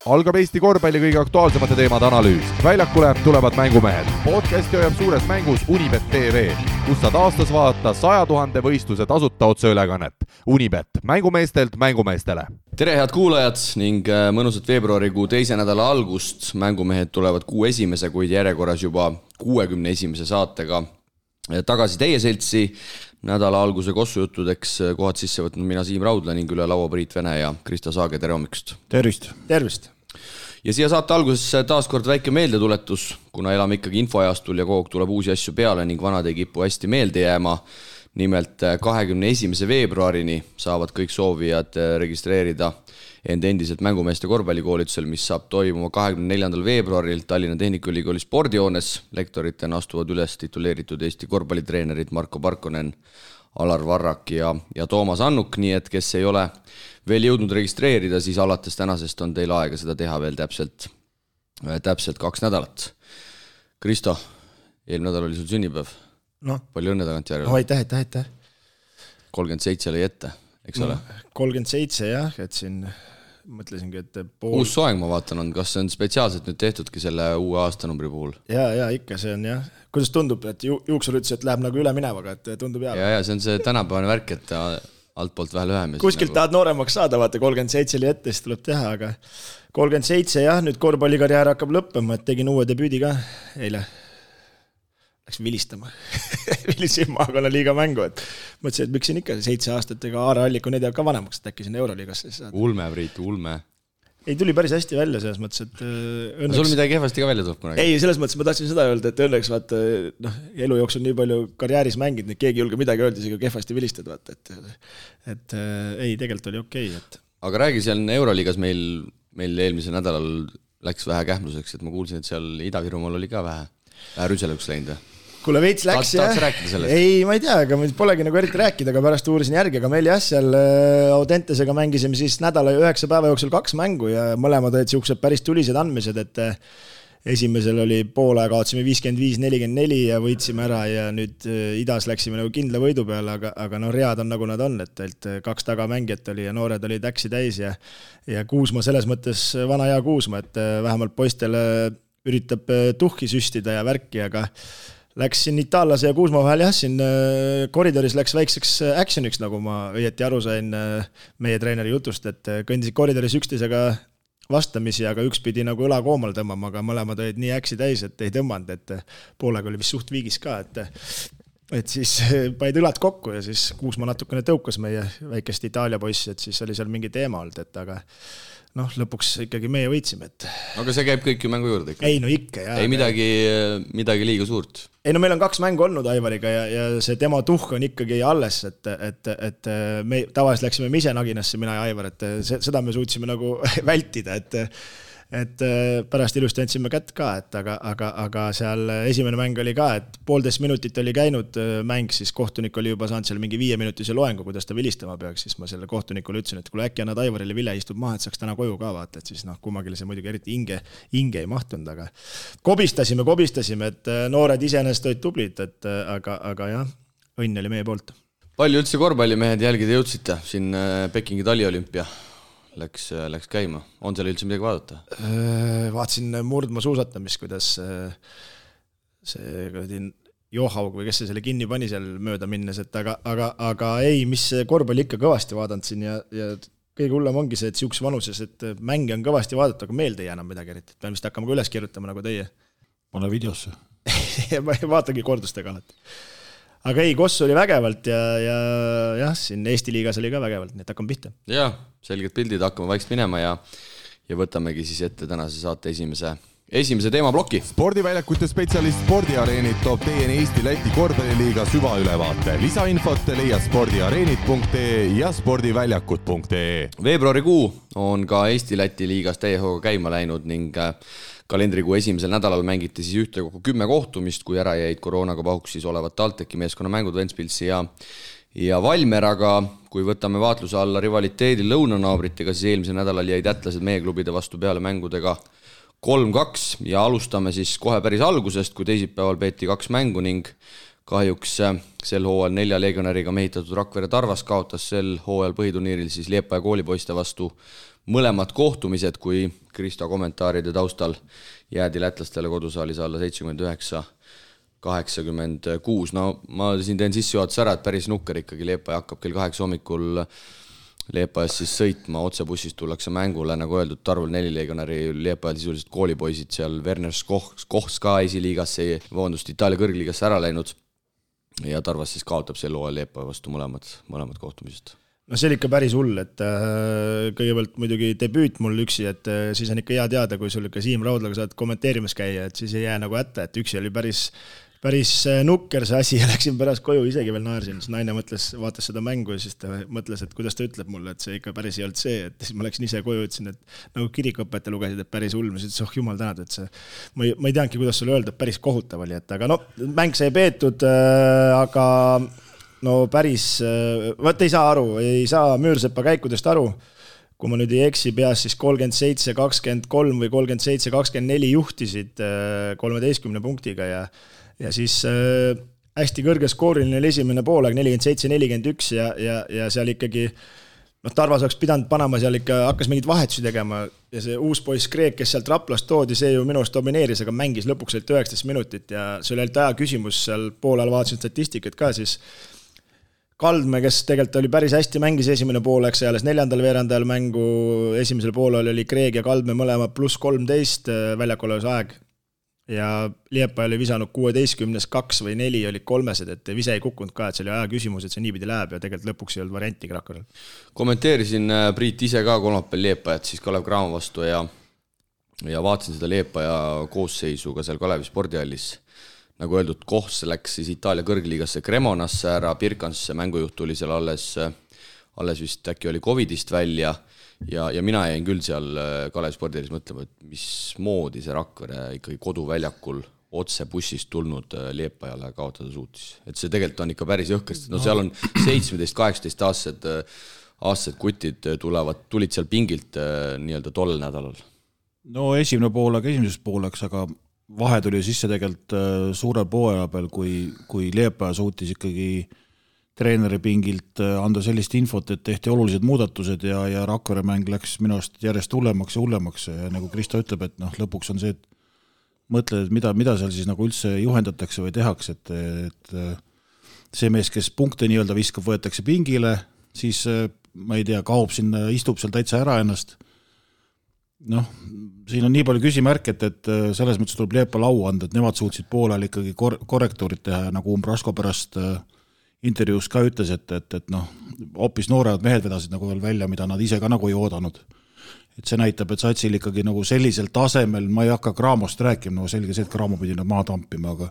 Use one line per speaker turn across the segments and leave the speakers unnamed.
Algab Eesti korvpalli kõige aktuaalsemate teemade analüüs. Väljakule tulevad mängumehed. Podcasti hoiab suures mängus Unibet TV, kus saad aastas vaadata 100 000 võistluse tasuta otseülekannet. Unibet, mängumeestelt mängumeestele.
Tere head kuulajad ning mõnusat veebruarikuu teise nädala algust. Mängumehed tulevad kuu esimese, kuid järjekorras juba 61. saatega tagasi teie seltsi. Nädala alguse kossujuttudeks kohad sisse võtnud mina Siim Raudla ning üle laua Priit Vene ja Krista Saage, tere hommikust.
Tervist.
Ja siia saate alguses taas kord väike meeldetuletus, kuna elame ikkagi infoajastul ja kogu tuleb uusi asju peale ning vanad ei kipu hästi meelde jääma. Nimelt 21. veebruarini saavad kõik soovijad registreerida end endiselt mängumeeste korvpallikoolitusel, mis saab toimuma 24. veebruaril Tallinna Tehnikaülikooli spordihoones. Lektoritena astuvad üles tituleeritud Eesti korvpallitreenerid Marko Parkonen, Alar Varrak ja Toomas Annuk, nii et kes ei ole veel jõudnud registreerida, siis alates tänasest on teil aega seda teha veel täpselt 2 nädalat. Kristo, eelmine nädal oli sul sünnipäev. Palju õnne tagant järjele.
Aitäh.
37 oli ette, eks ole?
37 jah, et siin mõtlesingi, et
Uus soeng ma vaatan on, kas see on spetsiaalselt nüüd tehtudki selle uue aastanumbri puhul?
Ja ikka see on jah. Kuidas tundub, et juuksur ütles, et läheb nagu üle minevaga, et tundub hea?
Ja see on see tänapäevane värk, et altpoolt vähe lühem.
Kuskilt nagu tahad nooremaks saada, vaata 37 oli ette, siis tuleb teha, aga 37 jah, nüüd korvpallikarjäär hakkab lõppema, et tegin uue debüüdi ka eile. Läks vilistama. Vilisin maakonna liiga mängu, et mõtlesin, et miks siin ikka 7 aastat, ega Aare Alliku need jääb ka vanemaks, et äkki siin Euroliigasse saada.
Ulme, Priit, ulme.
Ei, tuli päris hästi välja selles mõttes, et õnneks...
Sul midagi kehvasti ka välja tuleb kunagi?
Ei, selles mõttes ma tahtsin seda öelda, et õnneks vaata, elu jooksul nii palju karjääris mängid, nii keegi julge midagi öelda, isegi kehvasti vilistad, vaata, et ei, tegelikult oli okei.
Aga räägi, seal Euroliigas meil eelmisel nädalal läks vähe kähmluseks, et ma kuulsin, et seal Ida-Virumaal oli ka vähe rüselõks läinud.
Kuule veits läks jah. Ei, ma ei tea, aga polegi nagu eriti rääkida, aga pärast uurisin järgi, aga meil jah, seal Audentesega mängisime siis nädala 9 päeva jooksul 2 mängu ja mõlemad olid siuksed päris tulised andmised, et esimesel oli poole kaotsime 55-44 ja võitsime ära ja nüüd idas läksime nagu kindla võidu peale, aga read on nagu nad on, et 2 tagamängijat oli ja noored olid äksi täis ja Kuusma selles mõttes vana hea Kuusma, et vähemalt poistele üritab tuhki süstida ja värki, aga läks siin Itaallase ja Kuusma vahel jah, siin koridoris läks väikseks actioniks, nagu ma õieti aru sain meie treeneri jutust, et kõndisid koridoris üksteisega vastamisi, aga üks pidi nagu õla koomal tõmbama, aga mõlemad olid nii äksi täis, et ei tõmmanud, et poolega oli vist suht viigis ka, et siis paid õlad kokku ja siis Kuusma natukene tõukas meie väikest Itaalia poissi, et siis oli seal mingi teema olnud, et aga lõpuks ikkagi meie võitsime, et... Aga see käib kõik ju mängu juurde ikka? Ei, no ikka, jah. Ei midagi liiga suurt? Ei, no meil on 2 mängu olnud Aivariga ja see tema tuhk on ikkagi alles, et me tavaliselt läksime me ise naginasse, mina ja Aivar, et seda me suutsime nagu vältida, et pärast ilusti andsime kätt ka, aga seal esimene mäng oli ka, et 1,5 minutit oli käinud mäng, siis kohtunik oli juba saanud seal mingi 5-minutise loengu, kuidas ta vilistama peaks, siis ma selle kohtunikule ütlesin, et kui äkki annad Aivarile Ville istub maha, et saaks täna koju ka vaata, et siis kummagile see muidugi eriti hinge ei mahtunud, aga kobistasime, et noored iseenesest olid tublid, aga jah, õnn oli meie poolt. Palju üldse korvpallimehed jälgida jõudsite siin Pekingi taliolümpia? Läks käima. On seal üldse midagi vaadata? Vaatasin murdma suusatamist, kuidas see Johaug või kes see selle kinni pani seal mööda minnes, et aga ei, mis korvpalli ikka kõvasti vaadanud siin ja kõige hullem ongi see, et siukses vanuses, et mänge on kõvasti vaadata, aga meelde ei jää enam midagi eriti. Pean vist hakkama ka üles kirjutama nagu teie. Pane videosse. Ma ei vaatagi kordustega alati. Aga ei, Koss oli vägevalt ja siin Eesti liigas oli ka vägevalt, nii et hakkame pihta. Jaa, selged pildid, hakkame vaikselt minema ja võtamegi siis ette tänase saate esimese teemaploki.
Spordiväljakute spetsialist Spordiareenid toob teieni Eesti-Läti korvpalliliiga süvaülevaate. Lisainfot leiad spordiareenid.ee ja spordiväljakud.ee.
Veebruarikuu on ka Eesti-Läti liigas täiehooga käima läinud ning kalendrikuu esimesel nädalal mängiti siis ühtekokku 10 kohtumist, kui ära jäid koroonaga pahuksis olevat TalTechi meeskonna mängud Ventspilsi ja Valmer, aga kui võtame vaatluse alla rivaliteedi lõunanaabritega, siis eelmisel nädalal jäid ätlased meie klubide vastu peale mängudega 3-2 ja alustame siis kohe päris algusest, kui teisipäeval peeti 2 mängu ning kahjuks sel hooajal 4 legionäriga mehitatud Rakvere Tarvas kaotas sel hooajal põhiturniiril siis Liepaja koolipoiste vastu mõlemad kohtumised, kui Kristo kommentaaride taustal jäädi lätlastele kodusaalis alla 79-86. No ma siin teen sissejuhatus ära, et päris nukker ikkagi. Liepaja hakkab kell 8 hommikul Liepajas siis sõitma, otsebussist tullakse mängule, nagu öeldud, Tarvel 4 legionäri Liepajal sisuliselt koolipoisid seal, Werner Kochs ka esiliigasse, Itaalia kõrgliigasse ära läinud ja Tarvas siis kaotab sel hooajal Liepaja vastu mõlemad kohtumised.
No see oli ikka päris hull, et kõigepealt muidugi debüüt mul üksi, et siis on ikka hea teada, kui sul ikka Siim Raudlaga saad kommenteerimas käia, et siis ei jää nagu hätta, et üksi oli päris nukker see asi ja läksin pärast koju, isegi veel naersin, siis naine vaatas seda mängu ja siis ta mõtles, et kuidas ta ütleb mulle, et see ikka päris ei olnud see, et siis ma läksin ise koju, ütlesin, et nagu kirikuõpetaja lugesid, et päris hull, ma ütlesin, jumal tänad, et see, ma ei teanudki, kuidas sulle öelda, päris kohutav oli, et aga no, mäng sai peetud, aga no päris, ei saa Müürsepa käikudest aru, kui ma nüüd ei eksi peas, siis 37-23 või 37-24 juhtisid 13 punktiga ja siis hästi kõrge skooriline oli esimene poolaeg 47-41 ja seal ikkagi Tarvas oleks pidanud panema seal ikka, hakkas mingid vahetusi tegema ja see uus poiss Kreek, kes sealt Raplast toodi, see ju minust domineeris, aga mängis lõpuks 19 minutit ja see oli aja küsimus seal poolel, vaatasin statistikat ka siis Kaldme, kes tegelikult oli päris hästi mängis esimene poolaeg, see alles 4. veerandajal mängu, esimesel poolel oli Kreeg ja Kaldme mõlema +13 väljakoleves aeg ja Liepaja oli visanud 16-2 või 4 olid kolmesed, et vise ei kukkunud ka, et see oli aja küsimus, et see niipidi läheb ja tegelikult lõpuks ei olnud varianti Rakverel.
Kommenteerisin Priit ise ka kolmapäeval Liepajat siis Kalev Cramo vastu ja vaatasin seda Liepaja koosseisu ka seal Kalevi spordihallis. Nagu öeldud, Kohs läks siis Itaalia kõrgliigasse Cremonasse ära, Pirkansse mängujuht tuli seal alles vist äkki oli Covidist välja ja mina jäin küll seal Kalevi spordihallis mõtlema, et mismoodi see Rakvere ikkagi koduväljakul otse bussist tulnud Liepajale kaotada suutis. Et see tegelikult on ikka päris jõhkest. No seal on 17-18 aastased kutid tulid seal pingilt nii-öelda tollel nädalal.
No esimene pooleks, aga vahe tuli sisse tegelikult suurel pooaja peal, kui Liepaja suutis ikkagi treeneri pingilt anda sellist infot, et tehti olulised muudatused ja Rakvere mäng läks minu arust järjest hullemaks ja nagu Kristo ütleb, et lõpuks on see, et mõtled, et mida seal siis nagu üldse juhendatakse või tehakse, et see mees, kes punkte nii-öelda viskab, võetakse pingile, siis ma ei tea, kaob sinna, istub seal täitsa ära ennast. Siin on nii palju küsimärk, et selles mõttes tuleb Liepa lau anda, et nemad suutsid poolel ikkagi korrektuurid teha ja nagu Umbrasko pärast intervjuus ka ütles, et hoopis noored mehed vedasid nagu veel välja, mida nad ise ka nagu ei oodanud. Et see näitab, et satsil ikkagi nagu sellisel tasemel, ma ei hakka Craamost rääkima, selge see, et Cramo pidi maha tampima, aga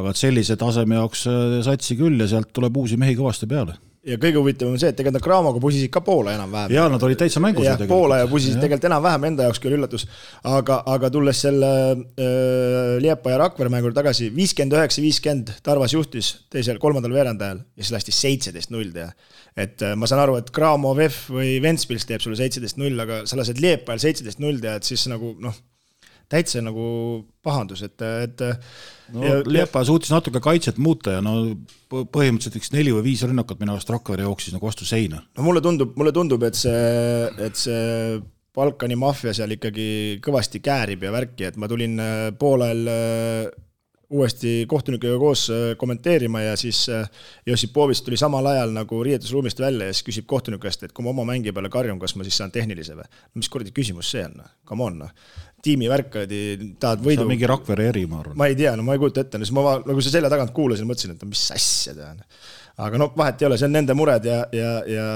et sellise taseme jaoks satsi küll ja sealt tuleb uusi mehi kõvasti peale.
Ja kõige huvitavam on see, et tegelikult Craamoga pusisid ka Poola enam-vähem.
Ja nad olid täitsa mängus.
Ja Poola ja pusisid tegelikult enam-vähem enda jaoks küll üllatus. Aga tulles selle Liepa ja Rakvere mängur tagasi, 59-50 Tarvas juhtis kolmandal veerandajal ja siis lasti 17-0 teha. Et ma saan aru, et Cramo, VEF või Ventspils teeb sulle 17-0, aga sa lased Liepajal 17-0 teha, et siis nagu täitsa nagu pahandus, et
Liepaja suutis natuke kaitset muuta ja põhimõtteliselt 4 või 5 rünnakat minu arust Rakvere jooksis nagu vastu seina.
Mulle tundub, et see Balkani maffia seal ikkagi kõvasti käärib ja värki, et ma tulin poolel uuesti kohtunikega koos kommenteerima ja siis Josipovist tuli samal ajal nagu riietusruumist välja ja siis küsib kohtunikest, et kui ma oma mängi peale karjun, kas ma siis saan tehnilise või? Mis kuradi küsimus see on? Come on, tiimi värkadi, tahad võidu.
See on mingi Rakvere eri, ma arvan.
Ma ei tea, ma ei kujuta ette. Ma nagu see selja tagant kuulasin, mõtlesin, et mis asja tean. Aga vahet ei ole, see on nende mured ja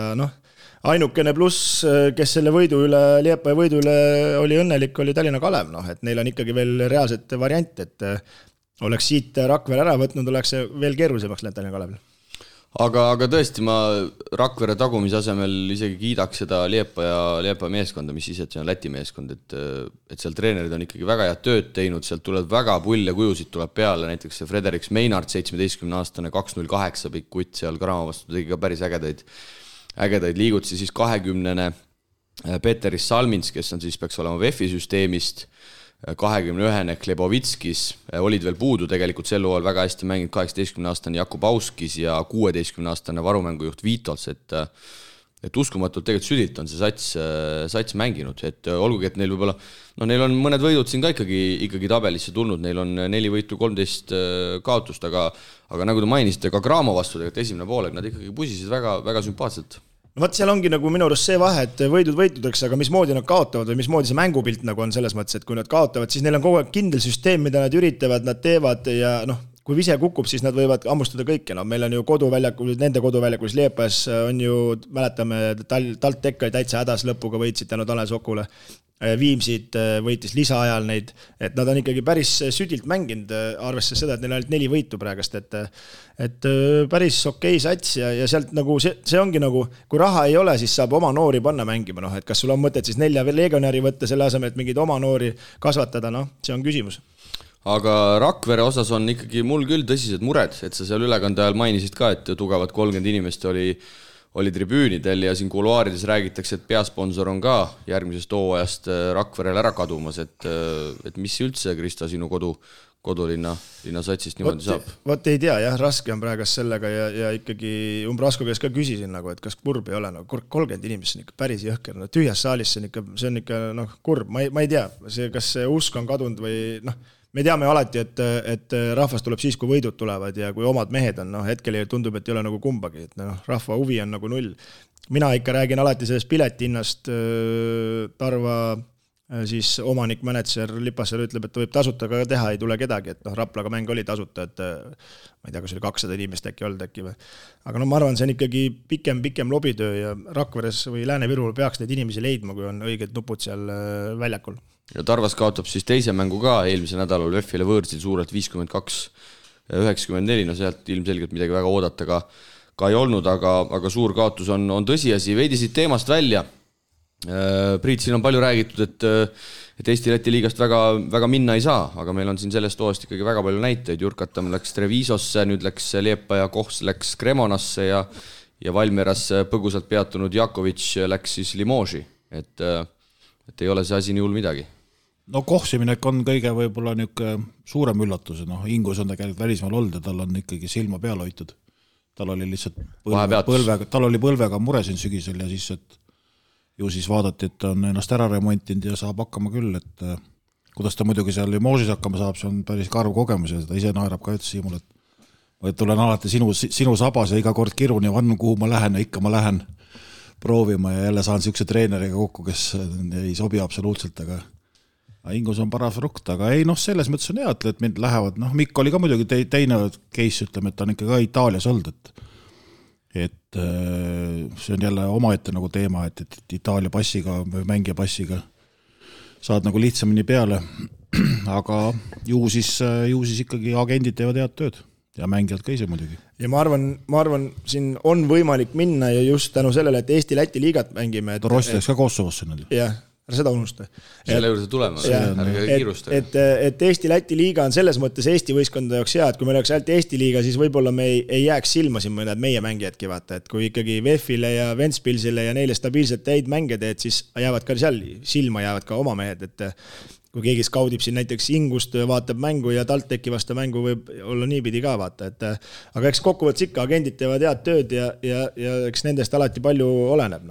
ainukene pluss, kes selle võidu üle, Liepaja võidu üle oli õnnelik, oli Tallinna Kalev. Et neil on ikkagi veel reaalset variant, et oleks siit Rakvere ära võtnud, oleks see veel keerulisemaks läinud Tallinna Kalevil.
Aga tõesti, ma Rakvere tagumise asemel isegi kiidaks seda Liepaja meeskonda, mis ise, et see on Läti meeskond, et seal treenerid on ikkagi väga head tööd teinud, sealt tuleb väga pull ja kujusid tuleb peale, näiteks see Frederiks Meinart, 17-aastane 208 pikk kutt seal Cramo vastu tegi ka päris ägedaid liigutusi, siis 20-ne Peteris Salmins, kes on siis peaks olema VEF-i süsteemist, 21-ne Klebovitskis, olid veel puudu tegelikult sel hooajal väga hästi mänginud 18-aastane Jakub Auskis ja 16-aastane varumängujuht Viitols, et et uskumatult tegelikult südilt on see sats mänginud, et olgugi, et neil võib-olla, neil on mõned võidud siin ka ikkagi tabelisse tulnud, neil on 4 võitu, 13 kaotust, aga nagu te mainisite, ka Graamo vastu tegelikult esimene poolek, nad ikkagi pusisid väga, väga sümpaatselt.
No vaat seal ongi nagu minu arust see vahe, et võidud võitudeks, aga mismoodi nad kaotavad või mismoodi see mängupilt nagu on selles mõttes, et kui nad kaotavad, siis neil on kogu aeg kindel süsteem, mida nad üritavad, nad teevad ja kui vise kukub, siis nad võivad ammustada kõike. Meil on ju koduväljakul, nende koduväljakul Liepas on ju, mäletame, TalTech oli täitsa hädas lõpuga võitsid tänu Tanel Sokule. Viimsid võitis lisaajal neid, et nad on ikkagi päris südilt mänginud, arvestades seda, et neil on ainult 4 võitu praegast, et päris okei sats ja sealt nagu see ongi nagu, kui raha ei ole, siis saab oma noori panna mängima, et kas sul on mõtet siis 4 legionäri võtta selle asemel, et mingeid oma noori kasvatada, see on küsimus.
Aga Rakvere osas on ikkagi mul küll tõsised mured, et sa seal ülekande ajal mainisid ka, et tugevad 30 inimest oli tribüünidel ja siin kuluaarides räägitakse, et peasponsor on ka järgmisest hooajast Rakverel ära kadumas, et mis üldse, Krista, sinu kodulinna satsist niimoodi saab?
Vot ei tea, jah, raske on praegast sellega ja ikkagi Umbrasko käes ka küsisin, et kas kurb ei ole, 30 inimest on ikka päris jõhker, tühjas saalis see on ikka kurb, ma ei tea, kas see usk on kadunud või me teame alati, et rahvas tuleb siis, kui võidud tulevad ja kui omad mehed on, hetkel tundub, et ei ole nagu kumbagi, et rahva huvi on nagu 0. Mina ikka räägin alati sellest piletihinnast, Tarva siis omanik, manager Lipassaar ütleb, et ta võib tasuta ka teha, ei tule kedagi, et Raplaga mäng oli tasuta, et ma ei tea, kas oli 200 inimest äkki olnud äkki või. Aga ma arvan, see on ikkagi pikem lobitöö ja Rakveres või Lääne-Virul peaks neid inimesi leidma, kui on õiged nupud seal väljakul.
Ja Tarvas kaotab siis teise mängu ka eelmise nädalal VEF-ile võõrsil suurelt 52-94, sealt ilmselgelt midagi väga oodata ka ei olnud, aga suur kaotus on tõsiasi. Veidi siit teemast välja. Priit, siin on palju räägitud, et Eesti-Läti liigast väga, väga minna ei saa, aga meil on siin sellest hooajast ikkagi väga palju näiteid. Jurkatam läks Trevisosse, nüüd läks Liepa ja Kohs läks Cremonasse ja Valmieras põgusalt peatunud Jakovic läks siis Limoži, et ei ole see asi nii hull midagi.
No Kohsiminek on kõige võib-olla suurem üllatus, Ingus on tegelikult välismaal olnud ja tal on ikkagi silma peal hoitud. Tal oli lihtsalt põlvega mure siin sügisel ja siis, et ju siis vaadati, et on ennast ära remontinud ja saab hakkama küll, et kuidas ta muidugi seal Limožis hakkama saab, see on päris karv kogemus ja seda ise naerab ka ütles Siimul, et tulen alati sinu sabas ja iga kord kirun ja vannu, kuhu ma lähen ja ikka ma lähen proovima ja jälle saan siukse treeneriga kokku, kes ei sobi absoluutselt, aga Ingus on paras rukt, aga ei, selles mõttes on hea, et mind lähevad, Mikk oli ka muidugi teine case, ütleme, et ta on ikka ka Itaalias olnud, et see on jälle omaette nagu teema, et Itaalia passiga või mängija passiga saad nagu lihtsamini peale, aga ju siis ikkagi agendid teevad head tööd ja mängijad ka ise muidugi.
Ja ma arvan, siin on võimalik minna ja just tänu sellele, et Eesti-Läti liigat mängime.
Rossi läks ka Kosovosse nüüd.
Jah. Seda unusta.
Selle juurde tulema, ärge kiirusta.
Et Eesti-Läti liiga on selles mõttes Eesti võistkondade jaoks hea, et kui meil oleks ainult Eesti liiga, siis võib-olla me ei jääks silma siin mõned meie mängijadki vaata, et kui ikkagi VEF-ile ja Ventspilsile ja neile stabiilselt häid mänge teed, siis jäävad ka seal silma jäävad ka oma mehed, et kui keegi skaudib siin näiteks Ingust, vaatab mängu ja TalTechi vastu mängu võib olla niipidi ka vaata, et aga eks kokkuvõttes ikka agendid teevad head tööd ja eks nendest alati palju oleneb,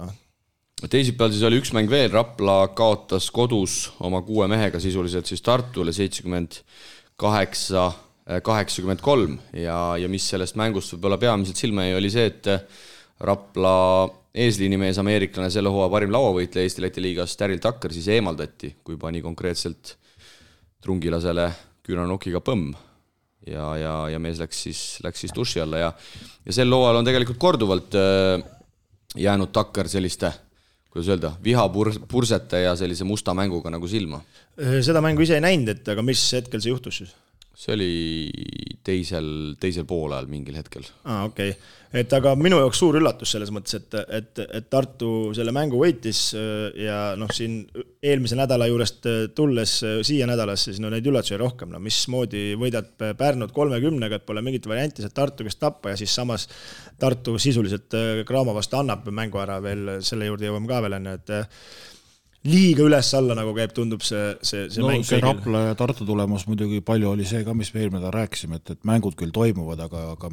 Teisipäeval siis oli üks mäng veel, Rapla kaotas kodus oma 6 mehega sisuliselt siis Tartule 78-83 ja mis sellest mängust võib-olla peamiselt silma jäi, oli see, et Rapla eesliinimees ameeriklane selle hooaja parim lauavõitleja Eesti-Läti liigas Daryl Tucker siis eemaldati, kui pani konkreetselt trungilasele küünanokiga põmm ja mees läks siis duši alla ja sel hooajal on tegelikult korduvalt jäänud Tucker selliste kuidas öelda, vihapursete ja sellise musta mänguga nagu silma.
Seda mängu ise ei näinud, aga mis hetkel see juhtus siis?
See oli teisel poolajal mingil hetkel.
Okei. Et aga minu jaoks suur üllatus selles mõttes, et Tartu selle mängu võitis ja siin eelmise nädala juurest tulles siia nädalasse, siis neid üllatusi rohkem. Mismoodi võidad Pärnud 30-ga, et pole mingit varianti, see Tartu kes tappa ja siis samas Tartu sisuliselt Graamo vastu annab mängu ära veel, selle juurde jõuame ka veel enne, et liiga üles-alla nagu käib, tundub see mäng.
See Rapla ja Tartu tulemus muidugi palju oli see ka, mis me eelmine rääkisime, et mängud küll toimuvad, aga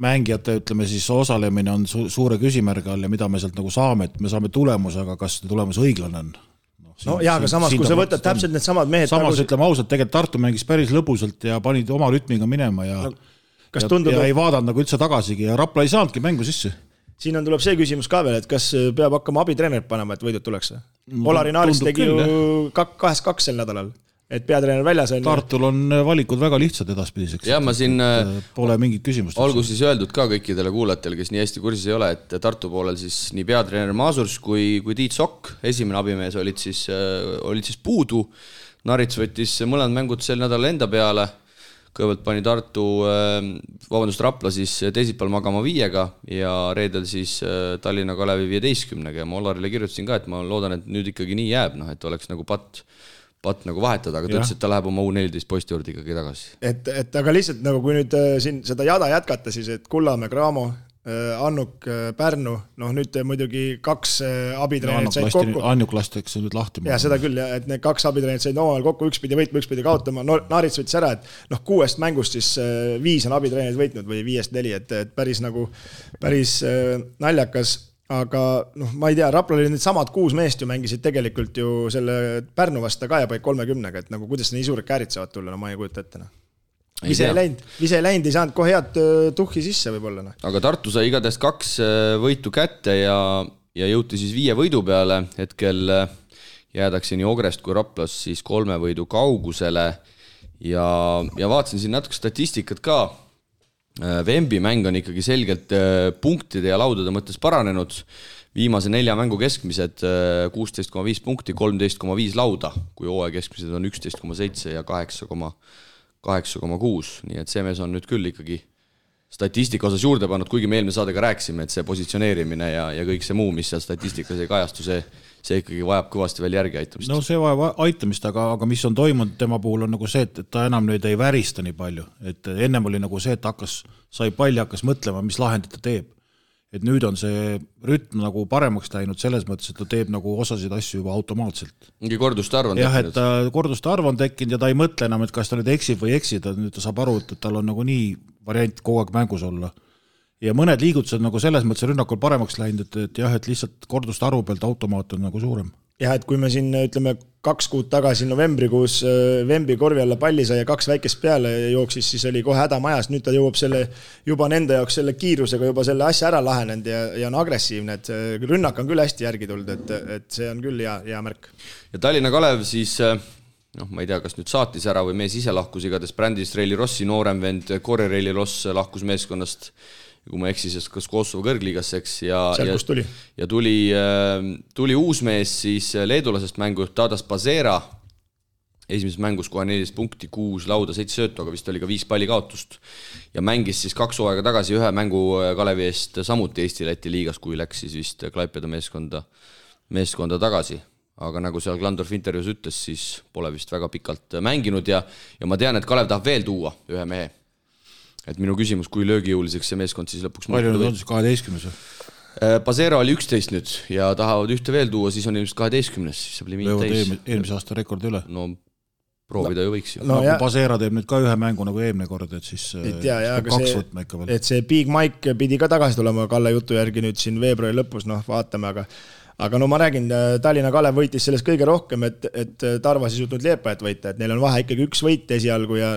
mängijate, ütleme siis osalemine on suure küsimärgi all ja mida me sealt nagu saame, et me saame tulemuse, aga kas tulemus õiglane on?
Aga samas, kui sa võtad täpselt need samad mehed...
Samas ütleme ausalt, tegelikult Tartu mängis päris lõbusalt ja panid oma rütmiga minema ja ei vaadanud nagu üldse tagasigi ja Rapla ei saanudki mängu sisse.
Siin tuleb see küsimus ka veel, et kas peab hakkama abitreenerit panema, et võidud tuleks? Polari Naaris tegi ju 2-2 sel nädalal, et peatreener väljas on.
Tartul on valikud väga lihtsad edaspidiseks.
Ja ma siin
pole mingit küsimust.
Olgu siis öeldud ka kõikidele kuulajatele, kes nii hästi kursis ei ole, et Tartu poolel siis nii peatreener Maasurs kui Tiit Sokk, esimene abimees olid siis puudu. Narits võttis mõlemad mängud sel nädal enda peale. Kõigepealt pani Rapla siis teisipäeval magama 5 ja reedel siis Tallinna Kalevi 15 ja ma Olarile kirjutasin ka, et ma loodan, et nüüd ikkagi nii jääb, et oleks nagu patt nagu vahetada, aga ta ütles, et ta läheb oma U14 poiste juurde ikkagi tagasi.
Et aga lihtsalt nagu kui nüüd siin seda jada jätkata, siis et Kullamäe, Graamo, Annuk, Pärnu, nüüd muidugi 2 abitreenerit said kokku.
Annuk lastakse nüüd lahti.
Ja seda küll, et need 2 abitreenerit said omavahel kokku, üks pidi võitma, üks pidi kaotama. Naarits võttis ära, et 6 mängust siis 5 on abitreenerid võitnud või 5-4, et päris naljakas. Aga ma ei tea, Rapla oli need samad 6 meest ju mängisid tegelikult ju selle Pärnu vasta ka ja paik 30-ga, et kuidas nii suured käärid saavad tulla, ma ei kujuta ette. Vise ei läinud, ei saanud kohe head tuhhi sisse võib-olla.
Aga Tartu sai igatahes 2 võitu kätte ja jõuti siis 5 võidu peale. Hetkel jäädakse nii Ogrest kui Raplas siis 3 võidu kaugusele ja vaatasin siin natuke statistikat ka. Vembi mäng on ikkagi selgelt punktide ja laudade mõttes paranenud. Viimase 4 mängu keskmised 16,5 punkti, 13,5 lauda, kui hooaja keskmised on 11,7 ja 8,6, nii et see mees on nüüd küll ikkagi statistika osas juurde pannud, kuigi me eelmine saadega rääkisime, et see positsioneerimine ja kõik see muu, mis seal statistikas ei kajastu, see ikkagi vajab kõvasti veel järgi aitamist.
No see vajab aitamist, aga mis on toimunud tema puhul on nagu see, et ta enam nüüd ei värista nii palju, et ennem oli nagu see, et sai palli, hakkas mõtlema, mis lahendit ta teeb. Et nüüd on see rütm nagu paremaks läinud selles mõttes, et ta teeb nagu osasid asju juba automaatselt.
Mingi korduste arv on
tekkinud. Jah, et korduste arv on tekkinud ja ta ei mõtle enam, et kas ta nüüd eksib või eksida, nüüd ta saab aru, et tal on nagu nii variant kogu aeg mängus olla. Ja mõned liigutused nagu selles mõttes rünnakul paremaks läinud, et jah, et lihtsalt korduste arvu pealt automaat on nagu suurem.
Jah, et kui me siin ütleme 2 kuud tagasi novembrikuus Vembi korvi alla palli sai ja 2 väikest peale jooksis, siis oli kohe häda majas. Nüüd ta jõuab juba nende jaoks selle kiirusega juba selle asja ära lahenenud ja on agressiivne, et rünnak on küll hästi järgi tulnud, et see on küll hea märk.
Ja Tallinna Kalev siis, ma ei tea, kas nüüd saatis ära või mees ise lahkus, igatahes Brändis Reili Rossi noorem vend Kore Reili Ross lahkus meeskonnast, kui ma eksis, kas Kosovo kõrgliigasse, eks, ja tuli uus mees siis leedulasest mängu Tadas Pazera, esimeses mängus kohe 14 punkti, 6 lauda, 7 söötu, aga vist oli ka 5 palli kaotust ja mängis siis 2 hooaega tagasi 1 mängu Kalevi eest samuti Eesti-Läti liigas, kui läks siis vist Klaipeda meeskonda tagasi. Aga nagu seal Glandorf intervjuus ütles, siis pole vist väga pikalt mänginud ja ma tean, et Kalev tahab veel tuua 1 mehe. Et minu küsimus, kui löögijõuliseks see meeskond siis lõpuks
palju nüüd on siis 12?
Pazera oli 11 nüüd ja tahavad 1 veel tuua, siis on ilmselt 12, siis saab limiit täis.
Eelmise aasta rekordi üle.
No proovida ju võiks ju.
Kui Pazera teeb nüüd ka 1 mängu nagu eelmine kord, et siis 2 võtma ikka veel.
Et see Big Mike pidi ka tagasi tulema Kalle jutu järgi nüüd siin veebruari lõpus, vaatame, aga ma räägin, Tallinna Kalev võitis sellest kõige rohkem, et Tarvas ei suutnud Liepajat võita, et neil on vahe ikkagi 1 võit esialgu ja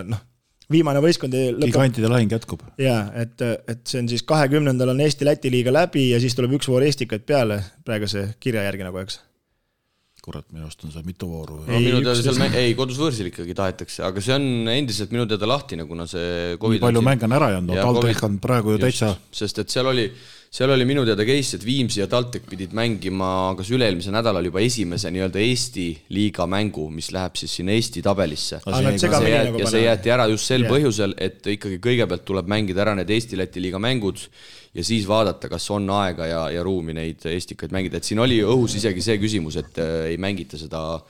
viimane võistkond
gigantide lahing jätkub.
Jaa, et see on siis 20. on Eesti-Läti liiga läbi ja siis tuleb 1 voor Eestikaid peale praeguse kirja järgi nagu, eks.
Kurat, minu arust on see mitu vooru.
Kodus võõrsil ikkagi tahetakse, aga see on endiselt minu teada lahtine, kuna see COVID
nii palju mäng on ära jäänud, TalTech on praegu ju täitsa.
Sest et seal oli minu teada case, et Viimsi ja TalTech pidid mängima kas üle-eelmise nädalal juba esimese nii-öelda Eesti liiga mängu, mis läheb siis sinna Eesti tabelisse. Ja see jäeti ära just sel põhjusel, et ikkagi kõigepealt tuleb mängida ära need Eesti-Läti liiga mängud ja siis vaadata, kas on aega ja ruumi neid Eestikaid mängida. Et siin oli õhus isegi see küsimus, et ei mängita seda,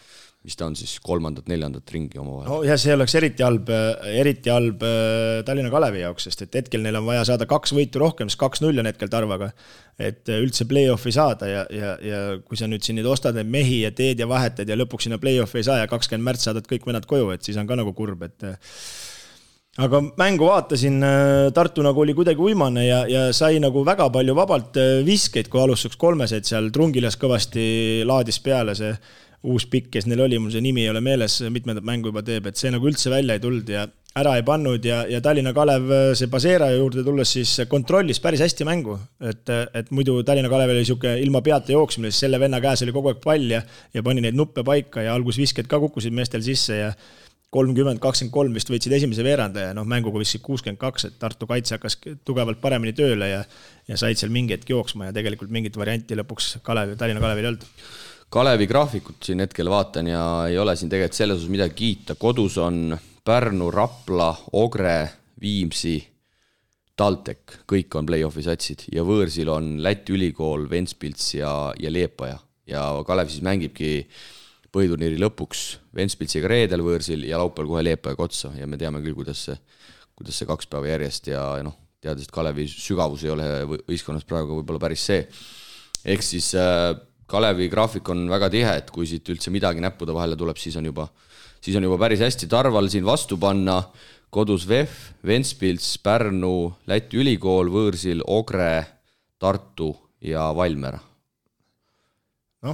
mis ta on siis 3., 4. ringi omavahel.
No ja see oleks eriti halb Tallinna Kalevi jaoks, sest et hetkel neil on vaja saada 2 võitu rohkem, siis 2-0 on hetkel Tarvaga, et üldse play-offi saada ja kui sa nüüd siin ostad need mehi ja teed ja vahetad ja lõpuks sinna play-offi ei saa ja 20. märts saadad kõik vennad koju, et siis on ka nagu kurb, et aga mängu vaatasin, Tartu nagu oli kuidagi uimane ja sai nagu väga palju vabalt viskeid, kui alustuseks kolmeseid seal Trungilas kõvasti laadis peale see uus pikk, kes neil oli, mul see nimi ei ole meeles, mitmendat mängu juba teeb, et see nagu üldse välja ei tulnud ja ära ei pannud ja Tallinna Kalev see Pasera juurde tulles siis kontrollis päris hästi mängu, et muidu Tallinna Kalev oli siuke ilma peata jooksmine, siis selle venna käes oli kogu aeg pall ja pani neid nuppe paika ja algus visked ka kukkusid meestel sisse ja 30-23 vist võitsid esimese veeranda ja mänguga vist 62, et Tartu kaitse hakkas tugevalt paremini tööle ja said seal mingi hetk jooksma ja tegelikult mingit varianti lõpuks Tallinna Kalevil ei olnud.
Kalevi graafikut siin hetkel vaatan ja ei ole siin tegelikult selles osas midagi kiita. Kodus on Pärnu, Rapla, Ogre, Viimsi, TalTech, kõik on play-offi satsid ja võõrsil on Läti ülikool, Ventspils ja Liepaja ja Kalev siis mängibki põhiturniiri lõpuks Ventspilsiga reedel võõrsil ja laupäeval kohe Liepajaga otsa ja me teame küll, kuidas see 2 päeva järjest ja teades, et Kalevi sügavus ei ole võistkonnas praegu võib-olla päris see. Ehk siis Kalevi graafik on väga tihe, et kui siit üldse midagi näppude vahele tuleb, siis on juba päris hästi Tarval siin vastu panna. Kodus VEF, Ventspils, Pärnu, Läti ülikool, võõrsil Ogre, Tartu ja Valmiera.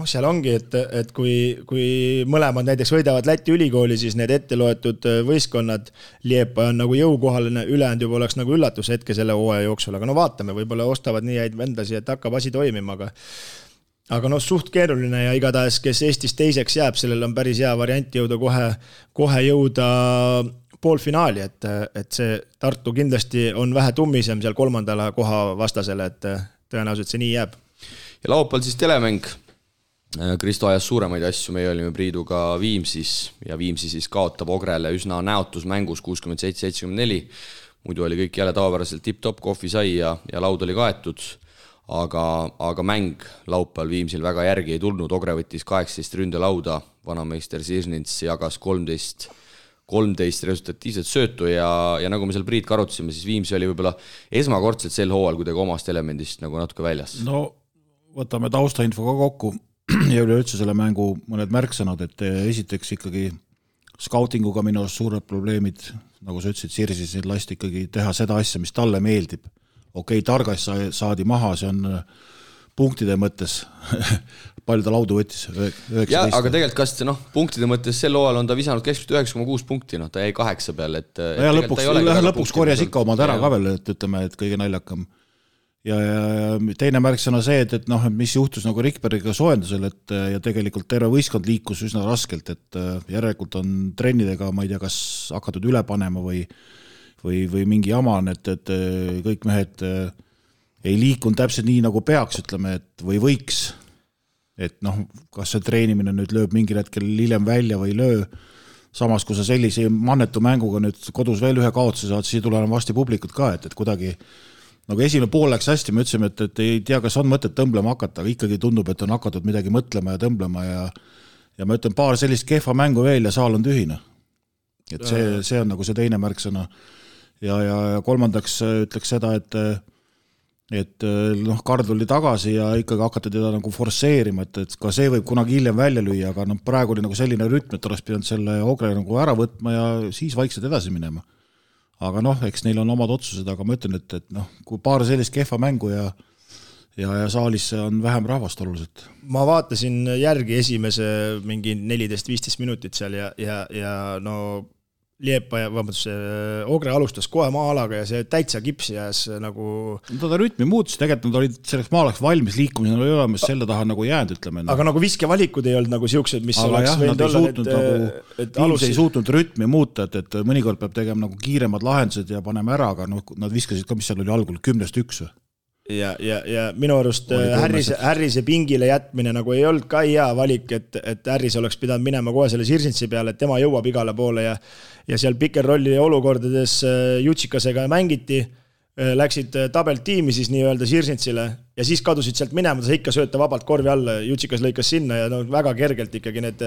Seal ongi, et kui mõlemad näiteks võidavad Läti ülikooli, siis need ette loetud võistkonnad Liepa on nagu jõukohaline, ülejäänud juba oleks nagu üllatus hetke selle hooaja jooksul, aga vaatame, võib-olla ostavad nii häid vendasi, et hakkab asi toimima, aga suht keeruline ja igatahes, kes Eestis teiseks jääb, sellel on päris hea variant jõuda kohe jõuda poolfinaali, et see Tartu kindlasti on vähe tummisem seal 3. koha vastasele, et tõenäoliselt see nii jääb.
Ja laupäeval siis telemäng. Kristo ajas suuremaid asju, meie olime Priiduga Viimsis ja Viimsi siis kaotab Ogrele üsna näotus mängus 67-74. Muidu oli kõik jälle tavapäraselt tip-top, kohvi sai ja laud oli kaetud. Aga mäng laupäeval Viimsil väga järgi ei tulnud, Ogre võttis 18 ründelauda, vanameister Sirsnits jagas 13 resultatiivset söötu ja nagu me seal Priit karutasime, siis Viimsi oli võib-olla esmakordselt sel hooajal kuidagi omast elemendist nagu natuke väljas.
No võtame taustainfo ka kokku ja üleüldse selle mängu mõned märksõnad, et esiteks ikkagi skautinguga minu suured probleemid, nagu sa ütlesid, Sirsis lasti ikkagi teha seda asja, mis talle meeldib. Okei, Targas saadi maha, see on punktide mõttes, palju ta laudu võttis? 19.
Ja, aga tegelikult kas punktide mõttes sel hooajal on ta visanud keskmiselt 9,6 punkti, ta jäi 8 peal.
Ja lõpuks korjas ikka omad ära ka veel, et ütleme, et kõige naljakam. Ja teine märksõna see, et mis juhtus nagu Rikbergiga soojendusel, ja tegelikult terve võistkond liikus üsna raskelt, et järelikult on trennidega, ma ei tea, kas hakatud üle panema või mingi jama on, et kõik mehed ei liikunud täpselt nii, nagu peaks, ütleme, et või võiks. Et kas see treenimine nüüd lööb mingil hetkel hiljem välja või löö. Samas, kui sa sellise mannetu mänguga nüüd kodus veel ühe kaotuse saad, siis ei tule enam vasti publikut ka, et kuidagi nagu esimene pool läks hästi, me ütlesime, et ei tea, kas on mõtet tõmblema hakata, aga ikkagi tundub, et on hakatud midagi mõtlema ja tõmblema ja ma ütlen paar sellist kehva mängu veel ja saal on tühine. Et see on nagu see teine märksõna. Ja kolmandaks ütleks seda, et Kard oli tagasi ja ikkagi hakati teda nagu forseerima, et ka see võib kunagi hiljem välja lüüa, aga praegu oli nagu selline rütm, et oleks pidanud selle Ogre nagu ära võtma ja siis vaikselt edasi minema. Aga eks neil on omad otsused, aga ma ütlen, et kui paar sellist kehva mängu ja saalis on vähem rahvast oluliselt.
Ma vaatasin järgi esimese mingi 14-15 minutit seal ja Liepa ja Ogre alustas kohe maa-alaga ja see täitsa kipsi jääs nagu...
Ta rütmi muutus, tegelikult nad olid selleks maalaks valmis liikumisena oli olemas, selle taha nagu jäänud, ütleme.
Aga nagu viskevalikud ei olnud nagu siuksed, mis aga oleks võinud olla,
et ei suutnud rütmi muuta, et mõnikord peab tegema nagu kiiremad lahendused ja paneme ära, aga nad viskasid ka, mis seal oli algul, 10-1.
Ja minu arust Härrise pingile jätmine nagu ei olnud ka hea valik, et Härris oleks pidanud minema kohe selle Sirsintsi peale, et tema jõuab igale poole ja seal pikerrolli olukordades Jutsikasega mängiti, läksid tabelt tiimi siis nii-öelda Sirsintsile ja siis kadusid sealt minema, ta ikka sööta vabalt korvi alla, Jutsikas lõikas sinna ja väga kergelt ikkagi need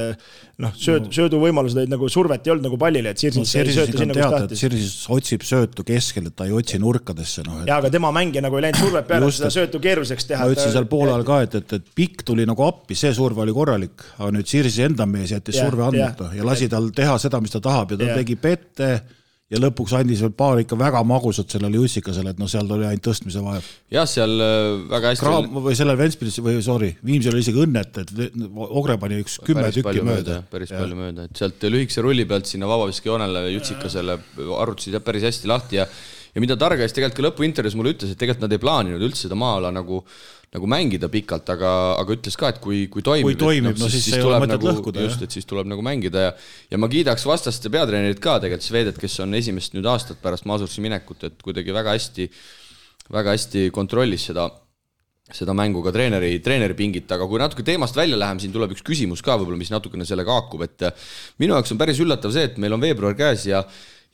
sööduvõimalused olid nagu survet ei olnud nagu pallile, et Sirsins ei sööta sinna, kus tahtis.
Sirsis otsib söötu keskel, et ta ei otsi nurkadesse.
Ja, aga tema mängija nagu ei läinud survet peale, seda söötu keeruliseks teha.
Ma ütlesin seal poolel ka, et pikk tuli nagu appi, see surve oli korralik, aga nüüd Sirsi enda mees jättis surve andmata ja lasi tal teha seda, mis ta tahab ja ta tegi pette ja lõpuks andis veel paar ikka väga magusat sellele Jussikasele, et seal oli ainult tõstmise vahe.
Jah, seal väga hästi...
või sellel Ventspilis, Viimsil oli isegi õnnet, et Ogre pani üks 10 tükki mööda.
Päris palju mööda, et sealt lühikese rulli pealt sinna vabaviskijoonele Jussikasele arutasid päris hästi lahti ja mida Targais tegelikult ka lõpuintervjuus mulle ütles, et tegelikult nad ei plaaninud üldse seda maa-ala nagu mängida pikalt, aga ütles ka, et kui toimib,
siis ei ole mõtet lõhkuda.
Just, et siis tuleb nagu mängida ja ma kiidaks vastaste peatreenerit ka tegelikult Svedet, kes on esimest nüüd aastat pärast Masursi minekut, et kuidagi väga hästi kontrollis seda mängu ka treeneri pingit, aga kui natuke teemast välja läheme, siin tuleb üks küsimus ka võib-olla, mis natukene sellega haakub, et minu jaoks on päris üllatav see, et meil on veebruar käes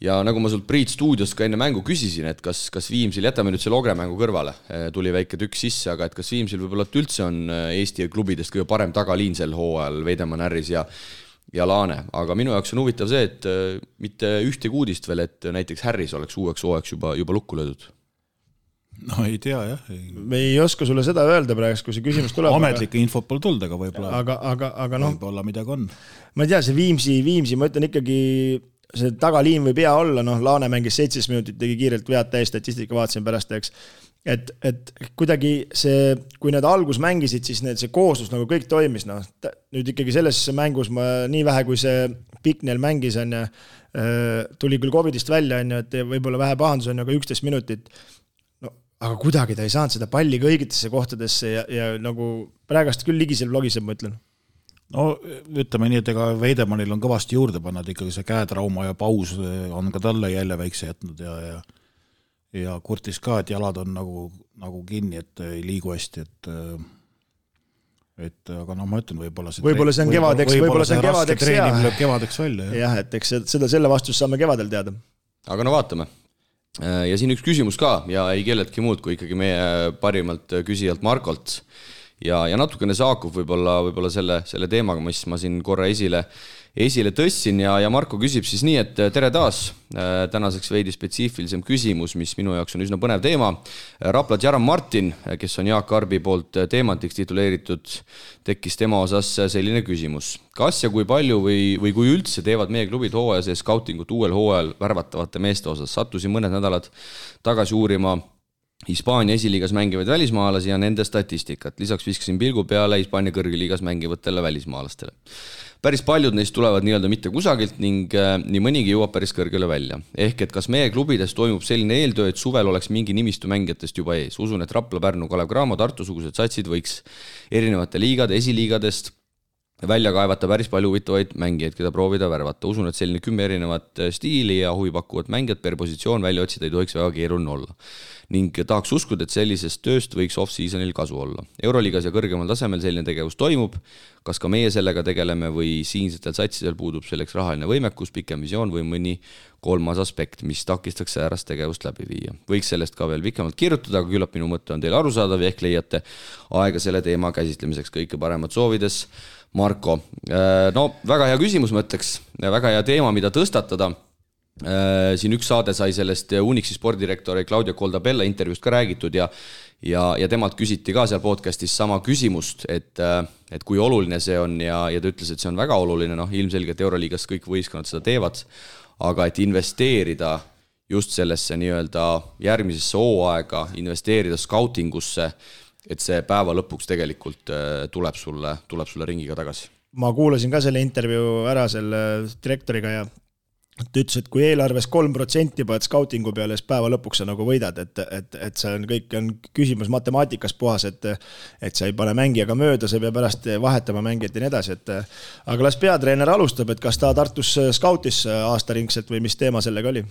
ja nagu ma sult Priit stuudios ka enne mängu küsisin, et kas Viimsil, jätame nüüd selle Ogre mängu kõrvale, tuli väike tükk sisse, aga et kas Viimsil võib-olla üldse on Eesti klubidest kõige parem tagaliin sel hooajal, Veidemann, Härris ja Laane, aga minu jaoks on huvitav see, et mitte ühtegi uudist veel, et näiteks Härris oleks uueks hooajaks juba lukku löödud.
No ei tea jah.
Me ei oska sulle seda öelda praegu, kui see küsimus tuleb.
Ametlikke infot pole tulnud, aga võib-olla
võib-olla
midagi on.
Ma ei tea, see Viimsi, ma ütlen ikkagi see tagaliin võib hea olla, Laane mängis 17 minutit, tegi kiirelt vead täis, statistika vaatasin pärast, eks. Et kuidagi see, kui nad algus mängisid, siis see kooslus nagu kõik toimis, nüüd ikkagi selles mängus ma nii vähe, kui see Piknel mängis, tuli küll COVIDist välja, et võib-olla vähe pahandus on, aga 11 minutit, aga kuidagi ta ei saanud seda palli kõigitesse kohtadesse ja nagu praegast küll ligisel vlogiseb, ma ütlen.
No ütleme nii, et ega Veidemannil on kõvasti juurde panna, et ikkagi see käetrauma ja paus on ka talle jälle väikse jätnud ja kurtis ka, et jalad on nagu kinni, et ei liigu hästi, et aga ma ütlen, võib-olla
see on kevadeks
lööb kevadeks välja.
Jah, et eks selle vastust saame kevadel teada.
Aga vaatame. Ja siin üks küsimus ka ja ei kelletki muud kui ikkagi meie parimalt küsijalt Markolt. Ja natukene saakub võib-olla selle teemaga, mis ma siin korra esile tõssin ja Marko küsib siis nii, et tere taas, tänaseks veidi spetsiifilisem küsimus, mis minu jaoks on üsna põnev teema. Rapla Jaran Martin, kes on Jaak Arbi poolt teemantiks tituleeritud, tekkis tema osas selline küsimus. Kas ja kui palju või kui üldse teevad meie klubid hooaja sees skautingut uuel hooajal värvatavate meeste osas? Sattusin mõned nädalad tagasi uurima Hispaania esiliigas mängivaid välismaalasi ja nende statistikat. Lisaks viskasin pilgu peale Hispaania kõrgliigas mängivatele välismaalastele. Päris paljud neist tulevad nii-öelda mitte kusagilt ning nii mõnigi jõuab päris kõrgele välja. Ehk et kas meie klubides toimub selline eeltöö, et suvel oleks mingi nimistu mängijatest juba ees? Usun, et Rapla, Pärnu, Kalev Cramo, Tartu-sugused satsid võiks erinevate liigade, esiliigadest välja kaevata päris palju huvitavaid mängijaid, keda proovida värvata. Usun, et selline 10 erinevat stiili ja huvipakkuvat mängijat per positsioon välja otsida ei tohiks väga keeruline olla. Ning tahaks uskuda, et sellisest tööst võiks off-seasonil kasu olla. Euroliigas ja kõrgemal tasemel selline tegevus toimub. Kas ka meie sellega tegeleme või siinsetel satsidel puudub selleks rahaline võimekus, pikem visioon või mõni kolmas aspekt, mis takistaks säärast tegevust läbi viia. Võiks sellest ka veel pikemalt kirjutada, aga küllap minu mõte on teil arusaadav ja ehk leiate aega selle teema käsitlemiseks. Kõike paremat soovides, Marko. No, väga hea küsimus, ma ütleks. Väga hea teema, mida tõstatada. Siin üks saade sai sellest Unixi spordirektori Claudia Coldabella intervjuust ka räägitud ja temalt küsiti ka seal podcastis sama küsimust, et kui oluline see on ja ta ütles, et see on väga oluline, ilmselgelt Euroliigas kõik võistkonnad seda teevad, aga et investeerida just sellesse nii-öelda järgmisesse hooaega, investeerida skautingusse, et see päeva lõpuks tegelikult tuleb sulle ringiga tagasi.
Ma kuulasin ka selle intervjuu ära selle direktoriga ja ta ütles, et kui eelarves 3% paned skautingu peale, siis päeva lõpuks sa nagu võidad, et see on kõik on küsimus matemaatikas puhas, et sa ei pane mängijaga mööda, sa peab pärast vahetama mängijat ja nii edasi, aga las peatreener alustab, et kas ta Tartus skautis aastaringselt või mis teema sellega oli?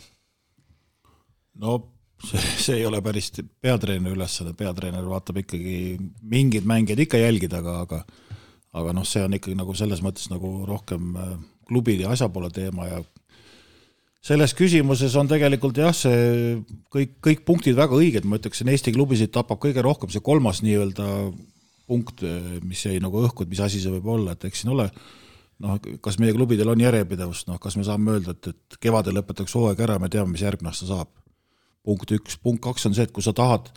No see ei ole päris peatreener ülesanne, peatreener vaatab ikkagi mingid mängijad ikka jälgida, aga see on ikkagi nagu selles mõttes nagu rohkem klubide ja asjapoole teema ja selles küsimuses on tegelikult jah, see kõik punktid väga õiged, ma ütleksin, Eesti klubisid tapab kõige rohkem see kolmas nii-öelda punkt, mis jäi nagu õhku, et mis asi see võib olla, et eks siin ole, kas meie klubidel on järjepidevust, kas me saame öelda, et kevadel lõpetaks hooaeg ära, me teame, mis järgmine aasta saab. Punkt 1, punkt 2 on see, et kui sa tahad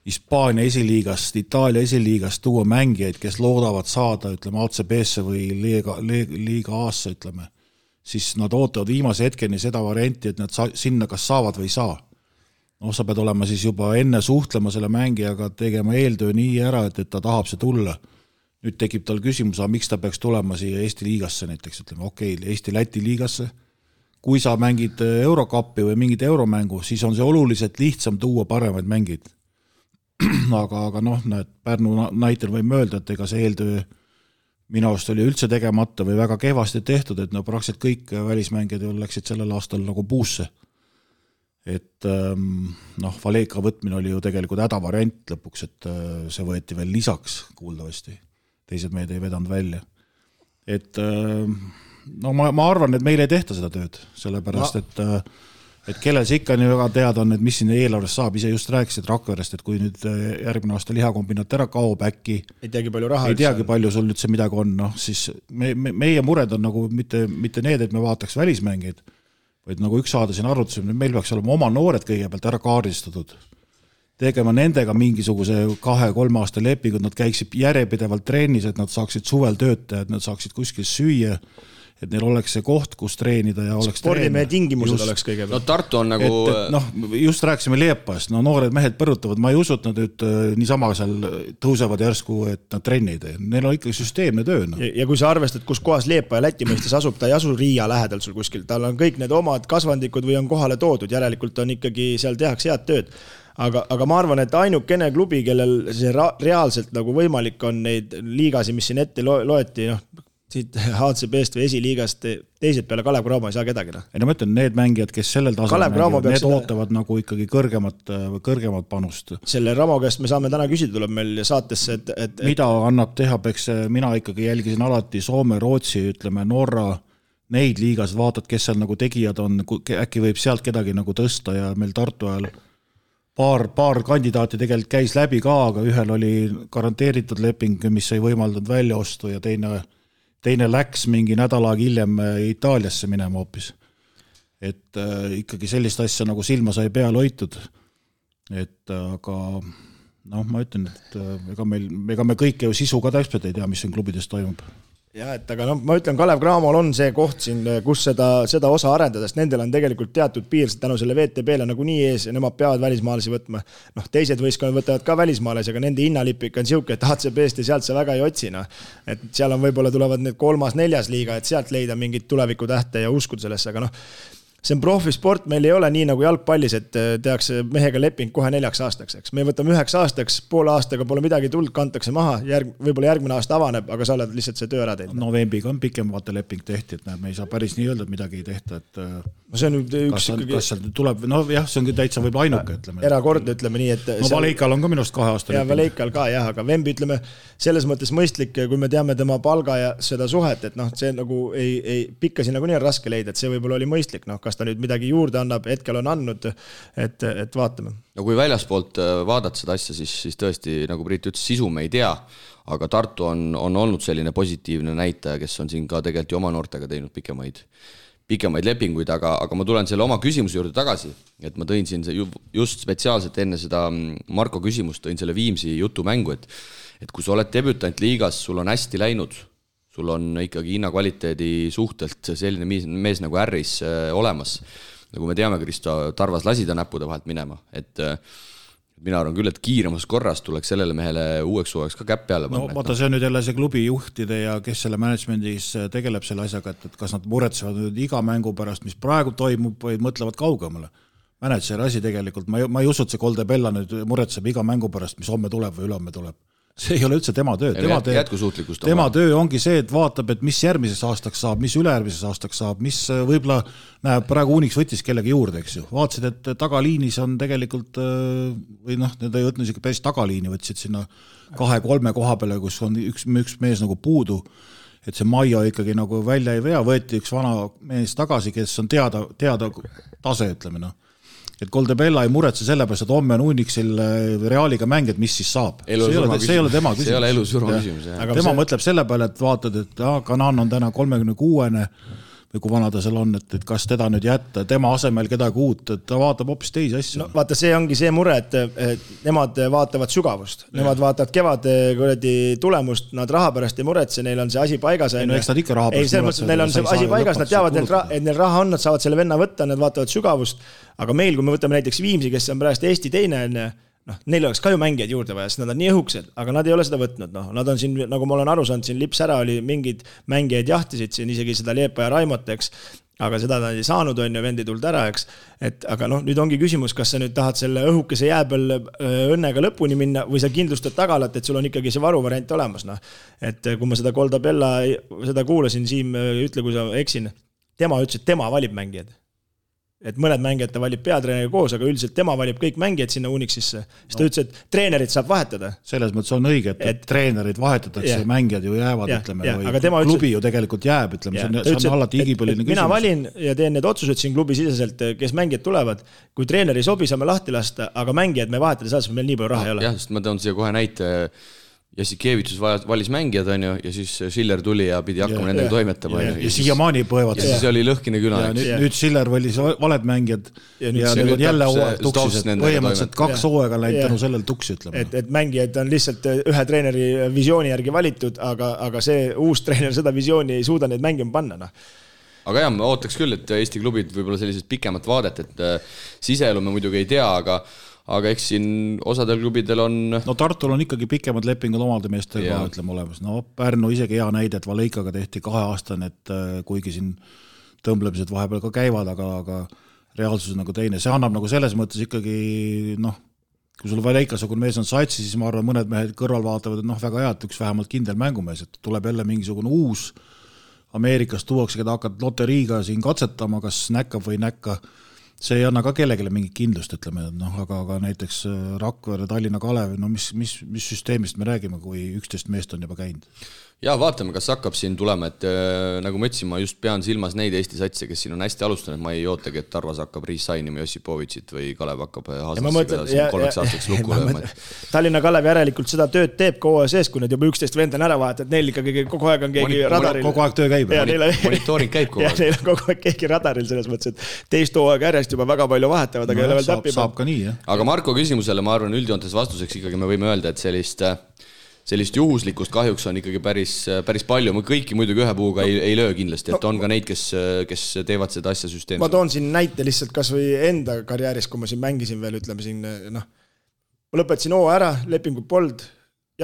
Hispaania esiliigast, Itaalia esiliigast tuua mängijaid, kes loodavad saada, ütleme, ACB-sse või liiga A-sse, ütleme, siis nad ootavad viimase hetkeni seda varianti, et nad sinna kas saavad või ei saa. Sa pead olema siis juba enne suhtlema selle mängijaga, tegema eeltöö nii ära, et ta tahab see tulla. Nüüd tekib tal küsimus, miks ta peaks tulema siia Eesti liigasse näiteks, ütleme Eesti-Läti liigasse. Kui sa mängid Eurokappi või mingit euromängu, siis on see oluliselt lihtsam tuua paremaid mängid. aga Pärnu näitel võime öelda, et ega see eeltöö minu arust oli üldse tegemata või väga kehvasti tehtud, et praktiliselt kõik välismängijad läksid sellel aastal nagu puusse. Et Valeka võtmine oli ju tegelikult hädavariant lõpuks, et see võeti veel lisaks kuuldavasti. Teised meid ei vedanud välja. Et ma arvan, et meil ei tehta seda tööd, sellepärast, et kellel see ikka nii väga teada on, et mis siin eelarvest saab, ise just rääkisid Rakverest, et kui nüüd järgmine aasta lihakombinaat ära kaob äkki,
ei teagi palju
sul üldse midagi on, siis meie mured on nagu mitte need, et me vaataks välismängeid, vaid nagu üks saade siin arvutusime, meil peaks olema oma noored kõigepealt ära kaardistatud, tegema nendega mingisuguse 2-3 aasta lepingud, nad käiksid järjepidevalt trennis, et nad saaksid suvel töötada, et nad saaksid kuskil süüa, et neil oleks see koht, kus treenida ja oleks
spordimehe tingimused just, oleks kõigepealt.
No Tartu on nagu...
just rääkisime Liepast, noored mehed põrutavad, ma ei usu, et nad nüüd niisama seal tõusevad järsku, et nad trennid. Neil on ikkagi süsteemne töö.
Ja kui sa arvestad, kus kohas Liepa ja Läti mõistes asub, ta ei asu Riia lähedal sul kuskil, tal on kõik need omad kasvandikud või on kohale toodud, järelikult on ikkagi seal tehakse head tööd. Aga ma arvan, et ainukene klubi, kellel see reaalselt nagu võimalik on neid liigasi, mis siin ette loeti, siit HCB-st või esiliigast teised peale Kalev Cramo ei saa kedagi.
Ei ma ütlen, need mängijad, kes sellel tasemel mängivad, need ootavad nagu ikkagi kõrgemat panust.
Selle Ramo käest me saame täna küsida, tuleb meil saatesse, et
mida annab teha, peks mina ikkagi jälgisin alati Soome, Rootsi, ütleme Norra, neid liigas vaatad, kes seal nagu tegijad on, äkki võib sealt kedagi nagu tõsta ja meil Tartu ajal paar kandidaati tegelikult käis läbi ka, aga ühel oli garanteeritud leping, mis ei võimaldanud välja ostu ja teine läks mingi nädalaga hiljem Itaaliasse minema hoopis. Et ikkagi sellist asja nagu silma sai peal hoitud. Et aga ma ütlen, et ega me kõike ju sisu ka täpselt ei tea, mis siin klubides toimub.
Ja, et aga ma ütlen, Kalev Cramol on see koht siin, kus seda osa arendada, sest nendel on tegelikult teatud piir tänu selle VTB-le nagu nii ees ja nemad peavad välismaalasi võtma. Teised võistkonnad võtavad ka välismaalasi, aga nende hinnalipik on siuke, et HCB-st ja sealt sa väga ei otsina. Et seal on võib-olla tulevad need 3.-4. liiga, et sealt leida mingit tuleviku tähte ja uskud sellesse, aga see on profisport, meil ei ole nii nagu jalgpallis, et tehakse mehega leping kohe 4 aastaks, eks. Me võtame 9 aastaks, poole aastaga pole midagi tuld, kantakse maha, võib-olla järgmine aasta avaneb, aga sa oled lihtsalt see töö ära teinud.
Novembiga on pikem vaata leping tehti, et me ei saa päris nii öelda, et midagi ei tehta, et
see on üks
kas tuleb, see ongi täitsa võib ainuke, ütleme.
Erakordne, ütleme nii, et
Valeikal on ka minust 2 aasta
leping. Ja Valeikal ka, jah, aga Vembi, ütleme, selles mõttes mõistlik, kui me teame tema palga ja seda suhet, et see nagu ei pikka siin nagu nii on raske leida, et see võib-olla oli mõistlik, kas ta nüüd midagi juurde annab, hetkel on andnud, et vaatame.
No kui väljaspoolt vaadata seda asja, siis tõesti, nagu Priit ütles, sisu me ei tea, aga Tartu on olnud selline positiivne näitaja, kes on siin ka tegelikult ju oma noortega teinud pikemaid lepinguid, aga ma tulen selle oma küsimuse juurde tagasi, et ma tõin siin just spetsiaalselt enne seda Marko küsimust, tõin selle Viimsi jutumängu, et kui sa oled debütant liigas, sul on hästi läinud, sul on ikkagi hinnakvaliteedi suhtelt selline mees nagu Ärris olemas. Nagu me teame, Kristo Tarvas lasi ta näppude vahelt minema. Et mina arvan küll, et kiiremas korras tuleks sellele mehele uueks suveks ka käpp peale panna.
Vaata, see on nüüd jälle see klubi juhtide ja kes selle managemendis tegeleb selle asjaga, et kas nad muretsevad nüüd iga mängu pärast, mis praegu toimub, või mõtlevad kaugemale. Manageri asi tegelikult, ma ei usu, et see Kolde Bella nüüd muretseb iga mängu pärast, mis homme tuleb või ülehomme tuleb. See ei ole üldse tema töö. Tema töö ongi see, et vaatab, et mis järgmises aastaks saab, mis ülejärgmises aastaks saab, mis võib-olla näeb praegu Unix võttis kellegi juurde, eks ju. Vaatasid, et tagaliinis on tegelikult, või need ei võtnud isegi päris tagaliini, võtsid sinna 2-3 koha peale, kus on üks mees nagu puudu, et see Maio ikkagi nagu välja ei vea, võeti üks vana mees tagasi, kes on teada tase, ütleme et Kolde Bella ei muretse sellepärast, et homme on Unixil Realiga mängid, mis siis saab. See ei ole tema küsimus.
See ei ole elu surma küsimus.
Tema mõtleb selle peale, et vaatad, et Kanan on täna 36-ne või kui vana ta seal on, et kas teda nüüd jätta, tema asemel kedagi uut, et ta vaatab hoopis teisi asju.
No vaata, see ongi see mure, et nemad vaatavad sügavust, nemad vaatavad kevade tulemust, nad raha pärast ei muretse, neil on see asi paigas.
No eks nad ikka raha pärast
muretse. Neil on see asi paigas, nad teavad, et neil raha on, nad saavad selle venna võtta, nad vaatavad sügavust, aga meil, kui me võtame näiteks Viimsi, kes on pärast Eesti teine, neil oleks ka ju mängijaid juurde vaja, sest nad on nii õhuksed, aga nad ei ole seda võtnud. Nad on siin, nagu ma olen aru saanud, siin lips ära oli mingid mängijaid jahtisid siin, isegi seda Liepa ja Raimot, eks, aga seda nad ei saanud, on ju, vendi tuld ära, eks. Aga nüüd ongi küsimus, kas sa nüüd tahad selle õhukese jääbel õnnega lõpuni minna või sa kindlustad tagalat, et sul on ikkagi see varuvariant olemas. Et kui ma seda Goldabella, seda kuulasin, Siim, ütle, kui sa eksin, tema ütles, et tema valib mängijad. Et mõned mängijad ta valib peatreeneriga koos, aga üldiselt tema valib kõik mängijad sinna Unixisse. Siis ta ütles, et treenerid saab vahetada.
Selles mõttes on õige, et treenerid vahetatakse, mängijad ju jäävad, ütleme, või klubi ju tegelikult jääb, ütleme, see on alati igipõline küsimus.
Mina valin ja teen need otsused siin klubi siseselt, kes mängijad tulevad. Kui treeneri sobi, saame lahti lasta, aga mängijad me vahetada saad, meil nii palju raha ei ole.
Jah, sest ma toon siia kohe näite. Jassikevitsus valis mängijad, on ju, ja siis Schiller tuli ja pidi hakkama nendega toimetama.
Ja siiamaani põevad.
Ja siis oli lõhkine küla.
Nüüd Schiller valis valed mängijad ja need on jälle hooaeg tuksis. Põhimõtteliselt 2 hooaega läinud tänu sellel tuksi, ütleme.
Et mängijad on lihtsalt ühe treeneri visiooni järgi valitud, aga see uus treener seda visiooni ei suuda neid mängima panna.
Aga jah, ma ootaks küll, et Eesti klubid võib-olla sellised pikemat vaadet, et siseelu me muidugi ei tea, aga eks siin osadel klubidel on...
No Tartul on ikkagi pikemad lepingud omalde meestega, ütleme olemas. No Pärnu isegi hea näide, et Valeikaga tehti 2 aastane, et kuigi siin tõmblemised vahepeal ka käivad, aga reaalsus on nagu teine. See annab nagu selles mõttes ikkagi, kui sul Valeikasugune mees on satsi, siis ma arvan, mõned mehed kõrval vaatavad, et väga hea, et üks vähemalt kindel mängumees, et tuleb jälle mingisugune uus Ameerikas tuuakse, keda hakkad loteriiga siin katsetama, kas näkkab või näkka. See ei anna ka kellegile mingit kindlust, ütleme, aga näiteks Rakvere, Tallinna Kalev, mis süsteemist me räägime, kui 11 meest on juba käinud?
Ja vaatame, kas hakkab siin tulema, et nagu ma ütlesin, ma just pean silmas neid Eesti satse, kes siin on hästi alustanud, ma ei ootagi, et Tarvas hakkab Riis-Sainima Josipovitšit või Kalev hakkab Haaslassi 3 aastaks lukku lööma.
Tallinna Kalev järelikult seda tööd teeb kogu sees, kui need juba 11 vend on ära vahet, et neil ikkagi kogu aeg on keegi radaril.
Kogu aeg töö käib.
Monitooring käib kogu aeg.
Ja neil on kogu aeg keegi radaril selles mõttes, et teist hooaeg järjest juba väga palju vahetavad, aga ei ole veel täppi.
Saab ka nii, jah.
Aga Marko küsimusele, ma arvan, üldjoontes vastuseks ikkagi me võime öelda, et sellist juhuslikust kahjuks on ikkagi päris palju. Ma kõiki muidugi ühe puuga ei löö kindlasti, et on ka neid, kes teevad seda asja süsteemselt.
Ma toon siin näite lihtsalt kas või enda karjääris, kui ma siin mängisin veel, ütleme siin, ma lõpetasin hooaja ära, lepingut polnud,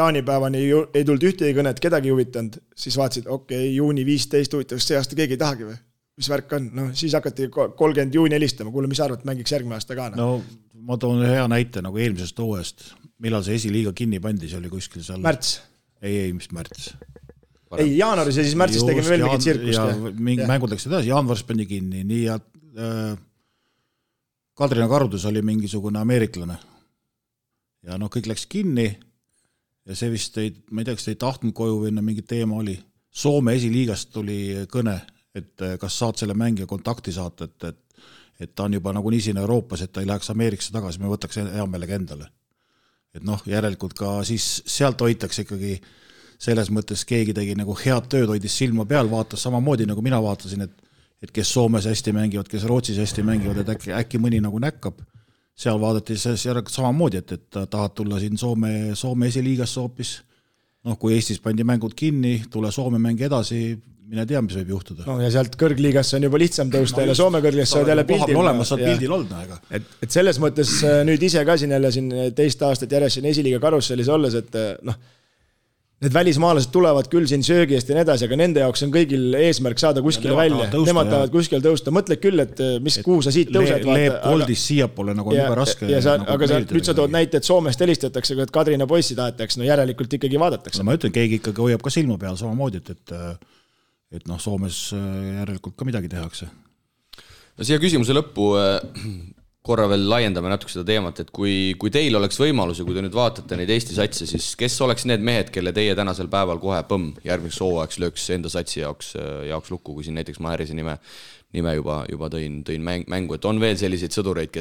jaanipäevani ei tulnud ühtegi kõnet, kedagi huvitanud, siis vaatasid, juuni 15 huvitav, see aasta keegi ei tahagi või? Mis värk on? Siis hakati 30 juuni helistama, kuule, mis arvad, mängiks järgmine aasta ka?
No ma toon hea näite nagu eelmisest hooajast. Millal see esiliiga kinni pandi, see oli kuskil seal...
Märts.
Ei, mis märts?
Ei, jaanuaris ja siis märtsis tegime veel mingit tsirkust.
Ja mingi mängud läks edasi, jaanuaris pandi kinni, nii ja Kadrina Karudus oli mingisugune ameeriklane. Ja kõik läks kinni ja see vist ma ei tea, kas ei tahtnud koju või mingi teema oli. Soome esiliigast tuli kõne, et kas saad selle mängija kontakti saata, et ta on juba nagu nii siin Euroopas, et ta ei läheks Ameerikasse tagasi, me võtaks hea meelega endale. Et järelikult ka siis sealt hoitakse ikkagi selles mõttes keegi tegi nagu head tööd, hoidis silma peal, vaatas samamoodi nagu mina vaatasin, et kes Soomes hästi mängivad, kes Rootsis hästi mängivad, et äkki mõni nagu näkkab. Seal vaadati samamoodi, et tahad tulla siin Soome esiliigasse hoopis. Kui Eestis pandi mängud kinni, tule Soome mängi edasi, mine tea, mis võib juhtuda.
Ja sealt kõrgliigasse on juba lihtsam tõusta ja Soome kõrgligasse saad jälle pildil.
Olemas saad pildil olnud.
Et selles mõttes nüüd ise ka siin jälle teist aastat järjest siin esiliiga karussellis olles, et need välismaalased tulevad küll siin söögi eest ja nii edasi, aga nende jaoks on kõigil eesmärk saada kuskile välja. Nemad tahavad kuskil tõusta. Mõtled küll, et kuhu sa siit tõused.
Leeb koldis siiapoole nagu on juba raske.
Aga nüüd sa tood näite, et Soomest helistatakse, et Kadrina poissi tahetakse, järelikult ikkagi vaadatakse.
Ma ütlen, keegi ikkagi hoiab ka silma peal samamoodi, et Soomes järelikult ka midagi tehakse.
Siia küsimuse lõppu korra veel laiendame natuke seda teemat, et kui teil oleks võimalus ja kui te nüüd vaatate neid Eesti satse, siis kes oleks need mehed, kelle teie tänasel päeval kohe järgmiseks hooajaks lööks enda satsi jaoks lukku, kui siin näiteks ma Härise nime juba tõin mängu, et on veel selliseid sõdureid,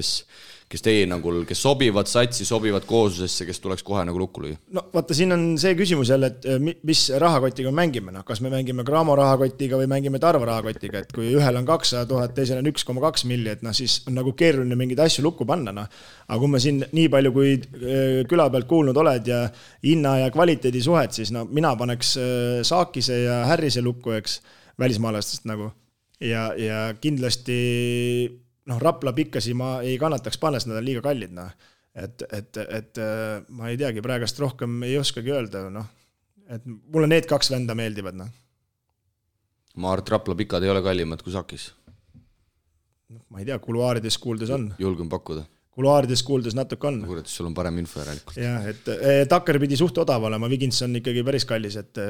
kes teie hinnangul, kes sobivad satsi, sobivad kooslusesse, kes tuleks kohe nagu lukku lüüa?
No vaata, siin on see küsimus jälle, et mis rahakotiga mängime, kas me mängime Graamo rahakotiga või mängime Tarva rahakotiga, et kui ühel on 200 000, teisel on 1,2 milli, et siis on nagu keeruline mingeid asju lukku panna. Aga kui me siin nii palju, kui küla pealt kuulnud oled ja hinna ja kvaliteedi suhet, siis mina paneks Saakise ja Härrise lukku, eks, välismaalastest nagu. Ja kindlasti Rapla pikkasi ma ei kannataks panna, sest nad on liiga kallid. Et ma ei teagi, praegast rohkem ei oskagi öelda. Et mulle need 2 venda meeldivad.
Ma arvan, et Rapla pikad ei ole kallimad kui Sakis.
Ma ei tea, kuluaarides kuuldes on.
Julgen pakkuda.
Kuluaarides kuuldes natuke on.
Kuuled, sul on parem info järelikult.
Jah, et Takker pidi suht odav olema, Vigins on ikkagi päris kallis, et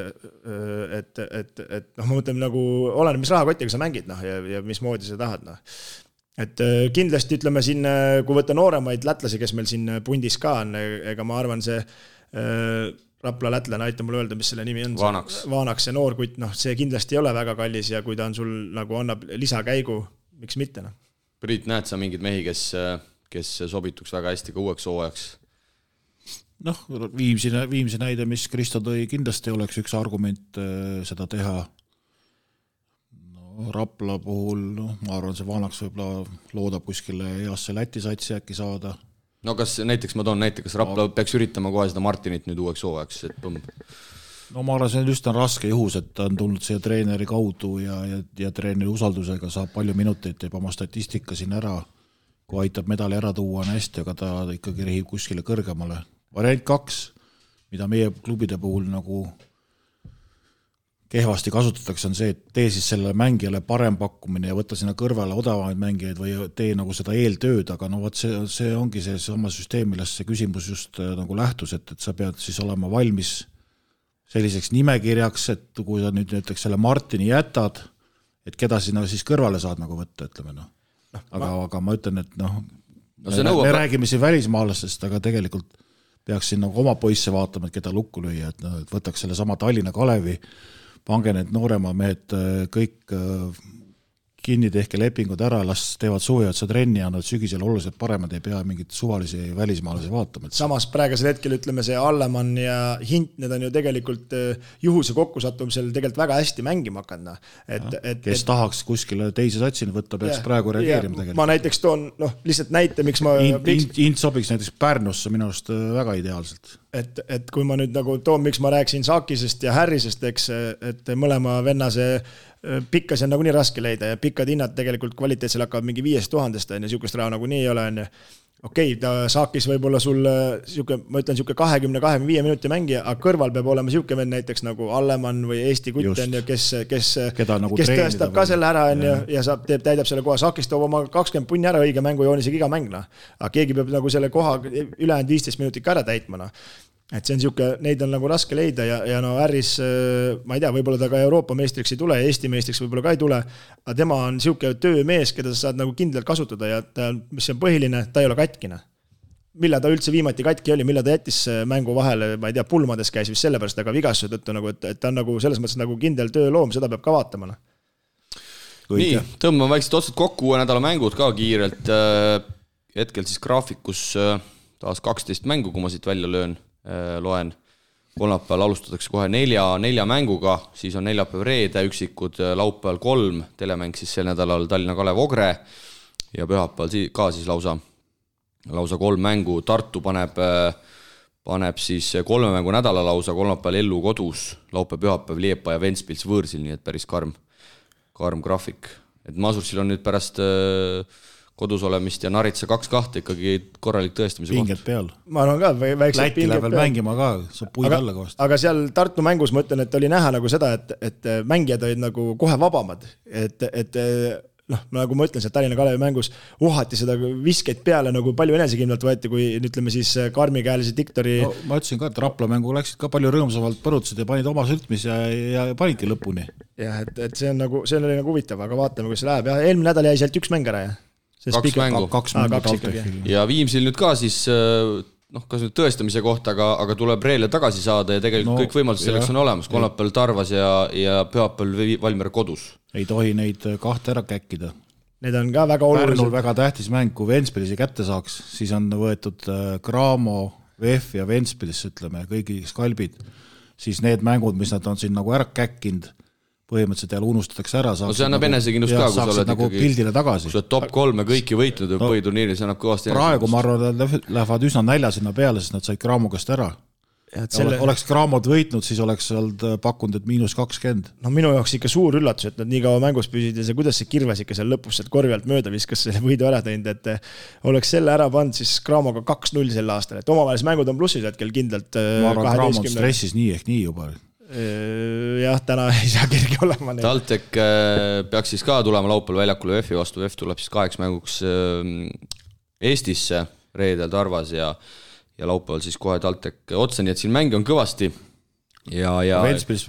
ma mõtlen nagu, olen, mis rahakotiga sa mängid ja mismoodi sa tahad. Et kindlasti ütleme siin, kui võtta nooremaid lätlasi, kes meil siin pundis ka on, ega ma arvan see Rapla lätlane, aita mulle öelda, mis selle nimi on. Vaanaks, see noorkutt, see kindlasti ei ole väga kallis ja kui ta on sul nagu annab lisakäigu, miks mitte.
Priit, näed sa mingid mehi, kes sobituks väga hästi ka uueks hooajaks?
Viimsi näide, mis Kristo tõi, kindlasti oleks üks argument seda teha. Rapla puhul, ma arvan, see Vaanaks võib-olla loodab kuskile heasse Läti satsi äkki saada.
No kas näiteks, ma toon näiteks, Rapla peaks üritama kohe seda Martinit nüüd uueks hooajaks, et põmm?
No ma arvan, see on just raske juhus, et ta on tulnud siia treeneri kaudu ja treeneri usaldusega saab palju minuteid, teeb oma statistika siin ära, kui aitab medali ära tuua on hästi, aga ta ikkagi rehib kuskile kõrgemale. Variant 2, mida meie klubide puhul nagu kehvasti kasutatakse, on see, et tee siis selle mängijale parem pakkumine ja võtta sinna kõrvale odavamaid mängijaid või tee nagu seda eeltööd, aga see ongi see sama süsteem, millest see küsimus just nagu lähtus, et sa pead siis olema valmis selliseks nimekirjaks, et kui sa nüüd näiteks selle Martini jätad, et keda sinna siis kõrvale saad nagu võtta, ütleme. Aga ma ütlen, et me räägime siin välismaalastest, aga tegelikult peaks siin nagu oma poisse vaatama, et keda lukku lüüa, et võtaks selle sama Tallinna Kalevi, pange need noorema mehed kõik kinni, tehke lepingud ära, las teevad suveotsa trenni ja nad sügisel oluliselt paremad, ei pea mingit suvalisi välismaalasi vaatama.
Samas praegusel hetkel ütleme see Allemann ja Hint, need on ju tegelikult juhuse kokkusattumisel tegelikult väga hästi mängima hakanud.
Kes tahaks kuskile teise satsini võtta, peaks praegu reageerima tegelikult.
Ma näiteks toon lihtsalt näite, miks ma...
Hint sobiks näiteks Pärnusse minu arust väga ideaalselt.
Et kui ma nüüd nagu toon, miks ma rääksin Saakisest ja Härrisest, eks, et mõlema venna see pikkas on nagu nii raske leida ja pikkad hinnad tegelikult kvaliteetsel hakkavad mingi 5000 on ja siukest raha nagu nii ei ole. Okei, ta Saakis võib olla sul ma ütlen 20-25 minuti mängija, aga kõrval peab olema siuke vend näiteks nagu Allemann või Eesti kutt on ja kes tõestab ka selle ära ja täidab selle koha. Saakis toob oma 20 punni ära õige mängujoonisega iga mängna. Aga keegi peab nagu selle koha ülejäänud 15 minutit ka ära täitmana. Et see on siuke, neid on nagu raske leida ja Härris, ma ei tea, võib-olla ta ka Euroopa meistriks ei tule, Eesti meistriks võib-olla ka ei tule, aga tema on siuke töömees, keda sa saad nagu kindlalt kasutada ja mis on põhiline, ta ei ole katkine. Millal ta üldse viimati katki oli, millal ta jättis mängu vahele, ma ei tea, pulmades käis vist sellepärast, aga vigastuse tõttu, nagu, et ta on nagu selles mõttes nagu kindel tööloom, seda peab ka vaatama.
Nii, tõmbame väikselt otsad kokku, uue nädala mängud ka kiirelt. Hetkel siis graafikus taas 12 mängu, kui ma siit välja loen. Kolmapäeval alustatakse kohe 4 mänguga, siis on neljapäev reede, üksikud laupäeval 3, telemäng siis sel nädalal Tallinna Kalev Ogre ja pühapäeval ka siis lausa 3 mängu. Tartu paneb siis 3 mängu nädala lausa, kolmapäeval Ellu kodus, laupäev pühapäev Liepa ja Ventspils võõrsil, nii et päris karm graafik. Et Masursil on nüüd pärast kodus olemist ja Naritsa 2-2 ikkagi korralik tõestamise koht.
Pinged peal.
Ma arvan ka, väiksed
pinged peal. Läti läheb mängima ka, saab puid alla kohast.
Aga seal Tartu mängus ma ütlen, et oli näha nagu seda, et mängijad olid nagu kohe vabamad. Et nagu ma ütlen, see Tallinna Kalevi mängus uhati seda viskeid peale nagu palju enesekindlalt võeti, kui ütleme siis karmikäelise diktori...
No, ma ütlesin ka, et Rapla mängu läksid ka palju rõõmsamalt põrutasid ja panid oma sültmis ja panidki lõpuni.
Jah, et see oli nagu huvitav, aga vaatame, kus see läheb. Ja eelmine nädal jäi sealt 1 mäng ära, jah.
2 mängu. Ja Viimsil nüüd ka siis, kas nüüd tõestamise kohta, aga tuleb Reele tagasi saada ja tegelikult kõik võimalused selleks on olemas. Kolmapäeval Tarvas ja pühapäeval Valmiera kodus.
Ei tohi neid 2 ära käkkida.
need on ka väga olulised.
Pärnul väga tähtis mäng, kui Ventspilsi kätte saaks, siis on võetud Cramo, VF ja Ventspilis, ütleme, kõigi skalbid, siis need mängud, mis nad on siin nagu ära käkkinud, põhimõtteliselt jälle unustatakse ära.
No see annab enesekindlust ka, kui sa oled
nagu pildile tagasi.
Kui sa oled top 3 kõiki võitnud põhiturniiri, see annab kõvasti
praegu ma arvan, et lähevad üsna nälja sinna peale, sest nad said Cramo käest ära. Oleks Cramod võitnud, siis oleks olnud pakkunud, et -20.
No minu jaoks ikka suur üllatus, et nad nii kaua mängus püsid ja see, kuidas see Kirves ikka seal lõpus korvi alt mööda viskas selle võidu ära teinud, et oleks selle ära pannud siis Cramoga 2-0 sel aastal, et omavahelis mängud on plussis hetkel kindlalt.
Ma arvan, Cramod stressis nii ehk nii juba.
Jah, täna ei saa kerge olema.
TalTech peaks siis ka tulema laupäeval väljakule VF-i vastu. VF tuleb siis 8 mänguks Eestisse reedel Tarvas ja laupäeval siis kohe TalTech otsa, nii et siin mängi on kõvasti.
Ventspilis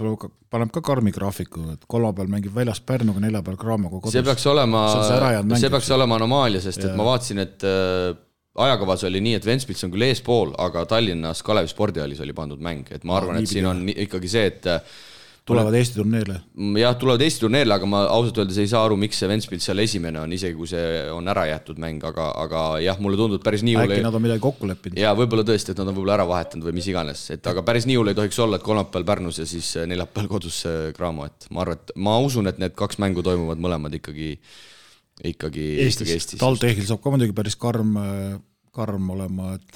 paneb ka karmi graafiku, et kolmapäeval mängib väljas Pärnuga, neljapäeval Cramoga kodus.
See peaks olema anomaalia, sest et ma vaatasin, et ajakavas oli nii, et Ventspils on küll eespool, aga Tallinnas Kalevi spordihallis oli pandud mäng, et ma arvan, et siin on ikkagi see, et
tulevad Eesti turneerile.
Jah, tulevad Eesti turneerile, aga ma ausalt öeldes ei saa aru, miks see Ventspils seal esimene on, isegi kui see on ära jäetud mäng, aga jah, mulle tundub päris nii
äkki nad on midagi kokku leppinud.
Ja võib-olla tõesti, et nad on võib-olla ära vahetanud või mis iganes, aga päris nii hull ei tohiks olla, et kolmapäeval Pärnus ja siis neljapäeval kodus Cramo, et ma usun, et need 2 mängu toimuvad mõlemad ikkagi Eestis.
TalTechil saab ka muidugi päris karm olema, et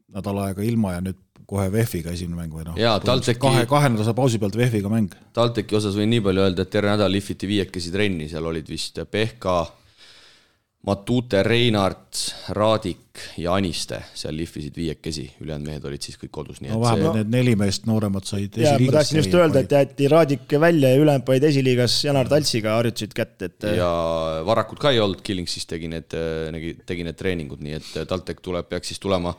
nädal aega ilma ja nüüd kohe VF-iga esimene mäng või kahe nädala pausi pealt VF-iga mäng.
TalTechi osas võin nii palju öelda, et terve nädal lifiti 5 trenni, seal olid vist Pehka, Matute, Reinart, Raadik ja Aniste, seal lifisid 5, ülejäänud mehed olid siis kõik kodus.
No vähemalt need 4 meest nooremad said
esiliigas. Ma tahtsin just öelda, et jäeti Raadik välja ja ülejäänud panid esiliigas Janar Taltsiga harjutasid kätt.
Ja Varakud ka ei olnud, Killing siis tegi need treeningud, nii et TalTech peaks siis tulema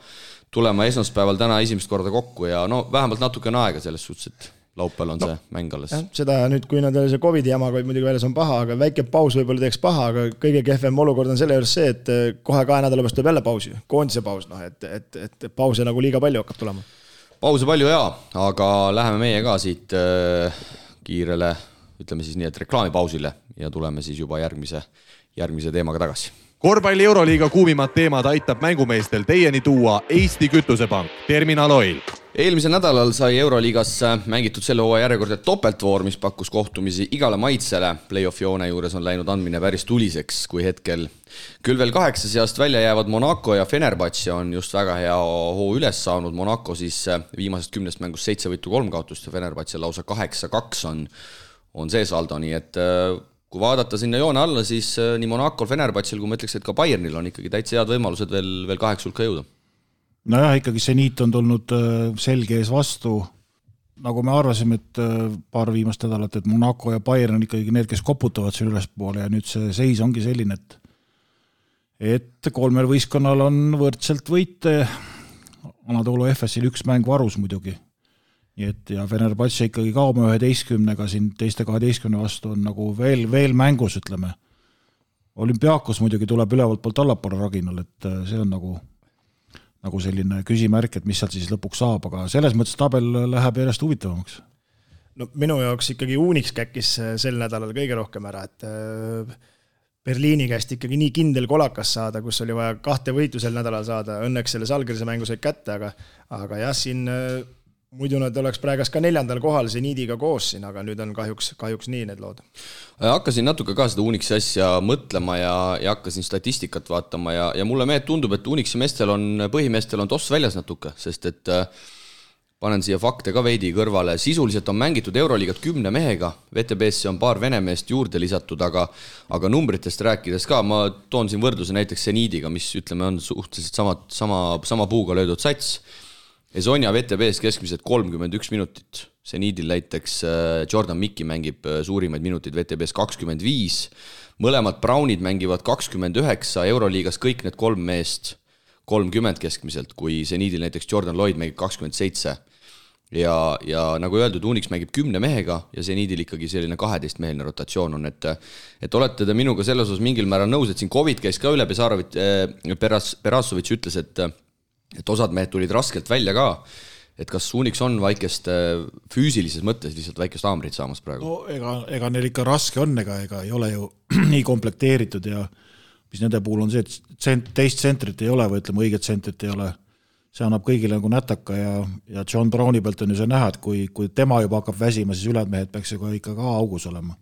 esmaspäeval täna esimest korda kokku ja no vähemalt natuke on aega selles suhtes, et laupäeval on see mäng alles.
Seda nüüd, kui nad see COVID-i jamaga muidugi väljas on paha, aga väike paus võib-olla teeks paha, aga kõige kehvem olukord on selle juures see, et kohe 2 nädala pärast tuleb jälle pausi, koondise paus, et pause nagu liiga palju hakkab tulema.
Pause palju jaa, aga läheme meie ka siit kiirele, ütleme siis nii, et reklaamipausile ja tuleme siis juba järgmise teemaga tagasi.
Korvpalli Euroliiga kuumimad teemad aitab mängumeestel teieni tuua Eesti Kütusepank, Terminal Oil.
Eelmisel nädalal sai Euroliigas mängitud selle hooaja järjekordne topeltvoor, mis pakkus kohtumisi igale maitsele. Play-off joone juures on läinud andmine päris tuliseks, kui hetkel küll veel 8 seast välja jäävad Monaco ja Fenerbahce on just väga hea hoo üles saanud. Monaco siis viimasest 10 mängust 7 võitu 3 kaotust ja Fenerbahce lausa 8-2 on see saldo, nii et kui vaadata sinna joone alla, siis nii Monacol, Fenerbahcel, kui ma ütleks, et ka Bayernil on ikkagi täitsa head võimalused veel 8 hulka jõuda.
Nojah, ikkagi Zenit on tulnud selge ees vastu, nagu me arvasime, et paar viimast nädalat, et Monaco ja Bayern on ikkagi need, kes koputavad seal ülespoole ja nüüd see seis ongi selline, et 3 võistkonnal on võrdselt võite, Anadolu FS-il 1 mäng varus muidugi. Ja Fenerbahce ikkagi ka oma 11-ga siin teiste 12 vastu on nagu veel mängus, ütleme. Olümpiakos muidugi tuleb ülevalt poolt allapoole raginal, et see on nagu selline küsimärk, et mis sealt siis lõpuks saab, aga selles mõttes tabel läheb järjest huvitavamaks.
No minu jaoks ikkagi Unix käkkis sel nädalal kõige rohkem ära, et Berliini käest ikkagi nii kindel kolakas saada, kus oli vaja 2 võitu sel nädalal saada, õnneks selle Salgrise mängu said kätte, aga jah, siin muidu nad oleks praegas ka 4. kohal Zenidiga koos siin, aga nüüd on kahjuks nii need lood.
Hakkasin natuke ka seda Unixi asja mõtlema ja hakkasin statistikat vaatama ja mulle tundub, et Unixi põhimeestel on toss väljas natuke, sest et panen siia fakte ka veidi kõrvale. Sisuliselt on mängitud Euroliigat 10 mehega, VTB-sse on paar venemeest juurde lisatud, aga numbritest rääkides ka, ma toon siin võrdluse näiteks Zenidiga, mis ütleme on suhteliselt sama puuga löödud sats. Esonia VTB-s keskmiselt 31 minutit. Zenidil näiteks Jordan Mikki mängib suurimaid minutid VTB-s 25. Mõlemad Brownid mängivad 29, Euroliigas kõik need 3 meest 30 keskmiselt, kui Zenidil näiteks Jordan Lloyd mängib 27. Ja nagu öeldud, Unix mängib 10 mehega ja Zenidil ikkagi selline 12-meheline rotatsioon on, et olete te minuga selles osas mingil määral nõus, et siin COVID käis ka üle, Perasovitš ütles, et osad mehed tulid raskelt välja ka, et kas Unix on väikest füüsilises mõttes lihtsalt väikest haamrit saamas praegu?
No ega neil ikka raske on, ega ei ole ju nii komplekteeritud ja mis nende puhul on see, et teist tsentrit ei ole või ütleme õiget tsentrit ei ole. See annab kõigile nagu nätaka ja John Browni pealt on ju see näha, et kui tema juba hakkab väsima, siis ülejäänud mehed peaks ju ikka ka augus olema.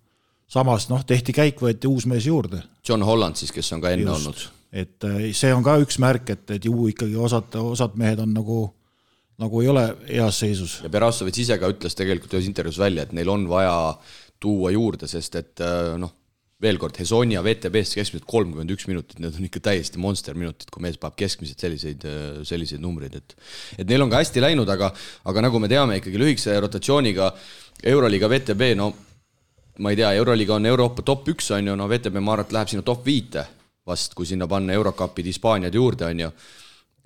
Samas tehti käik, võeti uus mees juurde.
John Holland siis, kes on ka enne olnud.
Et see on ka üks märk, et ju ikkagi osad mehed on nagu ei ole heas seisus.
Ja Berassovitš ise ka ütles tegelikult ühes intervjuus välja, et neil on vaja tuua juurde, sest et veel kord, Hesonia VTB-st keskmiselt 31 minutit, need on ikka täiesti monster minutid, kui mees paab keskmiselt selliseid numbreid, et neil on ka hästi läinud, aga nagu me teame ikkagi lühikese rotatsiooniga Euroliiga VTB, ma ei tea, Euroliiga on Euroopa top 1, on ju, VTB Marat läheb sinna top 5 vast, kui sinna panna Eurocupid Hispaaniad juurde, on ju,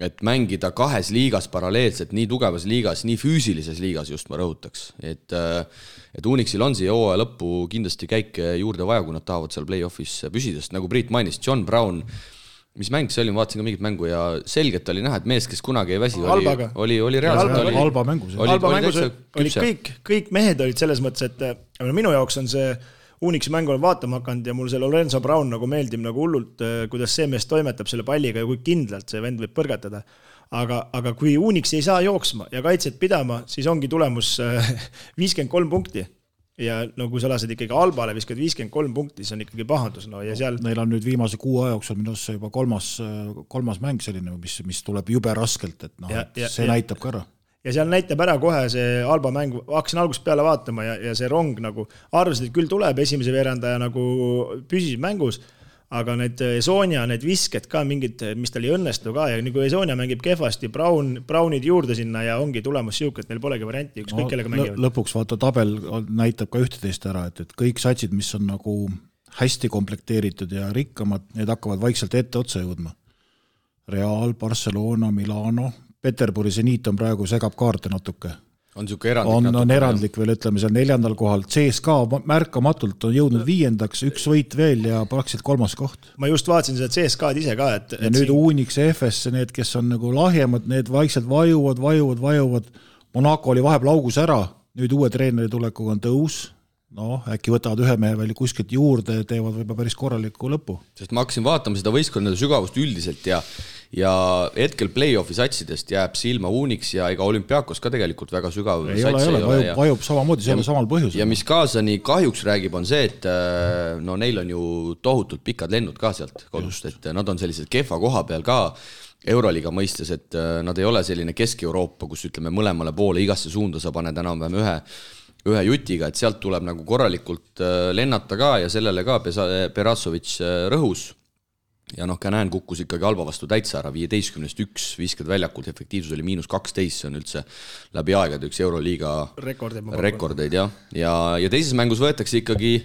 et mängida kahes liigas paralleelselt, nii tugevas liigas, nii füüsilises liigas just ma rõhutaks, et Unixil on siia hooaja lõppu kindlasti käike juurde vaja, kui nad tahavad seal play-offis püsidest, nagu Priit mainis, John Brown, mis mäng see oli, ma vaatasin ka mingit mängu ja selgelt oli näha, et mees, kes kunagi ei väsi, oli reaalselt
halba mängus.
Halba mängus olid kõik mehed olid selles mõttes, et minu jaoks on see Unixi mängu olen vaatama hakanud ja mul see Lorenzo Brown nagu meeldib nagu hullult, kuidas see mees toimetab selle palliga ja kui kindlalt see vend võib põrgatada. Aga kui Unix ei saa jooksma ja kaitset pidama, siis ongi tulemus 53 punkti. Ja kui sa lased ikkagi Albale viskad 53 punkti, siis on ikkagi pahandus. Ja seal...
Neil on nüüd viimase 6 aja jooksul minu arust juba kolmas mäng selline, mis tuleb jube raskelt, et see näitab ka ära.
Ja seal näitab ära kohe see Alba mäng, hakkasin algusest peale vaatama ja see rong nagu arvasid, et küll tuleb esimese veerandaja nagu püsis mängus, aga need Esonia, need visked ka mingid, mis tal ei õnnestu ka ja nagu Esonia mängib kehvasti, Brownid juurde sinna ja ongi tulemus siuke, et neil polegi varianti, ükskõik kellega mängivad.
Lõpuks vaata tabel näitab ka ühteteist ära, et kõik satsid, mis on nagu hästi komplekteeritud ja rikkamad, need hakkavad vaikselt ette otsa jõudma. Real, Barcelona, Milano, Peterburi Zeniit on praegu segab kaarte natuke.
On siuke erandlik.
On erandlik veel, ütleme seal 4. kohal. CSKA märkamatult on jõudnud 5. üks võit veel ja praktiliselt 3. koht.
Ma just vaatasin seda CSKA-d ise ka.
Ja nüüd Unix ja FS, need, kes on nagu lahjemad, need vaikselt vajuvad. Monaco oli vahepeal augus ära, nüüd uue treeneri tulekuga on tõus. Äkki võtavad ühe mehe veel kuskilt juurde ja teevad võib-olla päris korraliku lõpu.
Sest ma hakkasin vaatama seda võistkonnade sügavust üldiselt ja hetkel play-offi satsidest jääb silma Unix ja ega Olümpiakos ka tegelikult väga sügav
ei ole, vajub samamoodi selle samal põhjusel.
Ja mis kaasani kahjuks räägib on see, et neil on ju tohutult pikad lennud ka sealt kodust, et nad on sellised kehva koha peal ka Euroliiga mõistes, et nad ei ole selline Kesk-Euroopa, kus ütleme mõlemale poole igasse suunda sa paned enam-vähem ühe jutiga, et sealt tuleb nagu korralikult lennata ka ja sellele ka Berassovitš rõhus. Ja ka näen, kukkus ikkagi Alba vastu täitsa ära, 15-1 viskad väljakult, efektiivsus oli -12, see on üldse läbi aegade üks Euroliiga rekordeid. Ja teises mängus võetakse ikkagi,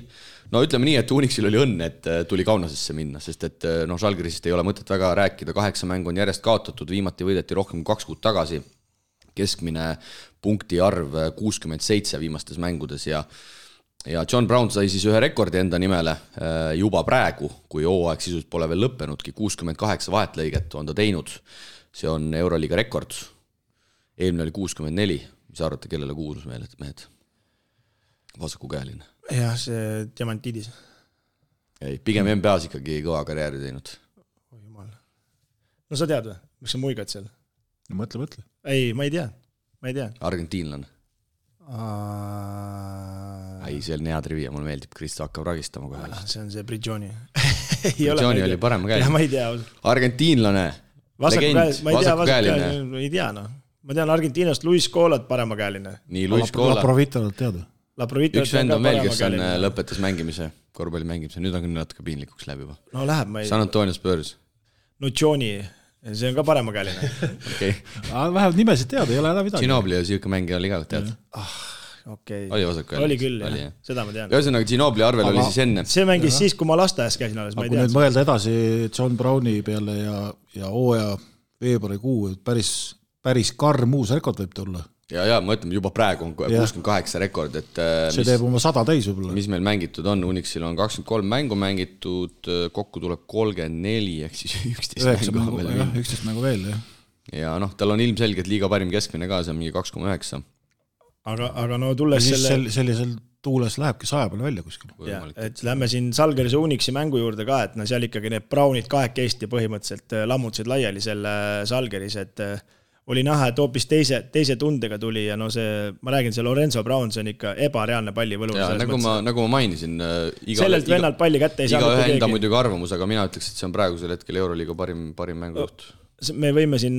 ütleme nii, et Unixil oli õnn, et tuli Kaunasesse minna, sest et Žalgirisist ei ole mõtet väga rääkida, 8 mängu on järjest kaotatud, viimati võideti rohkem kui 2 kuud tagasi, keskmine punkti arv 67 viimastes mängudes ja John Brown sai siis ühe rekordi enda nimele juba praegu, kui hooaeg sisuliselt pole veel lõppenudki, 68 vahetlõiget on ta teinud. See on Euroliiga rekord. Eelmine oli 64. Mis arvate, kellele kuulus mehed? Vasakukäeline.
Jah, see Diamantidis.
Ei, pigem NBAs ikkagi kõva karjääri teinud.
Oh, jumal. No sa tead või? Miks sa muigad seal?
No mõtle.
Ei, ma ei tea.
Argentiinlane. Ei, see on hea trivia, mulle meeldib, Kristo hakkab ragistama kohe.
See on see Bridžoni.
Bridžoni oli parema käeline.
Ma ei tea.
Argentiinlane, legend, vasakukäeline.
Ei tea, Ma tean Argentiinast Luis Colat parema käeline.
Nii, Luis Cola.
Laprovitolat teada.
Üks vend on veel, kes on lõpetas mängimise, korvpalli mängimise, nüüd on küll natuke piinlikuks läbi juba.
No läheb, ma ei...
San Antonio Spurs.
Nuccioni. See on ka parema käeline.
Okay.
Vähemalt nimesid teada, ei ole enam midagi.
Ginobili ja siuke mängija oli ka, tead.
Okay.
Oli vasakukäeline.
Oli küll, jah. Seda ma tean.
Ühesõnaga, Ginobili arvel oli siis enne.
See mängis siis, kui ma lasteaias käisin alles, ma ei
tea.
Kui
nüüd mõelda edasi John Browni peale ja hooaja veebruarikuu, päris karm uus rekord võib tulla.
Ja, ma ütlen, juba praegu on 68 rekord, et
see teeb oma 100 täis võib-olla.
Mis meil mängitud on, Unixil on 23 mängu mängitud, kokku tuleb 34, ehk siis 11 mängu veel.
11 mängu veel, jah.
ja tal on ilmselgelt liiga parim keskmine ka, see on mingi 2,9.
Aga no tulles
sellisel tuules lähebki 100 peale välja kuskil.
Et lähme siin Žalgirise Unixi mängu juurde ka, et seal ikkagi need Brownid kahekesti põhimõtteliselt lammutasid laiali selle Žalgiris, et oli näha, et hoopis teise tundega tuli ja ma räägin, see Lorenzo Brown, see on ikka ebareaalne pallivõlu.
Nagu ma mainisin,
sellelt vennalt palli kätte ei saa
iga enda muidugi arvamus, aga mina ütleks, et see on praegusel hetkel Euroliiga parim mängujuht.
Me võime siin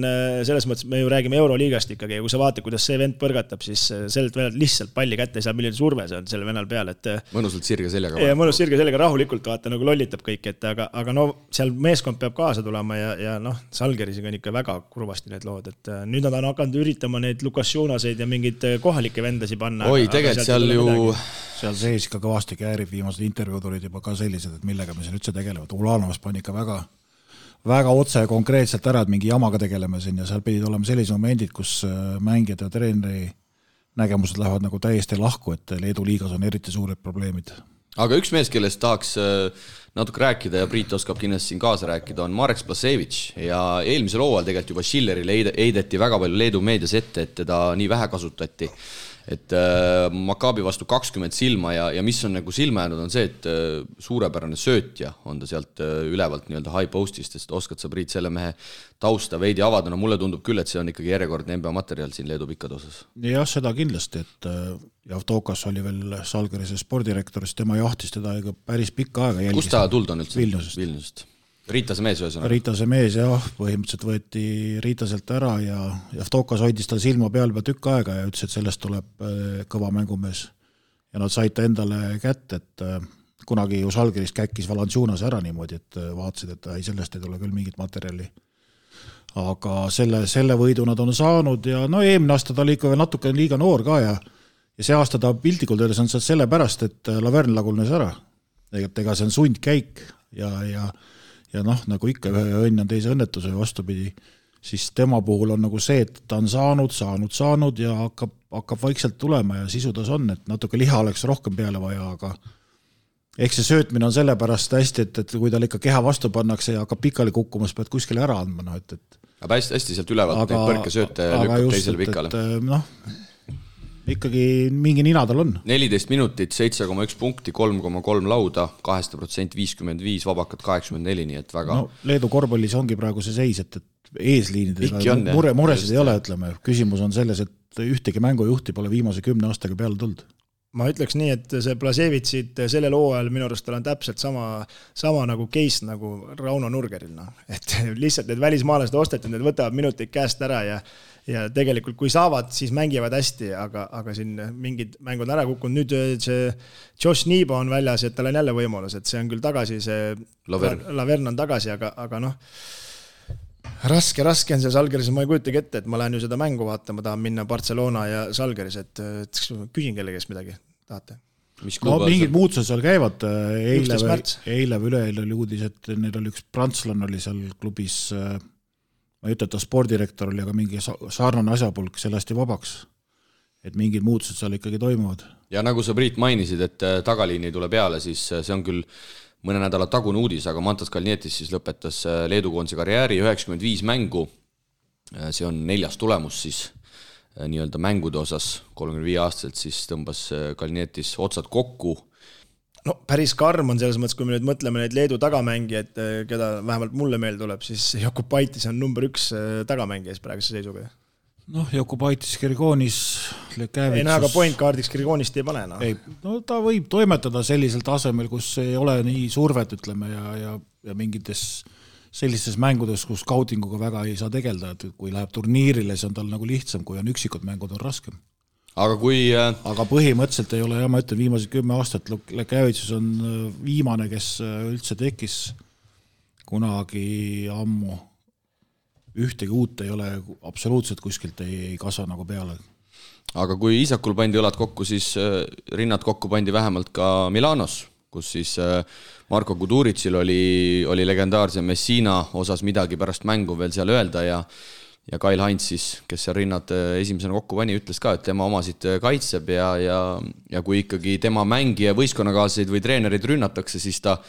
selles mõttes, me ju räägime Euroliigast ikkagi ja kui sa vaatad, kuidas see vend põrgatab, siis sellelt vennalt lihtsalt palli kätte ei saa, milline surve see on selle vennal peal, et
mõnusalt sirge seljaga.
Ja mõnus sirge seljaga rahulikult vaata, nagu lollitab kõik, et aga seal meeskond peab kaasa tulema ja Žalgirisega on ikka väga kurvasti need lood, et nüüd nad on hakanud üritama neid Lukas Jonaseid ja mingid kohalikke vendasi panna.
Oi, tegelikult seal ju
seal sees ikka kõvasti käärib, viimased intervjuud olid juba ka sellised, et millega me siin üldse tegelevad. Ulanovas pani ikka väga otse ja konkreetselt ära, et mingi jamaga tegeleme siin ja seal pidid olema sellised momendid, kus mängijad ja treeneri nägemused lähevad nagu täiesti lahku, et Leedu liigas on eriti suured probleemid.
Aga üks mees, kellest tahaks natuke rääkida ja Priit oskab kindlasti siin kaasa rääkida, on Marek Splasevich ja eelmisel hooajal tegelikult juba Schillerile heideti väga palju Leedu meedias ette, et teda nii vähe kasutati. Et Maccabi vastu 20 silma ja mis on nagu silma jäänud on see, et suurepärane söötja on ta sealt ülevalt nii-öelda high postist, sest oskad sa Priit selle mehe tausta veidi avada, no mulle tundub küll, et see on ikkagi järjekordne NBA materjal siin Leedu pikkade osas.
Jah, seda kindlasti, et Javtokas oli veel Žalgirise spordirektor, siis tema jahtis teda päris pikka aega jälgis.
Kust ta tuld on üldse?
Vilniusest.
Riitase mees ühesõnaga.
Riitase mees, jah, põhimõtteliselt võeti Riitaselt ära ja Javtokas hoidis tal silma peal tükk aega ja ütles, et sellest tuleb kõva mängumees. Ja nad said ta endale kätte, et kunagi ju Žalgiris käkkis Valanciunas ära niimoodi, et vaatasid, et sellest ei tule küll mingit materjali. Aga selle võidu nad on saanud ja eelmine aasta ta oli ikka veel natuke liiga noor ka ja see aasta ta piltlikult öeldes on selle pärast, et Laverne lagunes ära. Ega see on sundkäik ja nagu ikka ühe õnn on teise õnnetuse vastupidi, siis tema puhul on nagu see, et ta on saanud ja hakkab vaikselt tulema ja sisudas on, et natuke liha oleks rohkem peale vaja, aga eks see söötmine on sellepärast hästi, et kui tal ikka keha vastu pannakse ja hakkab pikali kukkumas, pead kuskile ära andma.
Aga hästi sealt ülevalt neid põrkesööte lükkab teisele pikale.
Ikkagi mingi nina tal on.
14 minutit, 7,1 punkti, 3,3 lauda, 2% 55, vabakat 84, nii et väga...
Leedu korvpallis ongi praegu see seis, et eesliinidega muresid ei ole, ütleme. Küsimus on selles, et ühtegi mängujuhti pole viimase 10 aastaga peale tulnud.
Ma ütleks nii, et see Blasevitsit sellel hooajal minu arust on täpselt sama nagu case nagu Rauno Nurgeril. Et lihtsalt need välismaalased osteti, need võtavad minuteid käest ära ja tegelikult kui saavad, siis mängivad hästi, aga siin mingid mängud ära kukkunud. Nüüd see Josh Niibo on väljas, et tal on jälle võimalus, et see on küll tagasi, see Laverne on tagasi, aga raske on see Žalgiris, ma ei kujutagi ette, et ma lähen ju seda mängu vaatama, tahan minna Barcelona ja Žalgiris, et küsin kellegest midagi, tahate?
Mingid muutused seal käivad, eile või üleeile oli uudis, et neil oli üks prantslan oli seal klubis, ma ei ütle, et ta spordirektor oli, aga mingi sarnane asjapulk sellest ja vabaks, et mingid muutused seal ikkagi toimuvad.
Ja nagu sa Priit mainisid, et tagaliini tule peale, siis see on küll mõne nädala tagune uudis, aga Mantas Kalnietis siis lõpetas Leedu koondise karjääri 95 mängu, see on 4. tulemus siis nii-öelda mängude osas, 35 aastaselt siis tõmbas Kalnietis otsad kokku.
No päris karm on selles mõttes, kui me nüüd mõtleme neid Leedu tagamängijad, keda vähemalt mulle meil tuleb, siis Jokubaitis on number 1 tagamängijas praeguse seisuga.
Jokubaitis, Kirgonis, Lekäävitsus...
Ei aga point kaardiks Kirgonist ei pane.
Ta võib toimetada sellisel tasemel, kus ei ole nii survet, ütleme, ja mingites sellistes mängudes, kus scoutinguga väga ei saa tegelda, et kui läheb turniirile, see on tal nagu lihtsam, kui on üksikud mängud on raskem.
Aga
põhimõtteliselt ei ole, ma ütlen, viimased 10 aastat Lekäävitsus on viimane, kes üldse tekkis kunagi ammu. Ühtegi uut ei ole, absoluutselt kuskilt ei kasva nagu peale.
Aga kui Isakul pandi õlad kokku, siis rinnad kokku pandi vähemalt ka Milanos, kus siis Marko Kuduritsil oli legendaarse Messina osas midagi pärast mängu veel seal öelda ja Kail Heinz siis, kes seal rinnad esimesena kokku pani, ütles ka, et tema omasid kaitseb ja kui ikkagi tema mängija võistkonnakaaslaseid või treenerid rünnatakse, siis ta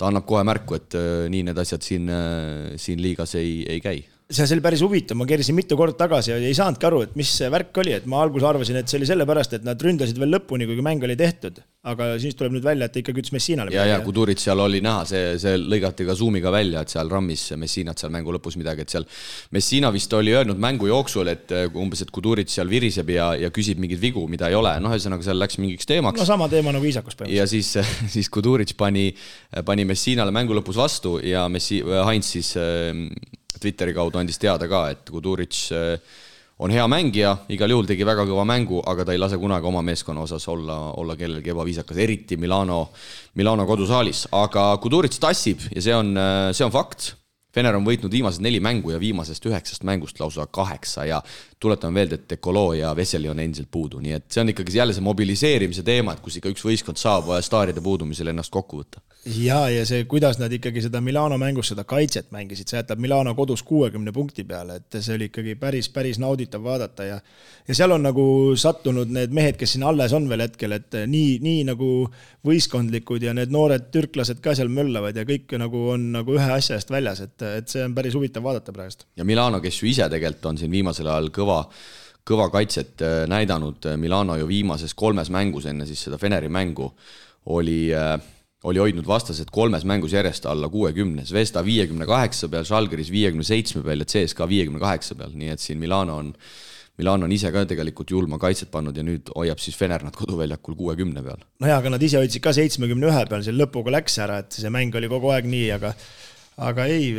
annab kohe märku, et nii need asjad siin liigas ei käi.
see oli päris huvitav, ma keerisin mitu korda tagasi ja ei saanudki aru, et mis see värk oli, et ma alguses arvasin, et see oli sellepärast, et nad ründasid veel lõpuni, kuigi mäng oli tehtud, aga siis tuleb nüüd välja, et ikkagi ütles Messinale.
Ja Kudurit seal oli näha, see lõigati ka zoomiga välja, et seal rammis Messinat seal mängu lõpus midagi, et seal Messina vist oli öelnud mängu jooksul, et umbes, et Kudurit seal viriseb ja küsib mingid vigu, mida ei ole, ühesõnaga seal läks mingiks teemaks.
No sama teema nagu Iisakus päevas.
Ja siis Kudurit pani Messinale mängu lõpus vastu ja Heinz siis Twitteri kaudu andis teada ka, et Kuduric on hea mängija, igal juhul tegi väga kõva mängu, aga ta ei lase kunagi oma meeskonna osas olla kellelgi ebaviisakas, eriti Milano kodusaalis. Aga Kuduric tassib ja see on fakt. Fener on võitnud viimased 4 mängu ja viimasest 9 mängust lausa 8 ja tuletan veel, et Dekolo ja Veseli on endiselt puudu. Nii et see on ikkagi jälle see mobiliseerimise teema, et kus ikka üks võistkond saab staaride puudumisel ennast kokku võtta.
Ja see, kuidas nad ikkagi seda Milano mängus seda kaitset mängisid, see jätab Milano kodus 60 punkti peale, et see oli ikkagi päris nauditav vaadata ja seal on nagu sattunud need mehed, kes siin alles on veel hetkel, et nii nagu võistkondlikud ja need noored türklased ka seal möllavad ja kõik nagu on nagu ühe asja eest väljas, et see on päris huvitav vaadata praegust.
Ja Milano, kes ju ise tegelikult on siin viimasel ajal kõva kaitset näidanud, Milano ju viimases 3 mängus enne siis seda Feneri mängu oli hoidnud vastased 3 mängus järjest alla 60, Zvezda 58 peal, Žalgiris 57 peal ja CSKA 58 peal, nii et siin Milano on ise ka tegelikult julma kaitset pannud ja nüüd hoiab siis Fener nad koduväljakul 60 peal.
No ja, aga nad ise hoidsid ka 71 peal, see lõpuga läks ära, et see mäng oli kogu aeg nii, aga ei,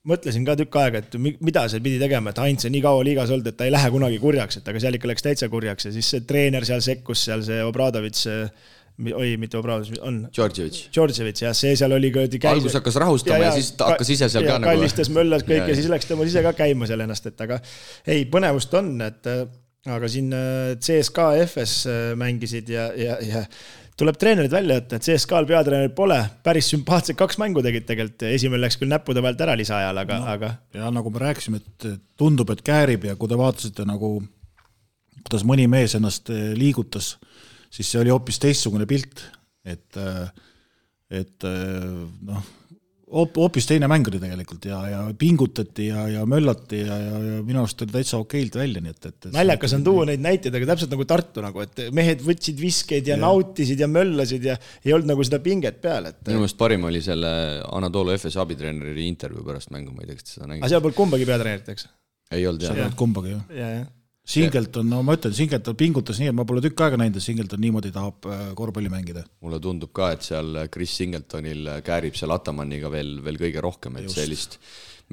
mõtlesin ka tükk aega, et mida see pidi tegema, et Heinz on nii kaua liigas olnud, et ta ei lähe kunagi kurjaks, et aga seal ikka läks täitsa kurjaks ja siis see treener seal sekkus, seal see Obradovits, mitte Obradovits, on Djordjevic, ja see seal oli
algus hakkas rahustama ja siis ta hakkas ise seal ka
nagu kallistas möllas kõik ja siis läks tema ise ka käima seal ennast, et aga ei, põnevust on, et aga siin CSKA FS mängisid ja tuleb treenerid välja jätta, et CSKA-l peatreenerid pole, päris sümpaatsed 2 mängu tegid tegelikult, esimene läks küll näppude pealt ära lisaajal, aga...
Ja nagu me rääkisime, et tundub, et käärib ja kui te vaatasite nagu, kuidas mõni mees ennast liigutas, siis see oli hoopis teistsugune pilt, et hoopis teine mäng oli tegelikult ja pingutati ja möllati ja minu arust oli täitsa okeilt välja. Nii et
naljakas on tuua neid näiteid, aga täpselt nagu Tartu, nagu, et mehed võtsid viskeid ja nautisid ja möllasid ja ei olnud nagu seda pinget peal.
Minu meelest parim oli selle Anadolu FS abitreeneri intervjuu pärast mängu, ma ei tea, kas seda nägid.
Aga seal polnud kumbagi peatreenerit, eks?
Ei olnud,
jah. Kumbagi,
jah.
Singleton, no ma ütlen, Singleton pingutas nii, et ma pole tükk aega näinud, et Singleton niimoodi tahab korvpalli mängida.
Mulle tundub ka, et seal Chris Singletonil käärib seal Atamanniga veel kõige rohkem, et sellist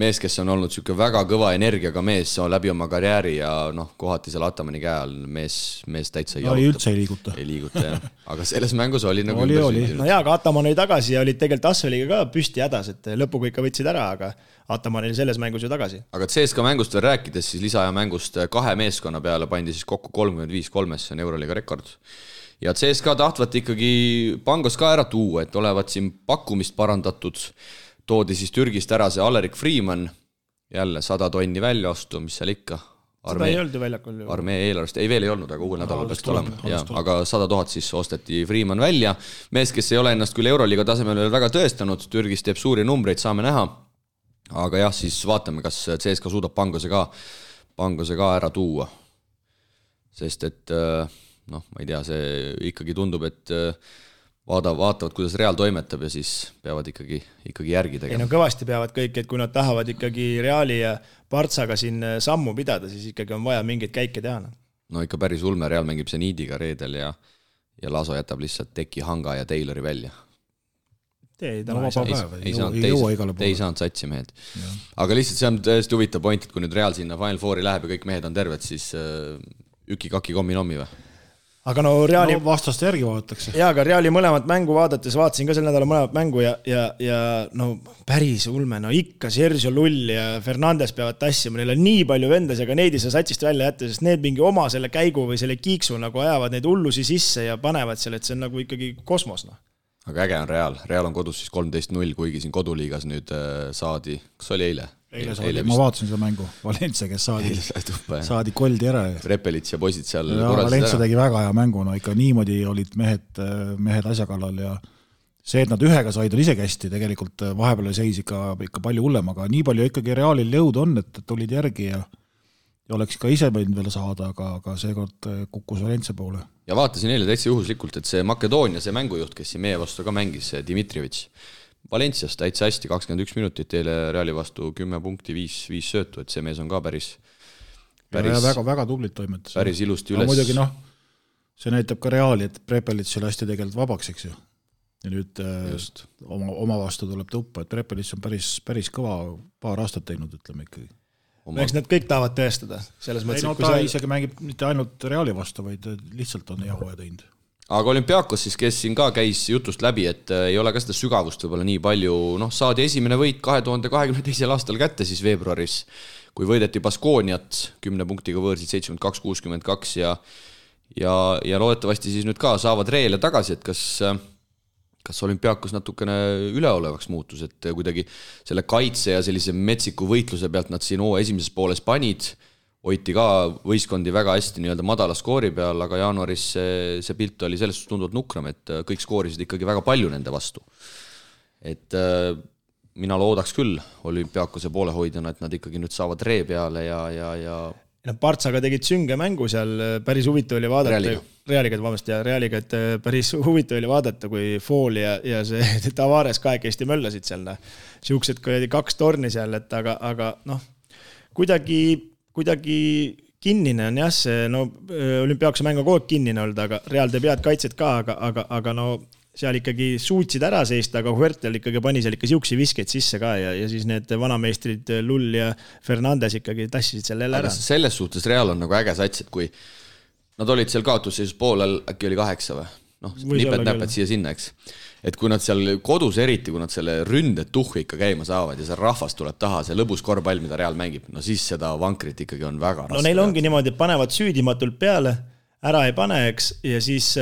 mees, kes on olnud siuke väga kõva energiaga mees läbi oma karjääri ja kohati seal Atamani käe all mees täitsa
üldse ei
liiguta, jah. Aga selles mängus oli nagu
oli. No jaa, aga Ataman oli tagasi ja olid tegelikult Asseliga ka püsti hädas, et lõpuga ikka võtsid ära, aga Ataman oli selles mängus ju tagasi.
Aga CSKA mängust veel rääkides, siis lisaaja mängust 2 meeskonna peale pandi siis kokku 35-3, see on Euroliiga rekord. Ja CSKA tahtvat ikkagi Pangos ka ära tuua, et olevat siin pakkumist parandatud. Toodi siis Türgist ära see Alerik Freeman, jälle 100 tonni välja ostu, mis seal ikka.
Seda ei olnud ju väljakul.
Armee eelarvest, ei veel ei olnud, aga uuel nädalal peaks olema. Aga 100 000 siis osteti Freeman välja. Mees, kes ei ole ennast küll Euroliiga tasemel veel väga tõestanud, Türgis teeb suuri numbreid, saame näha. Aga jah, siis vaatame, kas CSKA suudab Pangose ka ära tuua. Sest et, ma ei tea, see ikkagi tundub, et vaatavad, kuidas Real toimetab ja siis peavad ikkagi järgi tegema.
Ei, no kõvasti peavad kõik, et kui nad tahavad ikkagi Reali ja Partsaga siin sammu pidada, siis ikkagi on vaja mingeid käike teha.
No ikka päris ulme, Real mängib Zenidiga reedel ja Laso jätab lihtsalt Teki, Hanga ja Taylori välja.
Ei
saanud satsi mehed. Aga lihtsalt see on tõesti huvitav point, et kui nüüd Real sinna Final Fouri läheb ja kõik mehed on terved, siis üki-kaki kommi-nommi või?
Aga no Reali
vastaste järgi vaadatakse.
Jaa, aga Reali mõlemat mängu vaadates vaatasin ka sel nädala mõlemat mängu ja no päris ulme, no ikka Sergio Lull ja Fernandes peavad tassima, neil on nii palju vendas, aga neid ei saa satsist välja jätta, sest need mingi oma selle käigu või selle kiiksu nagu ajavad neid hullusi sisse ja panevad selle, et see on nagu ikkagi kosmos.
Aga äge on Real on kodus siis 13-0, kuigi siin koduliigas nüüd saadi, kas oli eile?
Ma vaatasin seda mängu, Valencia, kes saadi koldi ära.
Repelits ja poisid seal
Valencia tegi väga hea mängu, no ikka niimoodi olid mehed asja kallal see, et nad ühega said, on isegi hästi, tegelikult vahepeal seis ikka palju hullem, aga nii palju ikkagi Realil jõud on, et tulid järgi ja oleks ka ise võinud veel saada, aga seekord kukkus Valencia poole.
Ja vaatasin eile täitsa juhuslikult, et see Makedoonia, see mängujuht, kes siin meie vastu ka mängis, Dimitrievitš, Valencias täitsa hästi, 21 minutit eile Reali vastu 10 punkti, 5 söötu, et see mees on ka päris
väga tublit toimetas.
Päris ilusti üles.
Muidugi see näitab ka Reali, et Prepelic oli hästi tegelikult vabaks, eks ju. Ja nüüd oma vastu tuleb tuppa, et Prepelic on päris kõva paar aastat teinud, ütleme ikkagi.
Eks nad kõik tahavad tõestada. Selles mõttes,
ta isegi mängib mitte ainult Reali vastu, vaid lihtsalt on jahu ja teinud.
Aga Olümpiakos siis, kes siin ka käis jutust läbi, et ei ole ka seda sügavust võib-olla nii palju, saadi esimene võit 2022. aastal kätte siis veebruaris, kui võideti Baskooniat 10 punktiga võõrsid 72-62 ja loodetavasti siis nüüd ka saavad Reele tagasi, et kas Olümpiakos natukene üleolevaks muutus, et kuidagi selle kaitse ja sellise metsiku võitluse pealt nad siin esimeses pooles panid, hoiti ka võistkondi väga hästi nii-öelda madala skoori peal, aga jaanuaris see pilt oli sellest tunduvalt nukram, et kõik skoorisid ikkagi väga palju nende vastu. Et mina loodaks küll Olümpiakose poolehoidjana, et nad ikkagi nüüd saavad Ree peale ja
Partsaga tegid sünge mängu seal, päris huvitav oli vaadata. Realiga, et päris huvitav oli vaadata, kui Fool ja see Tavares kahekesti möllasid seal. Siuksed, kui oli 2 torni seal, et aga kuidagi kinnine on jah, see Olümpiakose mäng on kogu aeg kinnine olnud, aga Real teeb head kaitset ka, aga seal ikkagi suutsid ära seista, aga Huertel ikkagi pani seal ikka siuksi viskeid sisse ka ja siis need vanameistrid Lull ja Fernandes ikkagi tassisid seal jälle ära.
Selles suhtes Real on nagu äge sats, et kui nad olid seal kaotusseisus poolel, äkki oli 8 või? Nipet-näpet siia-sinna, eks. Et kui nad seal kodus eriti, kui nad selle ründet tuhhi ikka käima saavad ja see rahvas tuleb taha, see lõbus korvpall, mida Real mängib, siis seda vankrit ikkagi on väga raske.
Neil ongi niimoodi, et panevad süüdimatult peale, ära ei pane, eks, ja siis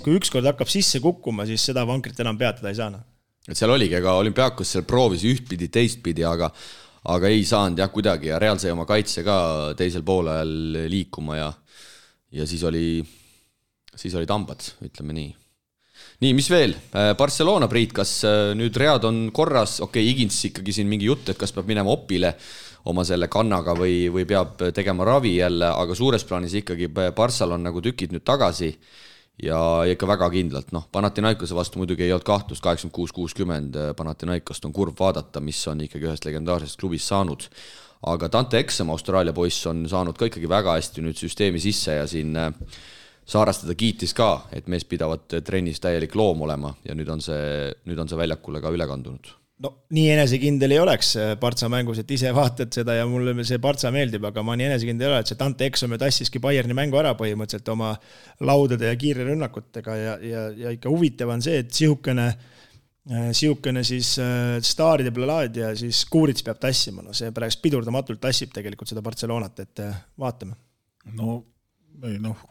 kui ükskord hakkab sisse kukkuma, siis seda vankrit enam peatada ei saana.
Et seal oligi, aga Olümpiakos seal proovis ühtpidi, teistpidi, aga ei saanud jah kuidagi ja Real sai oma kaitse ka teisel poolel liikuma ja siis oli tambad, ütleme nii. Nii, mis veel? Barcelona, Priit, kas nüüd read on korras? Okei, Higins ikkagi siin mingi jutt, et kas peab minema opile oma selle kannaga või peab tegema ravi jälle, aga suures plaanis ikkagi Barssal on nagu tükid nüüd tagasi ja ikka väga kindlalt. Panathinaikose vastu muidugi ei olnud kahtlust, 86-60 Panathinaikost on kurv vaadata, mis on ikkagi ühest legendaarsest klubist saanud. Aga Dante Exum, Austraalia poiss, on saanud ka ikkagi väga hästi nüüd süsteemi sisse ja siin Saarastada kiitis ka, et mees pidavad trennis täielik loom olema ja nüüd on see väljakule ka üle kandunud.
Nii enesekindel ei oleks Partsa mängus, et ise vaatad seda ja mulle see Partsa meeldib, aga ma nii enesekindel ei ole, et see Dante Exum tassiski Bayerni mängu ära põhimõtteliselt oma laudade ja kiire rünnakutega ja ikka huvitav on see, et sihukene siis staaride plalaad ja siis Kuurits peab tassima. See pärast pidurdamatult tassib tegelikult seda Barcelonat, et vaatame.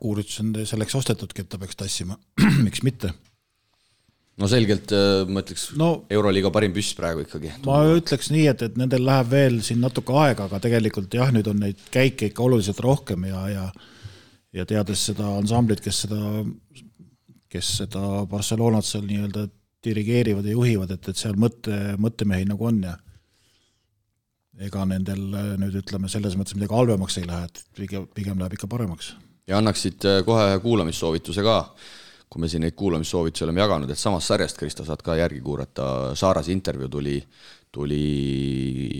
Kuurits on selleks ostetudki, et ta peaks tassima. Miks mitte?
Selgelt, ma ütleks, Euroliiga parim püss praegu ikkagi.
Ma ütleks nii, et nendel läheb veel siin natuke aega, aga tegelikult jah, nüüd on neid käike ikka oluliselt rohkem ja teades seda ansamblit, kes seda Barcelonat seal nii-öelda dirigeerivad ja juhivad, et seal mõttemehi nagu on ja ega nendel nüüd ütleme selles mõttes midagi halvemaks ei lähe, et pigem läheb ikka paremaks. Ja
annaksid kohe kuulamissoovituse ka, kui me siin neid kuulamissoovitusi oleme jaganud, et samast sarjast, Kristo, saad ka järgi kuurata. Saarase intervjuu oli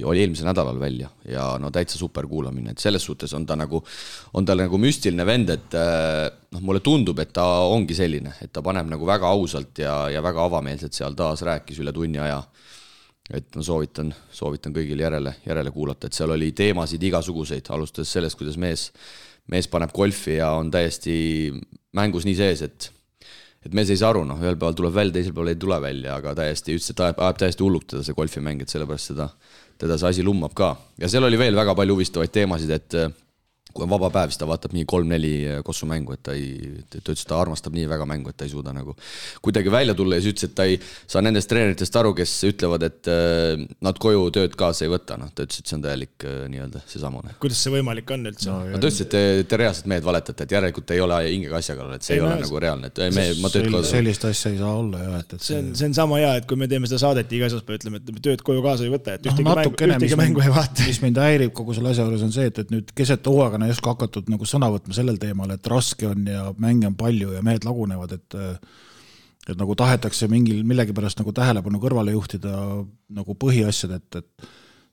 eelmisel nädalal välja ja täitsa super kuulamine, et selles suhtes on tal nagu müstiline vend, et mulle tundub, et ta ongi selline, et ta paneb nagu väga ausalt ja väga avameelselt seal taas rääkis üle tunni aja, et soovitan kõigil järele kuulata, et seal oli teemasid igasuguseid, alustades sellest, kuidas mees paneb golfi ja on täiesti mängus nii sees, et mees ei saa aru, ühel päeval tuleb välja, teisel päeval ei tule välja, aga täiesti ütles, et ajab täiesti hulluktada see golfimäng, et sellepärast teda see asi lummab ka. Ja seal oli veel väga palju huvistavaid teemasid, et kui on vaba päev, siis ta vaatab nii 3-4 Kossu mängu, et ta ütles, et ta armastab nii väga mängu, et ta ei suuda nagu kuidagi välja tulla ja siis ütles, et ta ei saa nendest treeneritest aru, kes ütlevad, et nad koju tööd kaasa ei võta. Ta ütles, et see on täielik nii-öelda seesamune.
Kuidas see võimalik on üldse?
Ta ütles, et te reaalselt mehed valetate, et järelikult ei ole hingega asja kallal, et see ei ole nagu reaalne. Ma tööd kaasa.
Sellist asja ei saa olla. Ja,
see on sama hea, et kui me teeme seda saadet iga asjaspäev, ütleme, et tööd koju kaasa ei võta, et ühtegi mängu ei vaata.
Mis mind häirib kogu selle asja juures on see, et nüüd keset hooaega ei oska hakatud nagu sõna võtma sellel teemal, et raske on ja mänge on palju ja mehed lagunevad, et nagu tahetakse millegipärast nagu tähelepanu kõrvale juhtida nagu põhiasjad, et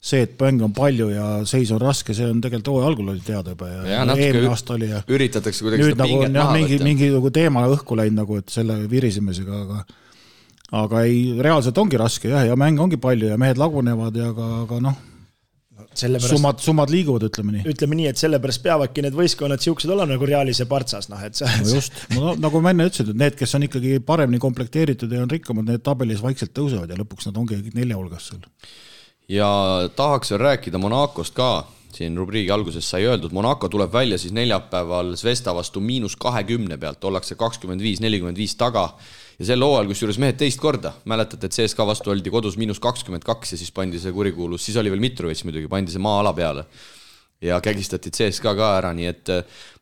see, et mänge on palju ja seis on raske, see on tegelikult hooaja algul oli teada juba ja eelmine aasta oli ja
üritatakse kuidagi seda
nagu,
pinget maha võtta.
Mingi nagu teema õhku läinud nagu, et selle virisemisega, aga ei, reaalselt ongi raske ja mänge ongi palju ja mehed lagunevad ja aga noh, summad liiguvad, ütleme nii,
et sellepärast peavadki need võistkonnad siuksed olla nagu Realis ja Partsas.
Just, nagu ma enne ütlesin, et need, kes on ikkagi paremini komplekteeritud ja on rikkamad, need tabelis vaikselt tõusevad ja lõpuks nad ongi 4 hulgas seal.
Ja tahaks veel rääkida Monacost ka. Siin rubriigi alguses sai öeldud, Monaco tuleb välja siis neljapäeval Zvesta vastu -20 pealt, ollakse 25-45 taga ja selle hooajal, kus juures mehed teist korda, mäletate, et CSKA vastu oldi kodus -22 ja siis pandi see kurikuulus, siis oli veel Mitrovic muidugi, pandi see maa-ala peale ja kägistati CSKA ka ära, nii et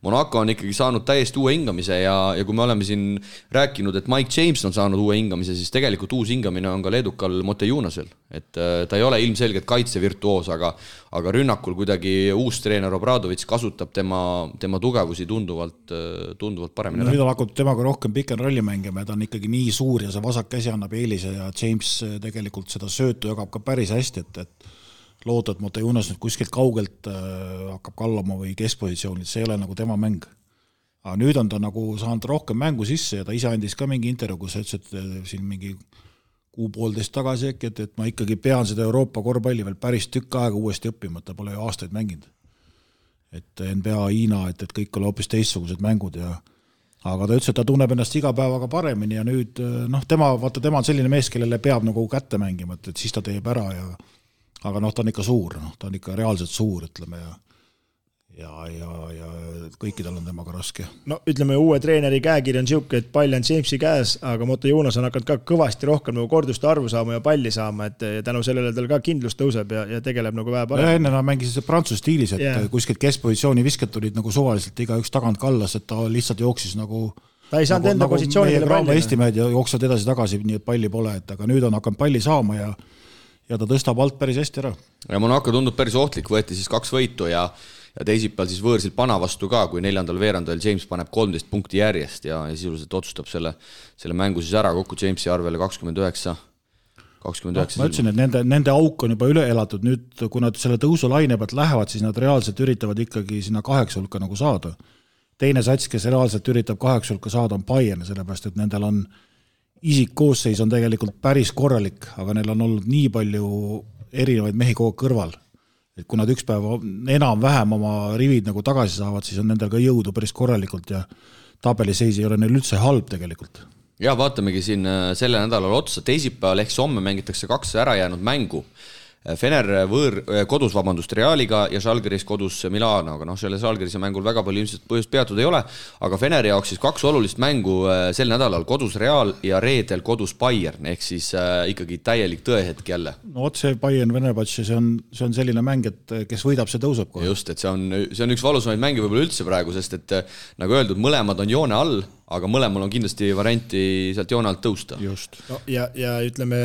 Monaco on ikkagi saanud täiesti uue hingamise ja kui me oleme siin rääkinud, et Mike James on saanud uue hingamise, siis tegelikult uus hingamine on ka leedukal Motejunasel, et ta ei ole ilmselgelt kaitsevirtuoos, aga rünnakul kuidagi uus treener Obradovic kasutab tema tugevusi tunduvalt paremini.
Nüüd on hakanud temaga rohkem pikem rolli mängima ja ta on ikkagi nii suur ja see vasak käsi annab eelise ja James tegelikult seda söötu jagab ka päris hästi, et loota, et Motejunas nüüd kuskilt kaugelt hakkab kallama või keskpositsioonil, see ei ole nagu tema mäng. Aga nüüd on ta nagu saanud rohkem mängu sisse ja ta ise andis ka mingi intervjuu, kus ütles, et siin mingi 1,5 tagasi äkki, et ma ikkagi pean seda Euroopa korvpalli veel päris tükk aega uuesti õppima, et ta pole ju aastaid mänginud. Et NBA, Hiina, et kõik oli hoopis teistsugused mängud ja aga ta ütles, et ta tunneb ennast iga päevaga paremini ja nüüd tema on selline mees, kellele peab nagu kätte mängima, et siis ta teeb ära aga ta on ikka suur, ta on ikka reaalselt suur, ütleme, ja kõikidel on temaga raske.
No ütleme, uue treeneri käekiri on siuke, et pall on Jamesi käes, aga Motejunas on hakanud ka kõvasti rohkem nagu korduste arvu saama ja palli saama, et tänu sellele tal ka kindlus tõuseb ja tegeleb nagu vähe parem.
Enne nad mängisid Prantsuse stiilis, et kuskilt keskpositsiooni visked tulid nagu suvaliselt igaüks tagant kallas, et ta lihtsalt jooksis nagu
ta ei saanud enda positsioonidele
palli. Eesti mehed jooksevad edasi-tagasi, nii et palli pole, aga nüüd on hakanud palli saama ja ta tõstab alt päris hästi ära.
Ja Monaco tundub päris ohtlik, võeti siis 2 võitu ja teisipäeval siis võõrsil Pana vastu ka, kui 4. veerandajal James paneb 13 punkti järjest ja sisuliselt otsustab selle mängu siis ära kokku Jamesi arvele 29.
Ma ütlesin, et nende auk on juba üle elatud, nüüd kui nad selle tõusulaine pealt lähevad, siis nad reaalselt üritavad ikkagi sinna 8 hulka nagu saada. Teine sats, kes reaalselt üritab 8 hulka saada, on Bayern, sellepärast, et nendel on isikkoosseis on tegelikult päris korralik, aga neil on olnud nii palju erinevaid mehi kogu kõrval, et kui nad üks päev enam-vähem oma rivid nagu tagasi saavad, siis on nendel ka jõudu päris korralikult ja tabeliseis ei ole neil üldse halb tegelikult.
Ja vaatamegi siin selle nädalal otsa, teisipäeval ehk homme mängitakse 2 ära jäänud mängu. Fener kodus Realiga ja Žalgiris kodus Milanoga. Selle Žalgirise mängul väga palju ilmselt põhjust peatud ei ole, aga Feneri jaoks siis 2 olulist mängu sel nädalal kodus Real ja reedel kodus Bayern, ehk siis ikkagi täielik tõehetk jälle.
No otse Bayern Venebatši, see on selline mäng, et kes võidab, see tõuseb kohe.
Just, et see on üks valusamaid mänge võib-olla üldse praegu, sest et nagu öeldud, mõlemad on joone all, aga mõlemal on kindlasti varianti sealt joone alt tõusta.
Just.
No, ja ütleme,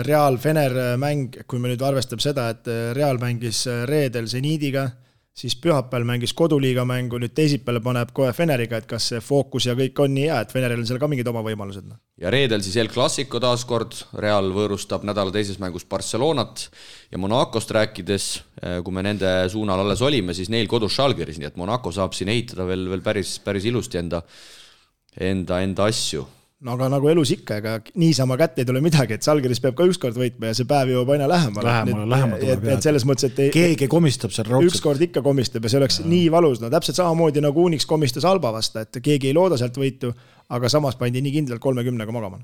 Real-Fener mäng, kui me nüüd arvestab seda, et Real mängis reedel Zenidiga, siis pühapäeval mängis koduliiga mängu, nüüd teisipäeval paneb kohe Feneriga, et kas see fookus ja kõik on nii hea, et Feneril on seal ka mingid oma võimalused.
Ja reedel siis El Clasico taaskord, Real võõrustab nädala teises mängus Barcelonat ja Monacost rääkides, kui me nende suunal alles olime, siis neil kodus Žalgiris, nii et Monaco saab siin ehitada veel päris ilusti enda asju.
No aga nagu elus ikka, ega niisama kätte ei tule midagi, et Žalgiris peab ka ükskord võitma ja see päev jõuab aina lähemale. Et selles mõttes, et
keegi komistab seal raudselt.
Ükskord ikka komistab ja see oleks nii valus. No täpselt samamoodi nagu Unix komistas Alba vasta, et keegi ei looda sealt võitu, aga samas pandi nii kindlalt 30-ga magama.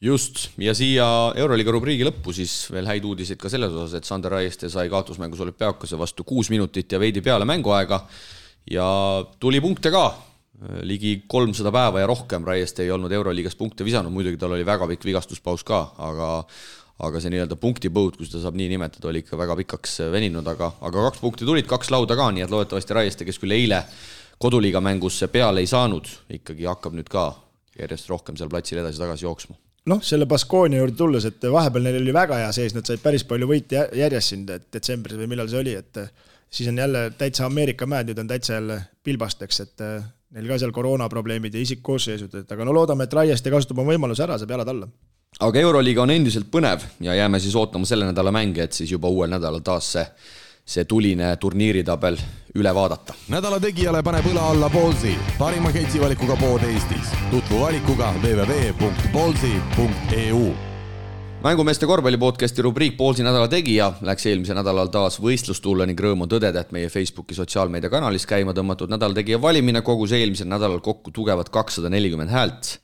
Just, ja siia Euroliiga rubriigi lõppu siis veel häid uudiseid ka selles osas, et Sander Raieste sai kaotusmängus Olümpiakose vastu 6 minutit ja veidi peale mänguaega. ja tuli punkte ka, ligi 300 päeva ja rohkem Raieste ei olnud Euroliigas punkte visanud, muidugi tal oli väga pikk vigastuspaus ka, aga see nii-öelda punktipõud, kui seda saab nii nimetada, oli ikka väga pikaks veninud, aga 2 punkti tulid, 2 lauda ka, nii et loodetavasti Raieste, kes küll eile koduliiga mängus peale ei saanud, ikkagi hakkab nüüd ka järjest rohkem seal platsil edasi-tagasi jooksma.
Selle Baskonia juurde tulles, et vahepeal neil oli väga hea sees, nad said päris palju võite järjest siin detsembris või millal see oli, et siis on jälle täitsa Ameerika mäed, nüüd on täitsa jälle pilbasteks, et neil ka seal koroonaprobleemid ja isikkoosseisud, aga loodame, et Raieste kasutab oma võimaluse ära, saab jalad alla.
Aga Euroliiga on endiselt põnev ja jääme siis ootama selle nädala mänge, et siis juba uuel nädalal taas see tuline turniiritabel üle vaadata.
Nädala tegijale paneb õla alla Ballsi, parima ketsivalikuga pood Eestis. Tutvu valikuga www.ballsi.eu.
Mängumeeste korvpallipodcasti rubriik Ballsi nädala tegija läks eelmise nädalal taas võistlustulle ning rõõm on tõdeda, et meie Facebooki sotsiaalmeedia kanalis käima tõmmatud nädala tegija valimine kogus eelmisel nädalal kokku tugevad 240 häält.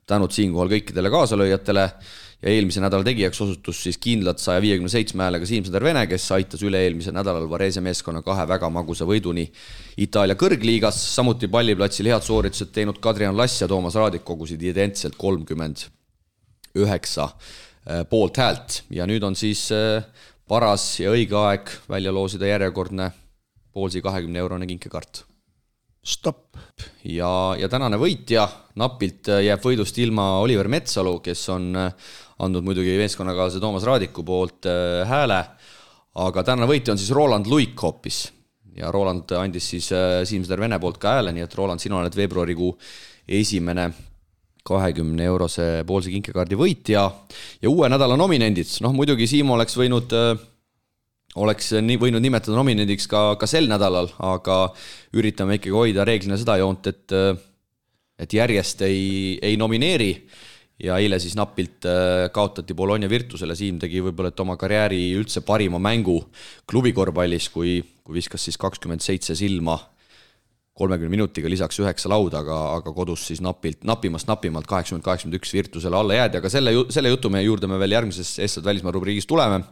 Tänud siinkohal kõikidele kaasalööjatele ja eelmise nädala tegijaks osutus siis kindlalt 157 häälega Siim-Sander Vene, kes aitas üle eelmise nädalal Varese meeskonna 2 väga magusa võiduni Itaalia kõrgliigas. Samuti palliplatsil head sooritused teinud Kadrian Lass ja Toomas Raadik kogusid identselt 39 poolt häält. Ja nüüd on siis paras ja õige aeg välja loosida järjekordne Ballsi 20-eurone kinkekaart.
Stopp.
Ja tänane võitja napilt jääb võidust ilma Oliver Metsalu, kes on andnud muidugi meeskonnakaalase Toomas Raadiku poolt hääle, aga tänane võitja on siis Roland Luik hoopis. Ja Roland andis siis Siim-Sander Vene poolt ka hääle, nii et Roland, sina oled veebruarikuu esimene 20-eurose Ballsi kinkekaardi võitja ja uue nädala nominendid. Muidugi Siim oleks võinud nimetada nominendiks ka sel nädalal, aga üritame ikkagi hoida reeglina seda joont, et järjest ei nomineeri ja eile siis napilt kaotati Bologna Virtusele. Siim tegi võib-olla oma karjääri üldse parima mängu klubikorvpallis, kui viskas siis 27 silma 30 minutiga lisaks 9 lauda, aga kodus siis napimalt 80-81 Virtusele alla jäädi, aga selle jutu meie juurde me veel järgmises Eestad välismaa rubriigis tuleme.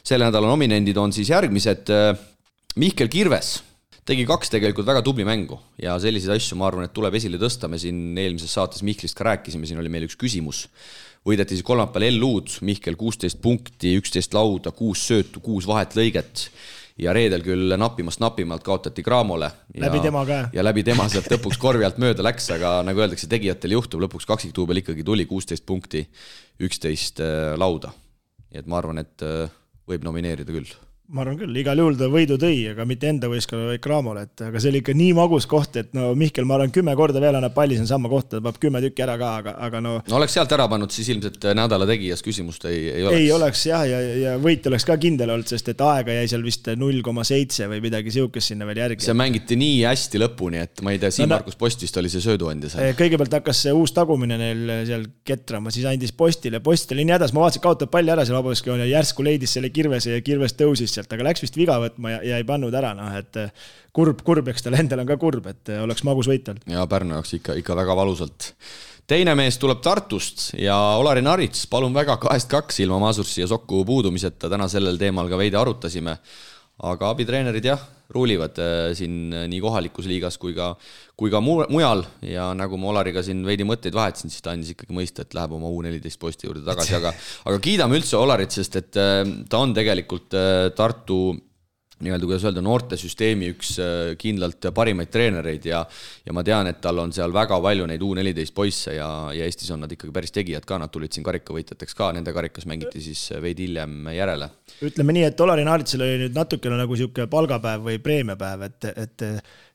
Selle nädala nominendid on siis järgmised. Mihkel Kirves tegi 2 tegelikult väga tubli mängu ja selliseid asju ma arvan, et tuleb esile tõsta. Me siin eelmises saates Mihklist ka rääkisime, siin oli meil üks küsimus. Võideti siis kolmapäeval L-uud, Mihkel 16 punkti, 11 lauda, 6 söötu, 6 vahetlõiget ja reedel küll napimalt kaotati Graamole.
Läbi tema ka.
Ja läbi tema sealt lõpuks korvi alt mööda läks, aga nagu öeldakse, tegijatel juhtub, lõpuks kaksiktuubel ikkagi tuli 16 punkti, 11 lauda. Et ma arvan, et võib nomineerida küll.
Ma arvan küll, igal juhul ta võidu tõi, aga mitte enda võistkonna või Graamole, aga see oli ikka nii magus koht, et Mihkel, ma arvan, 10 korda veel annab palli siin sama kohta, ta peab 10 tükki ära ka, aga
No oleks sealt ära pannud, siis ilmselt nädala tegijas küsimust ei oleks.
Ei oleks jah, ja võit oleks ka kindel olnud, sest et aega jäi seal vist 0,7 või midagi siukest sinna veel järgi.
See mängiti nii hästi lõpuni, et ma ei tea, Siim-Markus Post vist oli see sööduandja seal.
Kõigepealt hakkas see uus tagumine neil seal ketrama, siis andis Postile nii hädas, ma vaatasin, kaotab palli ära seal vabaduskoon ja järsku leidis selle Kirvese ja Kirves tõusis sealt, aga läks vist viga võtma ja ei pannud ära, et kurb, eks tal endal on ka kurb, et oleks magus võitel.
Ja Pärnu jaoks ikka väga valusalt. Teine mees tuleb Tartust ja Olari Narits, palun väga 2-2 ilma Masursi ja Sokku puudumiseta, täna sellel teemal ka veidi arutasime, aga abitreenerid jah, ruulivad siin nii kohalikus liigas kui ka mujal ja nagu ma Olariga siin veidi mõtteid vahetasin, siis ta andis ikkagi mõista, et läheb oma U14 posti juurde tagasi, aga kiidame üldse Olarit, sest et ta on tegelikult Tartu nii-öelda, kuidas öelda, noortesüsteemi üks kindlalt parimaid treenereid ja ma tean, et tal on seal väga palju neid U14 poisse ja Eestis on nad ikkagi päris tegijad ka, nad tulid siin karikavõitjateks ka, nende karikas mängiti siis veidi hiljem järele.
Ütleme nii, et Olari Naaritsel oli nüüd natukene nagu siuke palgapäev või preemiapäev, et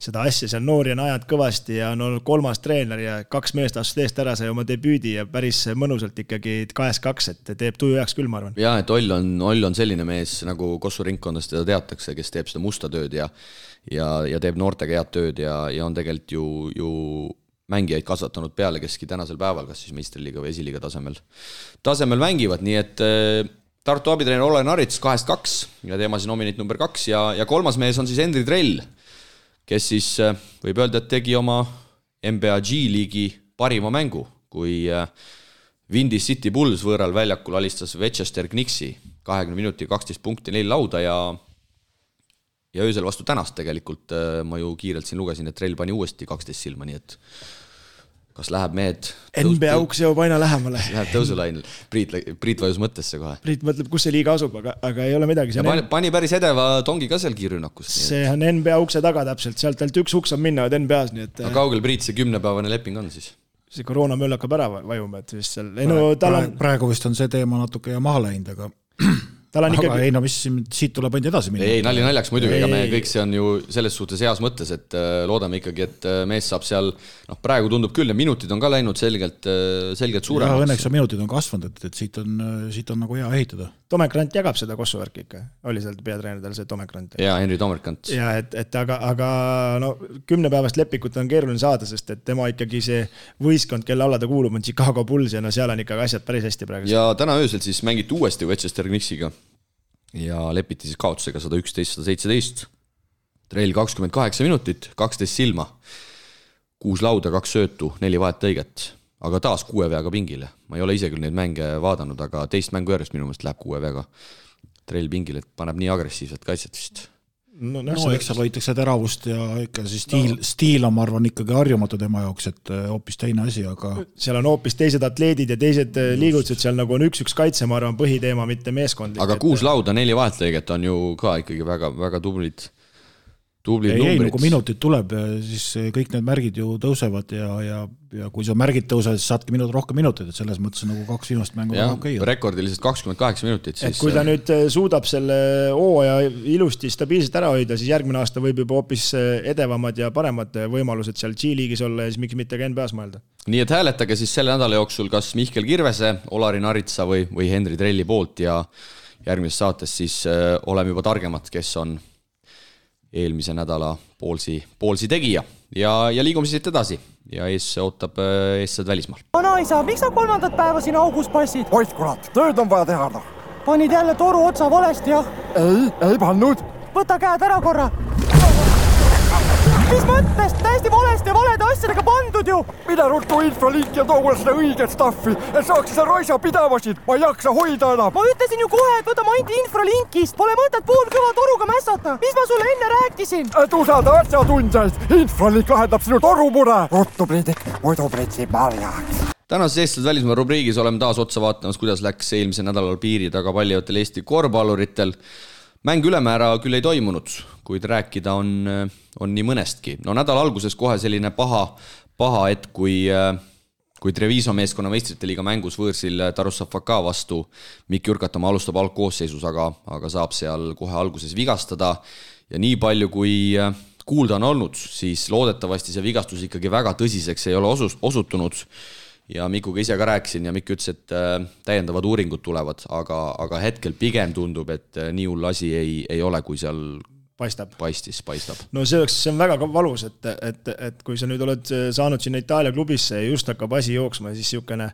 seda asja seal noori on ajad kõvasti ja on olnud 3. treener ja 2 meest astus eest ära, sai oma debüüdi ja päris mõnusalt ikkagi 2-2, et teeb tuju heaks küll, ma arvan.
Ja, et Oll on selline mees, nagu Kossu ringkondast teda teatakse, kes teeb seda musta tööd ja teeb noortega head tööd ja on tegelikult ju mängijaid kasvatanud peale, keski tänasel päeval, kas siis meistriliiga või esiliiga tasemel mängivad, nii et Tartu abitreener Olari Narits 2-2 ja teema siis nominit number 2 ja 3. mees on siis Henri Trell, kes siis võib öelda, et tegi oma NBA G-liigi parima mängu, kui Windy City Bulls võõral väljakul alistas Winchester Knicksi 20 minuti 12 punkti 4 lauda ja ja öösel vastu tänast tegelikult ma ju kiirelt siin lugesin, et Trell pani uuesti 12 silma, nii et kas läheb mehed
NBA uks jõuab aina lähemale.
Läheb tõusulainil. Priit vajus mõttesse kohe.
Priit mõtleb, kus see liiga asub, aga ei ole midagi.
Pani päris edeva tongi ka seal kiirrünnakus.
See on NBA ukse taga täpselt, sealt ainult üks uks on minna NBA-s. Nii et...
Aga kaugel Priit see 10-päevane leping on siis?
See koroona möll hakkab ära vajuma, et vist seal...
Praegu vist on see teema natuke maha läinud, aga... Aga ei, no mis siit tuleb ainult edasi minna.
Ei, naljaks muidugi, ega me kõik see on ju selles suhtes heas mõttes, et loodame ikkagi, et mees saab seal, praegu tundub küll, ja minutid on ka läinud selgelt suuremaks.
Ja õnneks minutid on kasvanud, et siit on nagu hea ehitada.
Tomek Rant jagab seda kossuvärki ikka, oli seal peatreenerdel see Tomek Rant.
Ja Henri Tomek Rant.
Ja, aga 10 päevast lepikut on keeruline saada, sest et tema ikkagi see võistkond, kelle alla ta kuulub, on Chicago Bulls ja seal on ikkagi asjad päris hästi praegu.
Ja täna öösel siis mängiti uuesti Westchester Knicksiga ja lepiti siis kaotusega 111-117. Trell 28 minutit, 12 silma, 6 lauda, 2 söötu, 4 vahettõiget, aga taas 6 veaga pingile. Ma ei ole ise küll neid mänge vaadanud, aga teist mängu järjest minu mõelest läheb 6 veaga Trell pingile, et paneb nii agressiivset kaitset vist.
No eks seal hoitakse teravust ja ikka see stiil on, ma arvan, ikkagi harjumatu tema jaoks, et hoopis teine asi, aga...
Seal on hoopis teised atleedid ja teised liigutused, seal nagu on üks kaitse, ma arvan, põhiteema, mitte meeskondlik.
Aga 6 lauda, 4 vahetlõiget on ju ka ikkagi väga, väga tublid numbrid.
Ei, kui minutid tuleb, siis kõik need märgid ju tõusevad ja kui sa märgid tõusevad, siis saadki rohkem minuteid, et selles mõttes nagu 2 viimast mängu väga okei.
Rekordiliselt 28 minutit.
Siis... Kui ta nüüd suudab selle hooaja ilusti stabiilselt ära hoida, siis järgmine aasta võib juba hoopis edevamad ja paremad võimalused seal G-liigis olla ja siis miks mitte ka NBA-s mõelda.
Nii et hääletage siis selle nädala jooksul kas Mihkel Kirvese, Olari Naritsa või Henri Trelli poolt ja järgmises saates siis oleme juba targemad, kes on eelmise nädala poolsi tegija ja liigume siit edasi ja ees ootab eessad välismaal.
Vanaisa, miks sa 3. päeva siin augus passid?
Oit kurat, tööd on vaja teha.
Panid jälle toru otsa valesti, jah?
Ei pannud.
Võta käed ära korra. Mis mõttes? Täiesti valesti ja valede asjadega pandud ju.
Mida ruttu infralink ja too seda õiget staffi, et saaks seda raisa pidavasid. Ma ei jaksa hoida enam.
Ma ütlesin ju kohe, et võta ainult infralinkist. Pole mõtet poolkõva toruga mässata. Mis ma sulle enne rääkisin?
Et usalda asjatundjaid. Infralink lahendab sinu torumure. Ruttu Priidik, muidu pritsib marjaks.
Tänases Eestlased välismaa rubriigis oleme taas otsa vaatamas, kuidas läks eelmise nädalal piiri taga paljatel Eesti korvpalluritel. Mäng ülemäära küll ei toimunud, kuid rääkida on nii mõnestki. No nädala alguses kohe selline paha et kui Treviso meeskonna meistrite liiga mängus võõrsil Tarussa FK vastu Mikk Jürkatamaa alustab algkoosseisus, aga saab seal kohe alguses vigastada ja nii palju kui kuulda on olnud, siis loodetavasti see vigastus ikkagi väga tõsiseks ei ole osutunud. Ja Mikuga ise ka rääkisin ja Mikk ütles, et täiendavad uuringud tulevad, aga hetkel pigem tundub, et nii hull asi ei ole, kui seal paistab.
No see on väga valus, et kui sa nüüd oled saanud sinna Itaalia klubisse ja just hakkab asi jooksma, siis niisugune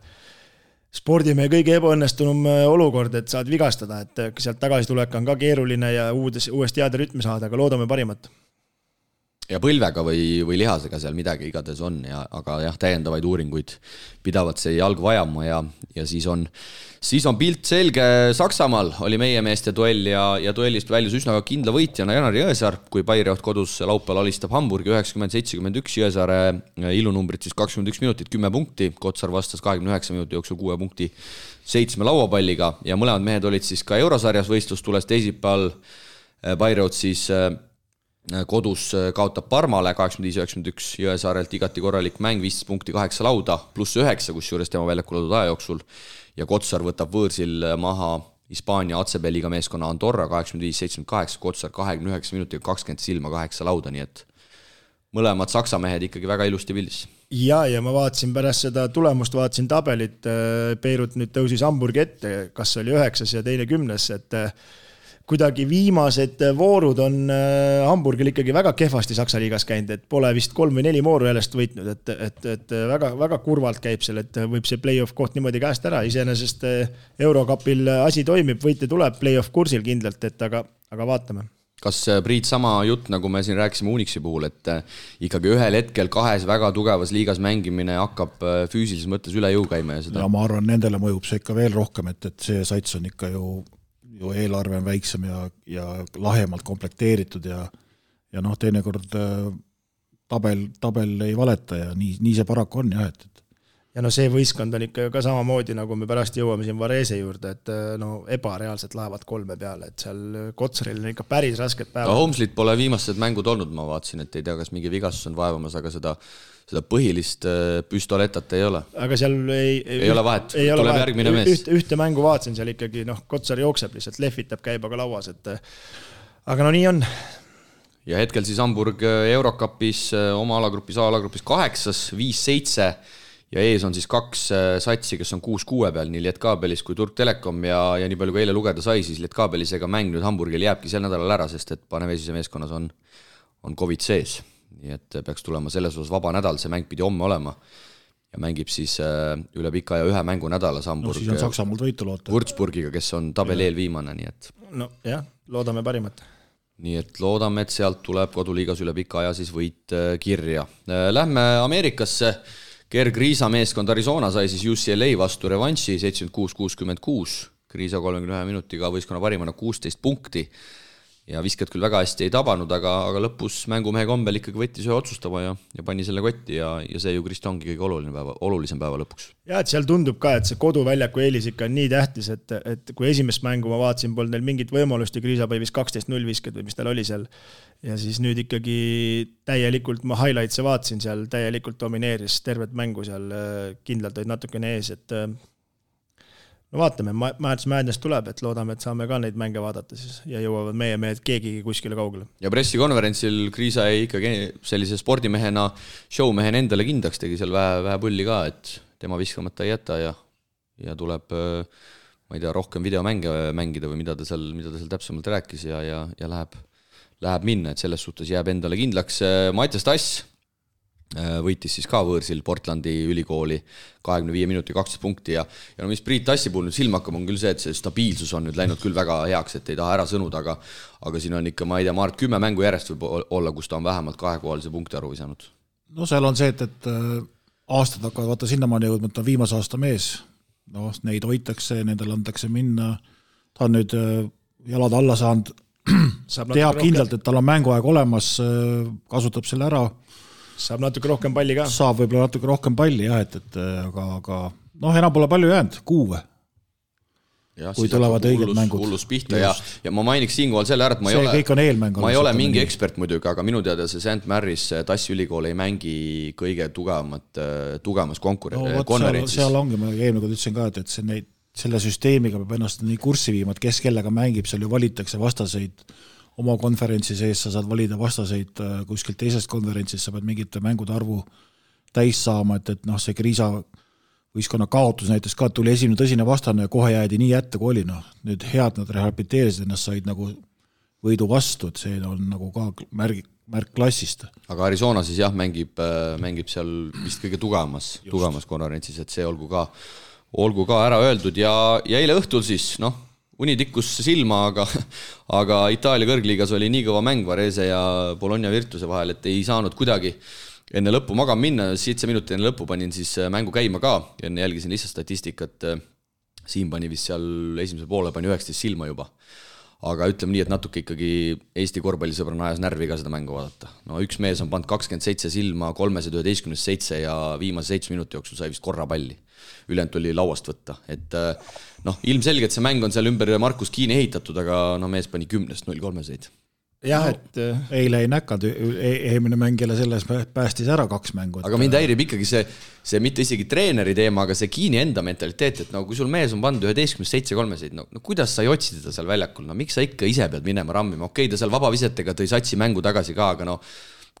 spordimehe kõige ebaõnnestunum olukord, et saad vigastada, et sealt tagasi tulek on ka keeruline ja uuesti heade rütmi saada, aga loodame parimat.
Ja põlvega või lihasega seal midagi igades on, aga jah, täiendavaid uuringuid pidavad see jalg vajama ja siis on pilt selge. Saksamaal oli meie meeste duell ja duellist väljus üsna kindla võitjana Janari Jõesaar, kui Bayreuth kodus laupäeval alistab Hamburgi 90-71, Jõesaare ilunumbrid siis 21 minutit, 10 punkti, Kotsar vastas 29 minuti jooksul 6 punkti 7 lauapalliga ja mõlemad mehed olid siis ka eurosarjas võistlustules teisipäeval. Bayreuth siis kodus kaotab Parmale 85-91, Jõesaarelt igati korralik mäng, 15 punkti 8 lauda, pluss 9, kus juures tema väljakul olnud aja jooksul ja Kotsar võtab võõrsil maha Hispaania ACB-liiga meeskonna Andorra 85-78, Kotsar 29 minutiga 20 silma 8 lauda, nii et mõlemad saksa mehed ikkagi väga ilusti pildis.
Ja ma vaatasin pärast seda tulemust, vaatasin tabelit, Beirut nüüd tõusis Hamburgi ette, kas oli 9 ja teine 10, et kuidagi viimased voorud on Hamburgil ikkagi väga kehvasti Saksa liigas käinud, et pole vist 3 või 4 vooru jäljest võitnud, et väga, väga kurvalt käib seal, et võib see play-off koht niimoodi käest ära, iseenesest Eurokapil asi toimib, võite tuleb play-off kursil kindlalt, aga vaatame.
Kas Priit sama jutt, nagu me siin rääkisime Unixi puhul, et ikkagi ühel hetkel 2 väga tugevas liigas mängimine hakkab füüsilises mõttes üle jõu käima ja seda?
Ja ma arvan, nendele mõjub see ikka veel rohkem, et see sats on ikka ju ju eelarve on väiksem ja lahemalt komplekteeritud ja noh, teinekord tabel ei valeta ja nii see paraku on jah, et
ja no see võistkond on ikka ka samamoodi, nagu me pärast jõuame siin Varese juurde, et no ebareaalselt lähevad 3 peale, et seal Kotsaril on ikka päris rasked päevad.
Holmeslit pole viimased mängud olnud, ma vaatasin, et ei tea, kas mingi vigastus on vaevamas, aga seda põhilist püstoletat ei ole.
Aga seal ei
ole vahet, tuleb järgmine mees.
Ühte mängu vaatasin seal ikkagi, Kotsar jookseb lihtsalt, lehvitab käibaga lauas, et aga no nii on.
Ja hetkel siis Hamburg Eurocupis oma alagrupis 8, 5-7 ja ees on siis 2 satsi, kes on 6-6 peal, nii Lietkabelis kui Turk Telekom ja nii palju kui eile lugeda sai, siis Lietkabelisega mäng nüüd Hamburgil jääbki sel nädalal ära, sest et Panevesise meeskonnas on COVID sees. Nii et peaks tulema selles osas vaba nädal, see mäng pidi homme olema ja mängib siis üle pika ja 1 mängu nädalas Hamburg.
No siis on Saksamaalt võitu loota.
Würzburgiga, kes on tabeli eelviimane, nii et...
No jah, loodame parimat.
Nii et loodame, et sealt tuleb koduliigas üle pika aja siis võit kirja. Lähme Ameerikasse. Gerg Riisa meeskond Arizona sai siis UCLA vastu revanši 76-66. Riisa 31 minutiga võistkonna parimana 16 punkti. Ja viskad küll väga hästi ei tabanud, aga lõpus mängumehe kombel ikkagi võttis ühe otsustama ja pani selle kotti ja see ju Krist ongi kõige olulisem päeva lõpuks.
Ja, et seal tundub ka, et see koduväljaku eelis ikka on nii tähtis, et kui esimest mängu ma vaatasin, polnud neil mingit võimalust ja Kriisa päivis 12-0 viskad või mis tal oli seal. Ja siis nüüd ikkagi täielikult, ma highlightse vaatasin seal, täielikult domineeris tervet mängu seal, kindlalt olid natukene ees, et no vaatame, Madness tuleb, et loodame, et saame ka neid mänge vaadata siis ja jõuavad meie mehed keegigi kuskile kaugele.
Ja pressikonverentsil Kriisa ei ikkagi sellise spordimehena, showmehena endale kindlaks tegi seal vähe pulli ka, et tema viskamata ei jäta ja tuleb, ma ei tea, rohkem videomänge mängida või mida ta seal täpsemalt rääkis ja läheb minna, et selles suhtes jääb endale kindlaks. Mattias Tass võitis siis ka võõrsil Portlandi ülikooli 25 minuti 12 punkti ja no mis Priit Tassi puhul nüüd silma hakkab on küll see, et see stabiilsus on nüüd läinud küll väga heaks, et ei taha ära sõnuda, aga siin on ikka, ma ei tea, Mart 10 mängu järjest võib olla, kus ta on vähemalt 2-kohalise punkti arvu visanud.
No seal on see, et aastad hakkavad vaata sinnamaani jõudma, et ta on viimase aasta mees, no neid hoitakse, nendel antakse minna, ta on nüüd jalad alla saanud, teab kindlalt, et tal on mänguaeg olemas, kasutab selle ära.
Saab natuke rohkem palli ka.
Saab võib-olla natuke rohkem palli, jah, aga noh, enam pole palju jäänud, 6.
Ja,
kui tulevad õiged mängud.
Hullus pihta ja ma mainiks siinkohal selle ära, et ma ei ole mingi ekspert muidugi, aga minu teada see St. Mary's Tassi ülikool ei mängi kõige tugevamas konverentsis.
Seal ongi, ma eelmine kord ütlesin ka, et selle süsteemiga peab ennast nii kurssi viima, et kes kellega mängib, seal ju valitakse vastaseid oma konverentsi sees, sa saad valida vastaseid kuskilt teisest konverentsis, sa pead mingite mängude arvu täis saama, et noh, see Kriisa võistkonna kaotus näiteks ka, tuli esimene tõsine vastane ja kohe jäädi nii jätta, kui oli. Nüüd head nad rehabiliteerisid ennast, said nagu võidu vastu, et see on nagu ka märk klassist.
Aga Arizona siis jah, mängib seal vist kõige tugevamas konverentsis, et see olgu ka ära öeldud ja eile õhtul siis, uni tikkus silma, aga Itaalia kõrgliigas oli nii kõva mäng Varese ja Bologna Virtuse vahel, et ei saanud kuidagi enne lõppu magama minna, 7 minutit enne lõppu panin siis mängu käima ka ja enne jälgisin lihtsalt statistikat, Siim pani vist seal esimesel poole pani 19 silma juba. Aga ütleme nii, et natuke ikkagi Eesti korvpallisõbrana ajas närvi ka seda mängu vaadata. No üks mees on pannud 27 silma 311-7 ja viimase 7 minuti jooksul sai vist korra palli. Ülejäänud oli lauast võtta. Et ilmselgelt see mäng on seal ümber Markus Kiini ehitatud, aga mees pani 10-0-3-seid.
Jah, et
eile ei näkanud, eelmine mängijale selles päästis ära 2 mängu.
Aga mind häirib ikkagi see mitte isegi treeneri teema, aga see Kiini enda mentaliteet, et kui sul mees on pandud 11-7-3-seid, kuidas sa ei otsi teda seal väljakul? Miks sa ikka ise pead minema rammima? Okei, ta seal vabavisetega tõi satsi mängu tagasi ka, aga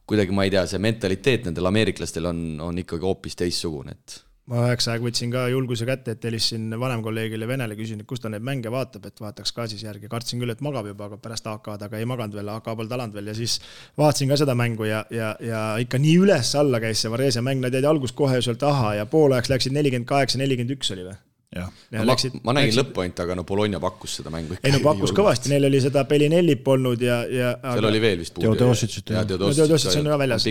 kuidagi ma ei tea, see mentaliteet nendel ameeriklastel on ikkagi hoopis teissugune, et
ma 9 aeg võtsin ka julguse kätte, et helisin vanem kolleegile Venele, küsin, et kus ta neid mänge vaatab, et vaataks ka siis järgi. Kartsin küll, et magab juba, aga pärast AK-d, aga ei maganud veel, AK pole talanud veel ja siis vaatasin ka seda mängu ja ikka nii üles alla käis see Varese mäng, nad jäid algus kohe sealt ja poolajaks läksid 48-41 oli või?
Ma nägin lõppoint, aga Bologna pakkus seda mängu.
Ei pakkus kõvasti, neil oli seda Pelinellit polnud ja
seal oli veel vist
puudu. Teodosic on ka väljas,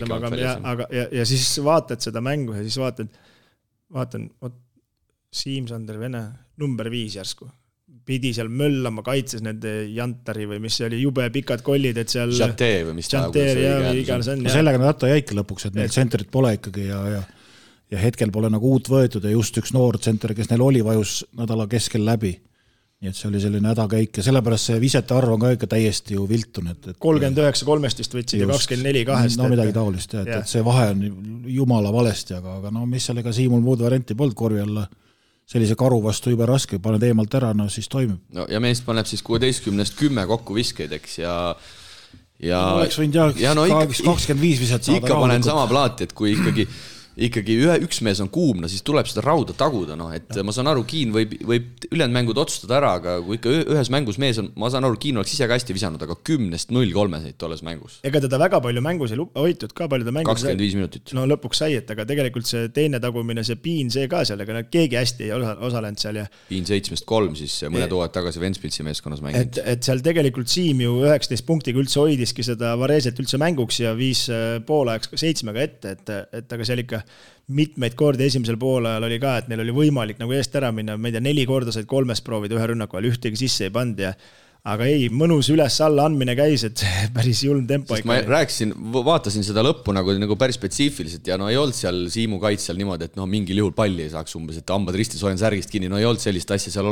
ja siis vaatad seda mängu ja siis vaatan, Siim-Sander Vene, number 5 järsku. pidi seal möllama, kaitses nende Jantari või mis see oli, jube pikad kollid, et seal
Janter või mis
Janter ja iganes on.
Sellega nad jäika lõpuks, et neil tsentrit pole ikkagi ja hetkel pole nagu uut võetud ja just üks noor tsenter, kes neil oli, vajus nädala keskel läbi. Nii et see oli selline hädakäik ja sellepärast see visete arv on ka ikka täiesti ju viltun.
39-3 võtsid ja 24-2.
No midagi taolist, et see vahe on jumala valesti, aga no mis sellega Siimul muud varianti polnud korvi alla. Sellise karu vastu juba raske, paned eemalt ära, no siis toimib.
No ja meest paneb siis 16-st 10 kokku viskeid, eks, ja
oleks võinud ja no 25 viset saada.
Ikka panen sama plaati, et kui ikkagi üks mees on kuum, no siis tuleb seda rauda taguda, no, et ma saan aru, Kiin võib ülejäänud mängud otsustada ära, aga kui ikka ühes mängus mees on, ma saan aru, Kiin oleks ise ka hästi visanud, aga 10-0-3 said tolles mängus.
Ega teda väga palju mängus ei hoitud ka, palju ta mängus
25 minutit.
No lõpuks sai, et aga tegelikult see teine tagumine, see Piin, see ka seal, aga keegi hästi ei osalenud seal.
Piin 7-3 siis mõned hooajad tagasi Ventspilsi meeskonnas mänginud.
Et seal tegelikult Siim ju 19 punktiga üldse hoidiski seda Vareset üldse mänguks ja 5 poolajaks 7 ette, et aga seal ikka mitmeid kordi esimesel poolajal oli ka, et neil oli võimalik nagu eest ära minna, ma ei tea, 4 korda said 3 proovida ühe rünnaku ajal, ühtegi sisse ei pand ja aga ei, mõnus üles-alla andmine käis, et päris julm tempo.
Sest ma rääkisin, vaatasin seda lõppu nagu päris spetsiifiliselt ja no ei olnud seal Siimu kaitsel niimoodi, et no mingil juhul palli ei saaks umbes, et hambad ristis hoian särgist kinni, no ei olnud sellist asja, seal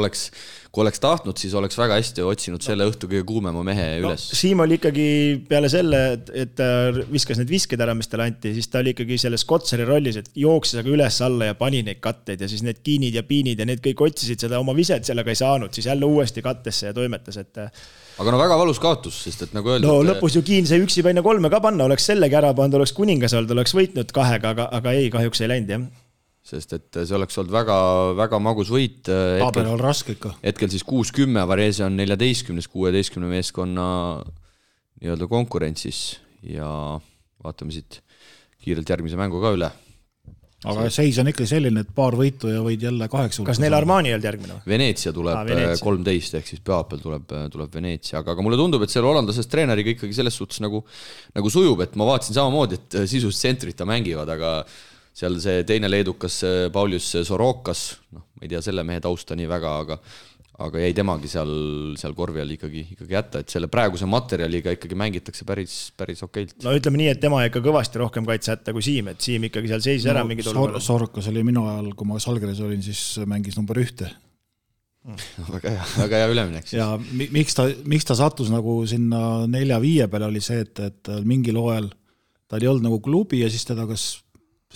kui oleks tahtnud, siis oleks väga hästi otsinud selle õhtu kõige kuumema mehe üles.
Siim oli ikkagi peale selle, et ta viskas need visked ära, mis talle anti, siis ta oli ikkagi selles Kotsari rollis, et jooksis aga üles-alla ja pani neid katteid ja siis need Kiinid ja Piinid ja need kõik otsisid seda oma viset, sellega ei saanud, siis jälle uuesti kattesse ja toimetas, et
aga no väga valus kaotus, sest et nagu öeldud...
No lõpus ju Kiin see üksi paina 3 ka panna, oleks sellegi ära pannud, oleks kuningas olnud, oleks võitnud 2, aga ei, kahjuks ei läinud, jah. Sest
et see oleks olnud väga, väga magus võit.
Tabel on raske ikka.
Hetkel siis 6-10, Varese on 14-16 meeskonna nii-öelda konkurentsis ja vaatame siit kiirelt järgmise mängu ka üle.
Aga seis on ikka selline, et paar võitu ja võid jälle 8.
Kas neil Armani ei olnud järgmine?
Veneetsia tuleb 13, ehk siis pühapäeval tuleb Veneetsia, aga mulle tundub, et selle hollandlasest treeneriga ikkagi selles suhtes nagu sujub, et ma vaatasin samamoodi, et sisust tsentrita mängivad, aga seal see teine leedukas Paulius Sorokas, no ma ei tea selle mehe tausta nii väga, aga jäi temagi seal korvi all ikkagi jätta, et selle praeguse materjaliga ikkagi mängitakse päris okeilt.
No ütleme nii, et tema ikka kõvasti rohkem kaitse jätta kui Siim, et Siim ikkagi seal seisis ära mingid olukorrad.
Sorokas oli minu ajal, kui ma Salgris olin, siis mängis number 1.
Väga hea üleminek.
Ja miks ta sattus nagu sinna 4-5 peale oli see, et mingil hooajal ta oli olnud nagu klubi ja siis teda kas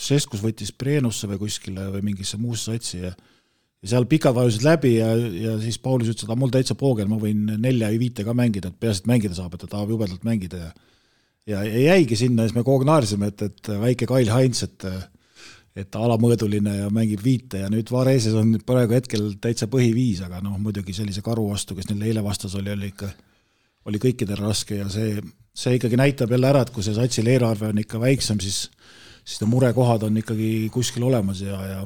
Seskus võttis Preenusse või kuskile või mingisse muusse satsi ja seal pikad vajusid läbi ja siis Paulus ütles, et mul täitsa poogel, ma võin 4-5 ka mängida, et peaasi, et mängida saab, et ta tahab jubedalt mängida ja jäigi sinna ja siis me kogu naarsime, et väike Kail Heinz, et alamõõduline ja mängib 5 ja nüüd Vareses on praegu hetkel täitsa põhi-5, aga noh, muidugi sellise karu vastu, kes neil eile vastas oli kõikidel raske ja see ikkagi näitab jälle ära, et kui see satsil eelarve on ikka väiksem, siis need murekohad on ikkagi kuskil olemas ja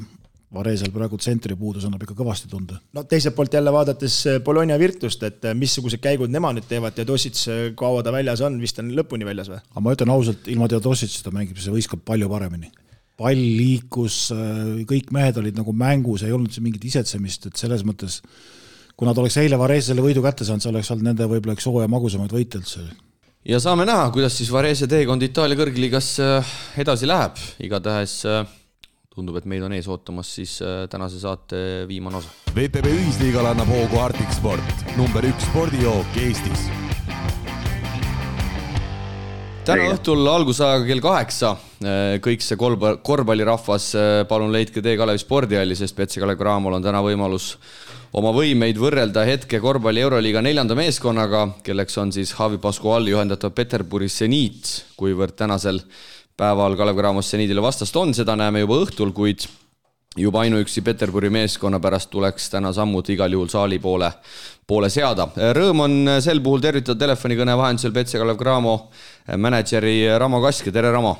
Varesel praegu tsentri puudus annab ikka kõvasti tunda.
No teiselt poolt jälle vaadates Bologna Virtust, et missugused käigud nemad nüüd teevad, Teodosic, kaua ta väljas on, vist on lõpuni väljas või?
Aga ma ütlen ausalt, ilma Teodosicita mängib see võistkond palju paremini. Pall liikus, kõik mehed olid nagu mängus, ei olnud see mingit isetsemist, et selles mõttes, kui nad oleks eile Varesele võidu kätte saanud, see oleks olnud nende võib-olla üks hooaja magusamaid võite üldse.
Ja saame näha, kuidas siis Varese teekond Itaalia kõrgliigas edasi läheb. Igatahes tundub, et meid on ees ootamas siis tänase saate viimane osa.
VTB ühisliigal annab hoogu Arctic Sport, number 1 spordijook Eestis.
Täna õhtul algusajaga kell 8. Kõik see korvpallirahvas, palun leidke tee Kalevi spordihalli, sest PC Kalev Cramol on täna võimalus oma võimeid võrrelda hetke korvpalli Euroliiga 4. meeskonnaga, kelleks on siis Javi Pascuali juhendatav Peterburi Zenit, kuivõrd tänasel päeval Kalev Cramos Zenitile vastast on, seda näeme juba õhtul, kuid juba ainuüksi Peterburi meeskonna pärast tuleks täna sammud igal juhul saali poole seada. Rõõm on sel puhul tervitada telefonikõne vahendusel PC Kalev Cramo mänedžeri Ramo Kaske. Tere, Ramo!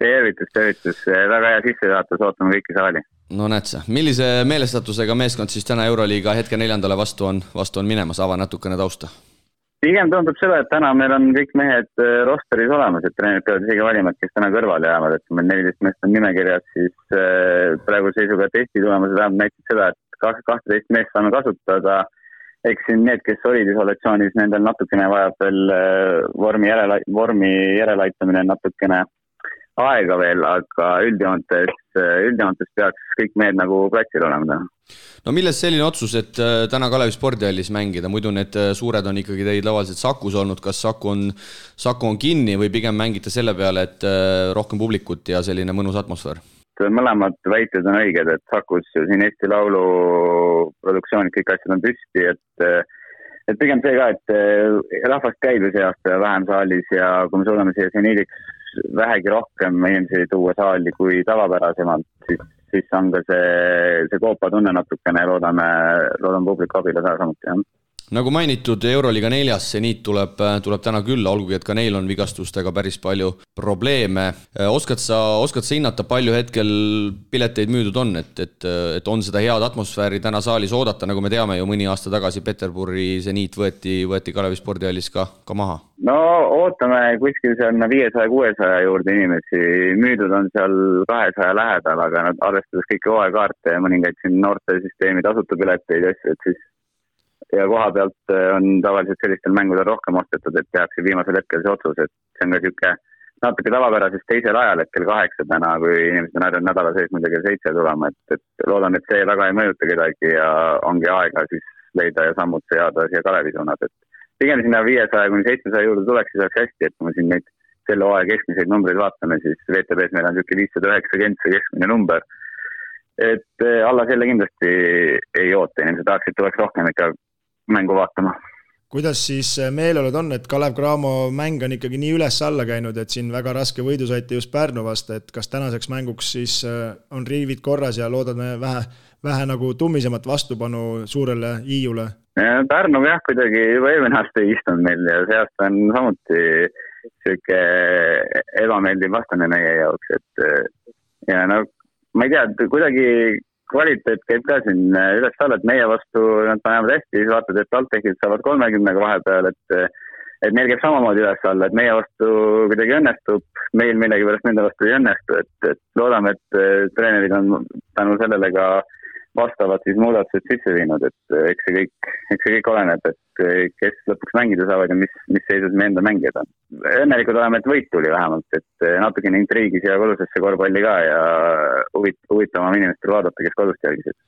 Tervitus. Väga hea sissejuhatus, ootame kõiki saali.
No näed sa, millise meelestatusega meeskond siis täna Euroliiga hetke 4. vastu on minemas? Ava natukene tausta.
Pigem tundub seda, et täna meil on kõik mehed rosteris olemas, et treenerid peavad isegi valima, kes täna kõrvale jäävad, et kui meil 14 meest on nimekirjas, siis praegu seisuga testi tulemused näitab seda, et 12 meest saame kasutada. Eks siin need, kes olid isolatsioonis, nendel natukene vajab veel vormi järelaitamine natukene aega veel, aga üldjoontes peaks kõik mehed nagu platsil olema.
No milles selline otsus, et täna Kalevi spordihallis mängida? Muidu need suured on ikkagi teid tavaliselt Sakus olnud. Kas Saku on kinni või pigem mängite selle peale, et rohkem publikut ja selline mõnus atmosfäär?
Mõlemad väited on õiged, et Sakus siin Eesti Laulu produktsioonid, kõik asjad on püsti, et pigem see ka, et rahvast käib see aasta vähem saalis ja kui me suudame siia seniiliks vähegi rohkem inimesi tuua saali kui tavapärasemalt, siis on ka see koopa tunne natukene ja loodame publiku abile samuti, jah.
Nagu mainitud, Euroliiga 4. seniit tuleb täna külla, olgugi et ka neil on vigastustega päris palju probleeme. Oskad sa hinnata, palju hetkel pileteid müüdud on, et on seda head atmosfääri täna saalis oodata, nagu me teame ju mõni aasta tagasi Peterburi seniit võeti Kalevi spordihallis ka maha?
No ootame kuskil seal 500-600 juurde inimesi, müüdud on seal 200 lähedal, aga nad arvestades kõiki hooaekaarte ja mõningaid siin noortesüsteemi tasuta pileteid, et siis ja koha pealt on tavaliselt sellistel mängudel rohkem ostetud, et tehakse viimasel hetkel see otsus, et see on ka siuke natuke tavapärasest teisel ajal, et kell 8 täna, kui inimesed on harjunud nädala sees muidugi kell 7 tulema, et loodan, et see väga ei mõjuta kedagi ja ongi aega siis leida ja sammud seada siia Kalevi suunad, et pigem sinna 500-700 juurde tuleks, siis oleks hästi, et kui me siin neid selle hooaja keskmiseid numbreid vaatame, siis VTBs meil on siuke 590 see keskmine number, et alla selle kindlasti ei oota, inimesed tahaksid, tuleks rohkem ikka mängu vaatama.
Kuidas siis meeleolud on, et Kalev Cramo mäng on ikkagi nii üles-alla käinud, et siin väga raske võidu saite just Pärnu vastu, et kas tänaseks mänguks siis on riivid korras ja loodame vähe nagu tummisemat vastupanu suurele Hiiule?
Pärnu jah, kuidagi juba eelmine aasta ei istunud meil ja see aasta on samuti siuke ebameeldiv vastane meie jaoks, et ja no ma ei tea, kuidagi kvaliteet käib ka siin üles-alla, et meie vastu nad panevad hästi, siis vaatad, et TalTechid saavad 30 vahepeal, et meil käib samamoodi üles-alla, et meie vastu kuidagi õnnestub, meil millegi pärast nende vastu ei õnnestu, et loodame, et treenerid on tänu sellele ka vastavad siis muudatused sisse viinud, et eks see kõik oleneb, et kes lõpuks mängida saavad ja mis seisus me enda mängijad on. Õnnelikud oleme, et võit tuli vähemalt, et natukene intriigis ja kodusesse korvpalli ka ja huvitavam inimestel vaadata, kes kodust jälgisid.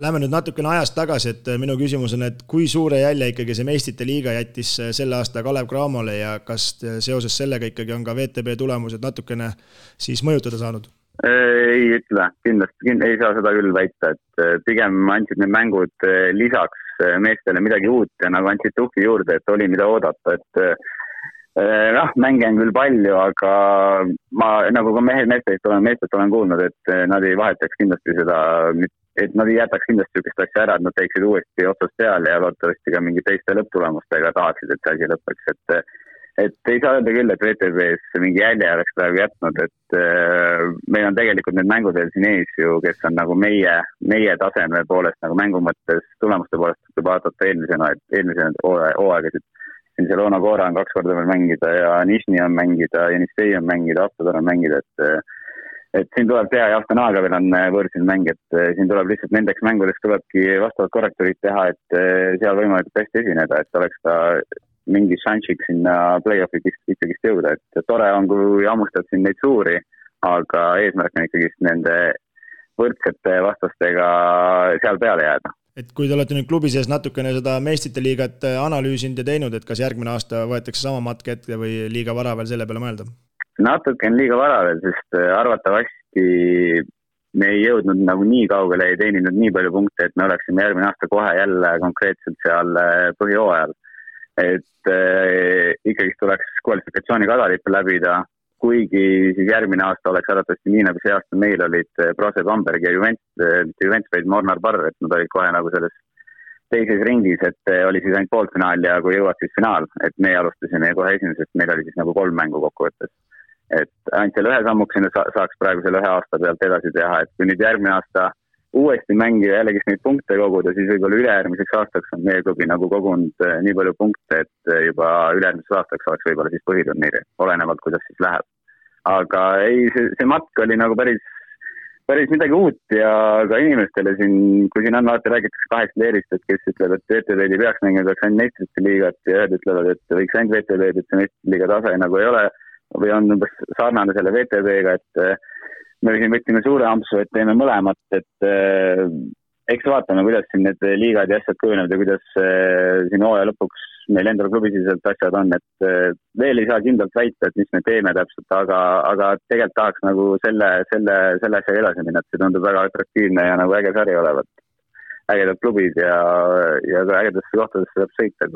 Lähme nüüd natukene ajast tagasi, et minu küsimus on, et kui suure jälje ikkagi see Meistrite liiga jättis selle aasta Kalev Cramole ja kas seoses sellega ikkagi on ka VTB tulemused natukene siis mõjutada saanud?
Ei ütle, kindlasti ei saa seda küll väita, et pigem andsid need mängud lisaks meestele midagi uut ja nagu andsid tuhki juurde, et oli mida oodata, et mänge on küll palju, aga ma nagu ka meestelt olen kuulnud, et nad ei vahetaks kindlasti seda, et nad ei jätaks kindlasti sükest asja ära, et nad teeksid uuesti otsast peale ja loodetavasti ka mingi teiste lõpptulemustega tahaksid, et see asi lõppeks, et ei saa öelda küll, et VTBs mingi jälje oleks praegu jätnud, et meil on tegelikult need mängud veel siin ees ju, kes on nagu meie taseme poolest nagu mängu mõttes, tulemuste poolest tuleb vaadata eelmise hooaegasid. Siin see Loona Koora on 2 korda veel mängida ja Nišni on mängida, Jenistei on mängida, Aptodor on mängida, et siin tuleb teha ja Astanaaga veel on võõrsil mäng, et siin tuleb lihtsalt nendeks mängudeks tulebki vastavad korrektorid teha, et seal võimalikult hästi esineda, et oleks ka mingi šansiks sinna play-off'i ikkagist jõuda, et tore on, kui hammustad siin neid suuri, aga eesmärk on ikkagist nende võrdsete vastastega seal peale jääda.
Et kui te olete nüüd klubi sees natukene seda Meistrite liigat analüüsinud ja teinud, et kas järgmine aasta võetakse sama matk ette või liiga vara veel selle peale mõelda?
Natuke on liiga vara veel, sest arvatavasti me ei jõudnud nagu nii kaugele, ei teeninud nii palju punkte, et me oleksime järgmine aasta kohe jälle konkreetselt seal põhihooajal. Et ikkagi tuleks kvalifikatsiooni kadalippe läbida, kuigi siis järgmine aasta oleks arvatavasti nii, nagu see aasta meil olid Brose Bamberg ja Juventus vaid Mornar Barr, et nad olid kohe nagu selles teises ringis, et oli siis ainult poolfinaal ja kui jõuad siis finaal, et me alustasime kohe esimesest, meil oli siis nagu 3 mängu kokkuvõttes. Et ainult selle ühe sammuksena saaks praegu selle 1 aasta pealt edasi teha, et kui nüüd järgmine aasta uuesti mängida jällegi neid punkte koguda, siis võib-olla ülejärgmiseks aastaks on meie klubi nagu kogunud nii palju punkte, et juba ülejärgmiseks aastaks oleks võib-olla siis põhiturniiri, olenevalt kuidas siis läheb. Aga ei, see matk oli nagu päris päris midagi uut ja ka inimestele siin, kui siin on alati räägitakse 8 leerist, et kes ütleb, et VTV-d ei peaks mängima, peaks ainult meistrite liigat ja ühed ütlevad, et võiks ainult VTV-d, et see meistrite liiga tase nagu ei ole või on umbes sarnane selle VTV-ga, et me siin võtsime suure ampsu, et teeme mõlemat, et eks vaatame, kuidas siin need liigad ja asjad kujunevad ja kuidas siin hooaja lõpuks meil endal klubisiselt asjad on, et veel ei saa kindlalt väita, et mis me teeme täpselt, aga tegelikult tahaks nagu selle asjaga edasi minna, et see tundub väga atraktiivne ja nagu äge sari olevat. Ägedad klubid ja ka ägedasse kohtadesse saab sõita,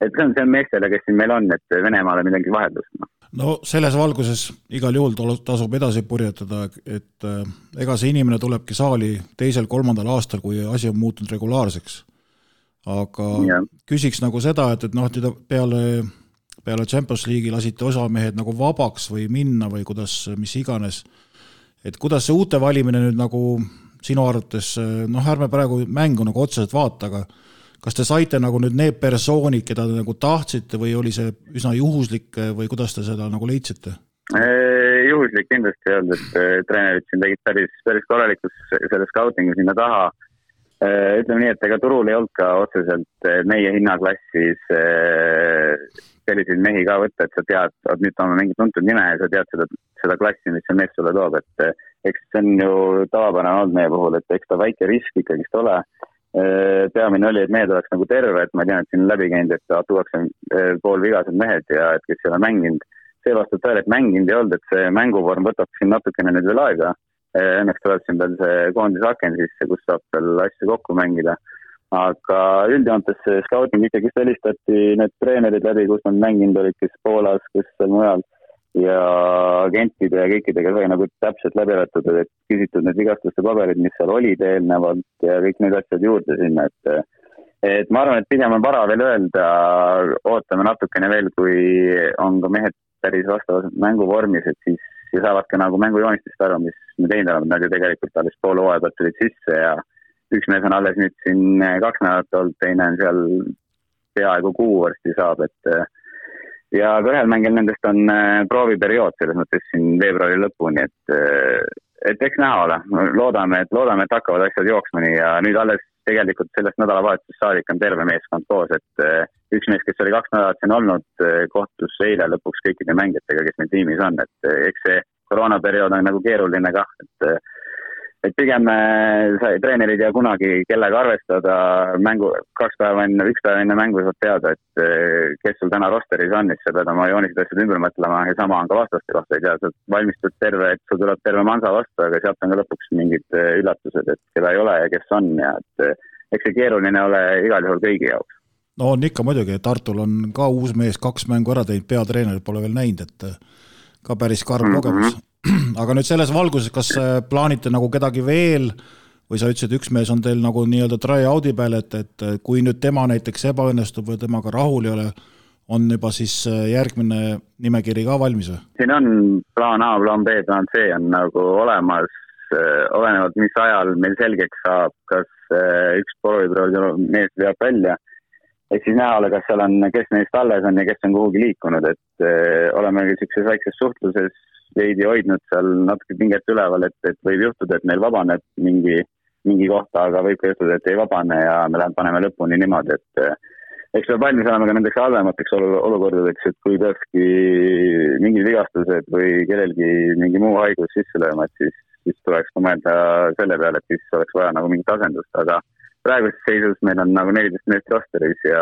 et see on meestele, kes siin meil on, et Venemaale midagi vaheldust.
No selles valguses igal juhul tasub edasi purjetada, et ega see inimene tulebki saali 2.-3. aastal, kui asi on muutunud regulaarseks. Aga küsiks nagu seda, et peale Champions League'i lasite osamehed nagu vabaks või minna või mis iganes. Et kuidas see uute valimine nüüd nagu sinu arvates, ärme praegu mängu nagu otseselt vaata, aga kas te saite nagu nüüd need persoonid, keda te nagu tahtsite või oli see üsna juhuslik või kuidas te seda nagu leidsite?
Juhuslik kindlasti ei olnud, et treenerid siin tegid päris korralikus selle scoutingu sinna taha. Ütleme nii, et ega turul ei olnud ka otseselt meie hinnaklassis selliseid mehi ka võtta, et sa tead, et nüüd on mingi tuntud nime ja sa tead seda klassi, mis see mees sulle toob, et eks see on ju tavapärane olnud meie puhul, et eks ta väike risk ikkagist ole. Peamine oli, et mehed oleks nagu terve, et ma tean, et siin on läbi käinud, et tuuakse poolvigased mehed ja et kes ei ole mänginud. See vastab tõele, et mänginud ei olnud, et see mänguvorm võtab siin natukene nüüd veel aega. Õnneks tuleb siin veel see koondisaken sisse, kus saab veel asju kokku mängida. Aga üldjoontes scouting ikkagi helistati need treenerid läbi, kus nad mänginud olid, kes Poolas, kes seal mujal ja agentide ja kõikidega sai nagu täpselt läbi arvatud, et küsitud need vigastuste paberid, mis seal olid eelnevalt ja kõik need asjad juurde sinna, et ma arvan, et pigem on vara veel öelda, ootame natukene veel, kui on ka mehed päris vastavas mänguvormis, et siis saavad ka nagu mängujoonistest aru, mis me teinud oleme, nad ju tegelikult alles pool hooaja pealt tulid sisse ja üks mees on alles nüüd siin 2 nädalat olnud, teine on seal peaaegu 6 varsti saab, ja ka ühel mängil nendest on prooviperiood selles mõttes siin veebruari lõpuni, et eks näha ole. Loodame, et hakkavad asjad jooksma nii ja nüüd alles tegelikult sellest nädalavahetusest saadik on terve meeskond koos, et üks mees, kes oli 2 nädalat siin olnud, kohtus eile lõpuks kõikide mängijatega, kes meil tiimis on, et eks see koroonaperiood on nagu keeruline kah, et pigem treenerid ja kunagi kellega arvestada mängu 1 päev enne mängu saab teada, et kes sul täna rosteris on, siis sa pead oma joonised asjad ümber mõtlema ja sama on ka vastaste kohta, ei tea, sa valmistud terve, et sul tuleb terve mansa vastu, aga sealt on ka lõpuks mingid üllatused, et keda ei ole ja kes on ja et eks see keeruline ole igal juhul kõigi jaoks.
No on ikka muidugi, Tartul on ka uus mees 2 mängu ära teinud, peatreenerid pole veel näinud, et ka päris karm kogemus. Aga nüüd selles valguses, kas plaanite nagu kedagi veel või sa ütlesid, üks mees on teil nagu nii-öelda try-out'i peal, et kui nüüd tema näiteks ebaõnnestub või temaga rahul ei ole, on juba siis järgmine nimekiri ka valmis või?
Siin on plaan A, plaan B, plaan C on nagu olemas, olenevalt mis ajal meil selgeks saab, kas üks prooviproov mees veab välja, et siis näha ole, kas seal on, kes neist alles on ja kes on kuhugi liikunud, et oleme sellises väikses suhtluses veidi hoidnud seal natuke pinget üleval, et võib juhtuda, et meil vabaneb mingi kohta, aga võib ka juhtuda, et ei vabane ja me paneme lõpuni niimoodi, et eks peab valmis olema ka nendeks halvemateks olukordadeks, et kui peakski mingid vigastused või kellelgi mingi muu haigus sisse lööma, et siis tuleks ka mõelda selle peale, et siis oleks vaja nagu mingit asendust, aga praeguses seisus meil on nagu 14 meest rosteris ja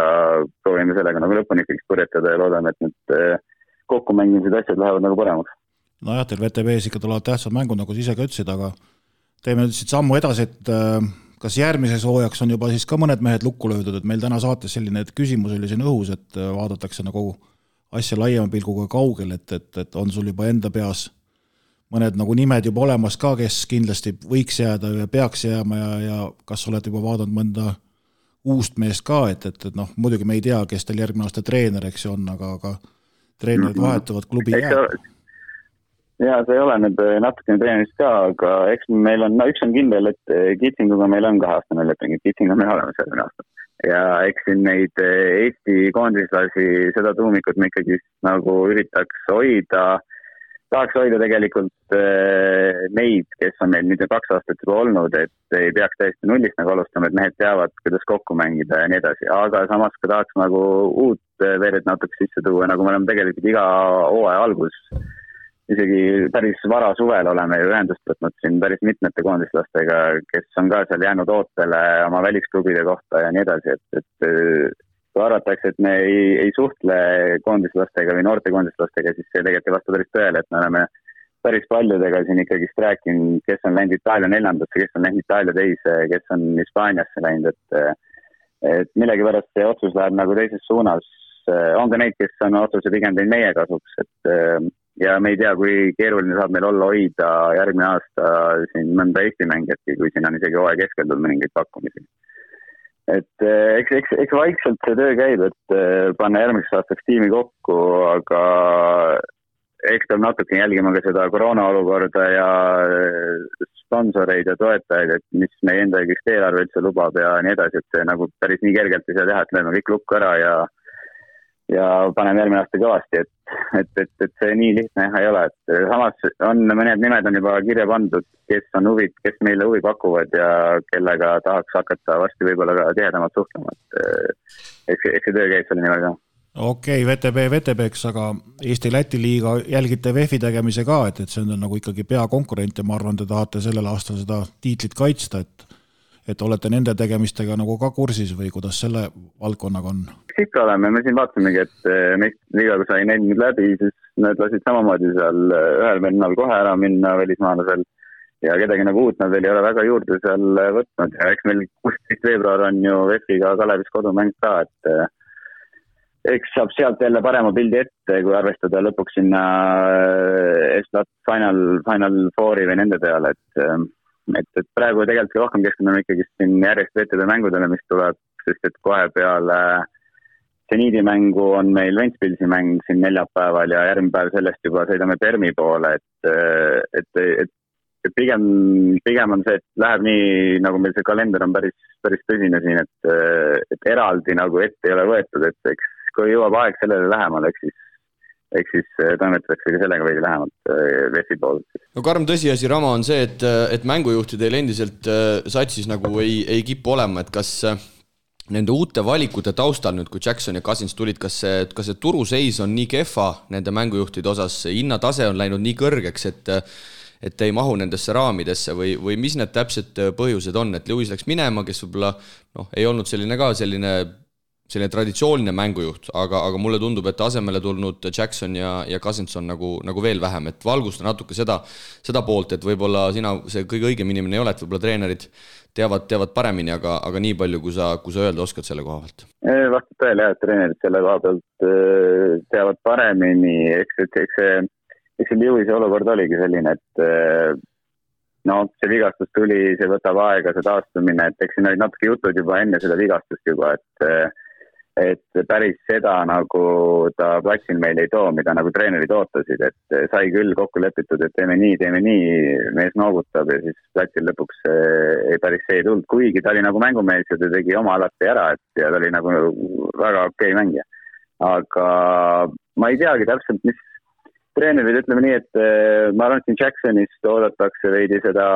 proovime sellega nagu lõpuni ikkagi purjetada ja loodame, et nüüd kokkumängimised asjad lähevad nagu paremaks.
Nojah, teil VTV-s ikka tulevad tähtsad mängud, nagu sa ise ka ütlesid, aga teeme nüüd siit sammu edasi, et kas järgmises hooajaks on juba siis ka mõned mehed lukku löödud, et meil täna saates selline küsimus oli siin õhus, et vaadatakse nagu asja laiema pilguga kaugel, et on sul juba enda peas mõned nagu nimed juba olemas ka, kes kindlasti võiks jääda ja peaks jääma ja kas oled juba vaadanud mõnda uust meest ka, et muidugi me ei tea, kes teil järgmine aasta treener, eks on, aga treenerid vahetuvad, klubi jääb.
Ja see ei ole nüüd natukene treenist ka, aga eks meil on, üks on kindel, et Kitsinguga meil on 2-aastane leping, et Kitsing on meil olemas järgmine aasta. Ja eks siin neid Eesti koondislasi, seda tuumikut me ikkagi nagu üritaks hoida. tahaks hoida tegelikult neid, kes on meil nüüd 2 aastat juba olnud, et ei peaks täiesti nullist nagu alustama, et mehed teavad, kuidas kokku mängida ja nii edasi, aga samas ka tahaks nagu uut veered natuke sisse tuua, nagu me oleme tegelikult iga hooaja algus, isegi päris vara suvel oleme ju ühendust võtnud siin päris mitmete koondislastega, kes on ka seal jäänud ootele oma välisklubide kohta ja nii edasi, et kui arvatakse, et me ei suhtle koondislastega või noorte koondislastega, siis see tegelikult ei vasta päris tõele, et me oleme päris paljudega siin ikkagist rääkinud, kes on läinud Itaalia 4. kes on läinud Itaalia 2, kes on Hispaaniasse läinud, et millegipärast see otsus läheb nagu teises suunas. On ka neid, kes on otsuse pigem teinud meie kasuks, ja me ei tea, kui keeruline saab meil olla hoida järgmine aasta siin mõnda Eesti mängijatki, kui siin on isegi hooaja keskel tulnud mõningaid pakkumisi. Et eks vaikselt see töö käib, et panna järgmiseks aastaks tiimi kokku, aga eks peab natuke jälgima ka seda koroona olukorda ja sponsoreid ja toetajaid, et mis meie enda eelarve üldse lubab ja nii edasi, et see nagu päris nii kergelt ei saa teha, et lööme kõik lukku ära ja paneme järgmine aasta kõvasti, et see nii lihtne ei ole, et samas on mõned nimed on juba kirja pandud, kes on huvid, kes meile huvi pakuvad ja kellega tahaks hakata varsti võib-olla ka tihedamalt suhtlema, et eks see töö käib selle nimel ka.
Okei, VTB-ks, aga Eesti-Läti liiga jälgite VEF-i tegemise ka, et see on nagu ikkagi peakonkurent ja ma arvan, te tahate sellel aastal seda tiitlit kaitsta, et olete nende tegemistega nagu ka kursis või kuidas selle valdkonnaga on?
Ikka oleme, me siin vaatamegi, et meist liiga kui sai neil läbi, siis nad lasid samamoodi seal ühel vennal kohe ära minna välismaalasel ja kedagi nagu uut nad veel ei ole väga juurde seal võtnud ja eks meil 16. veebruar on ju VEF-iga Kalevis kodumäng ka, et eks saab sealt jälle parema pildi ette, kui arvestada lõpuks sinna Estat Final Fouri või nende peale, et praegu tegelikult rohkem keskendume ikkagi siin järjest VTB mängudele, mis tuleb, sest et kohe peale seniidi mängu on meil Ventspilsi mäng siin neljapäeval ja järgmine päev sellest juba sõidame Permi poole, et pigem on see, et läheb nii, nagu meil see kalender on päris tõsine siin, et eraldi nagu ette ei ole võetud, et eks kui jõuab aeg sellele lähemale, eks siis toimetatakse ka sellega veidi lähemalt VEF-i poolt.
No karm tõsiasi, Rama, on see, et mängujuhtidel endiselt satsis nagu ei kipu olema, et kas nende uute valikute taustal nüüd, kui Jackson ja Cousins tulid, kas see turuseis on nii kehva nende mängujuhtide osas, hinnatase on läinud nii kõrgeks, et ei mahu nendesse raamidesse või mis need täpsed põhjused on, et Lewis läks minema, kes võib-olla ei olnud selline traditsiooniline mängujuht, aga mulle tundub, et asemele tulnud Jackson ja Cousins on nagu veel vähem, et valgusta natuke seda poolt, et võib-olla sina see kõige õigem inimene ei ole, et võib-olla treenerid teavad paremini, aga nii palju, kui sa öelda oskad selle koha pealt.
Vastab tõele, et treenerid selle koha pealt teavad paremini, eks see Lewisi olukord oligi selline, et see vigastus tuli, see võtab aega, see taastumine, et eks siin olid natuke jutud juba enne seda vigastust juba, et päris seda nagu ta platsil meil ei too, mida nagu treenerid ootasid, et sai küll kokku lepitud, et teeme nii, mees noogutab ja siis platsil lõpuks päris see ei tulnud, kuigi ta oli nagu mängumees ja ta tegi oma alati ära, et ja ta oli nagu väga okei mängija. Aga ma ei teagi täpselt, mis treenerid, ütleme nii, et ma arvan, et siin Jacksonist oodatakse veidi seda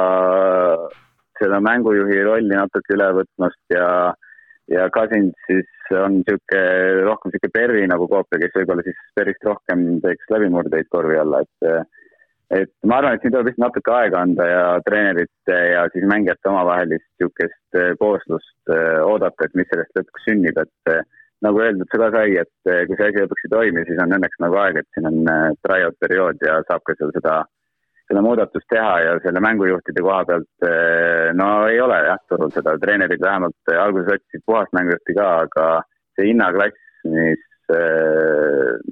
mängujuhi rolli natuke üle võtmast ja Cousins siis on rohkem Perri nagu koopia, kes võib-olla siis päris rohkem teeks läbimurdeid korvi alla, et ma arvan, et siin tuleb vist natuke aega anda ja treenerite ja siis mängijate omavahelist niisugust kooslust oodata, et mis sellest lõpuks sünnib, et nagu öeldud, see ka sai, et kui see asi lõpuks ei toimi, siis on õnneks nagu aeg, et siin on tryout periood ja saab ka seal seda muudatust teha ja selle mängujuhtide koha pealt ei ole turul seda, treenerid vähemalt alguses otsisid puhast mängujuhti ka, aga see hinnaklass,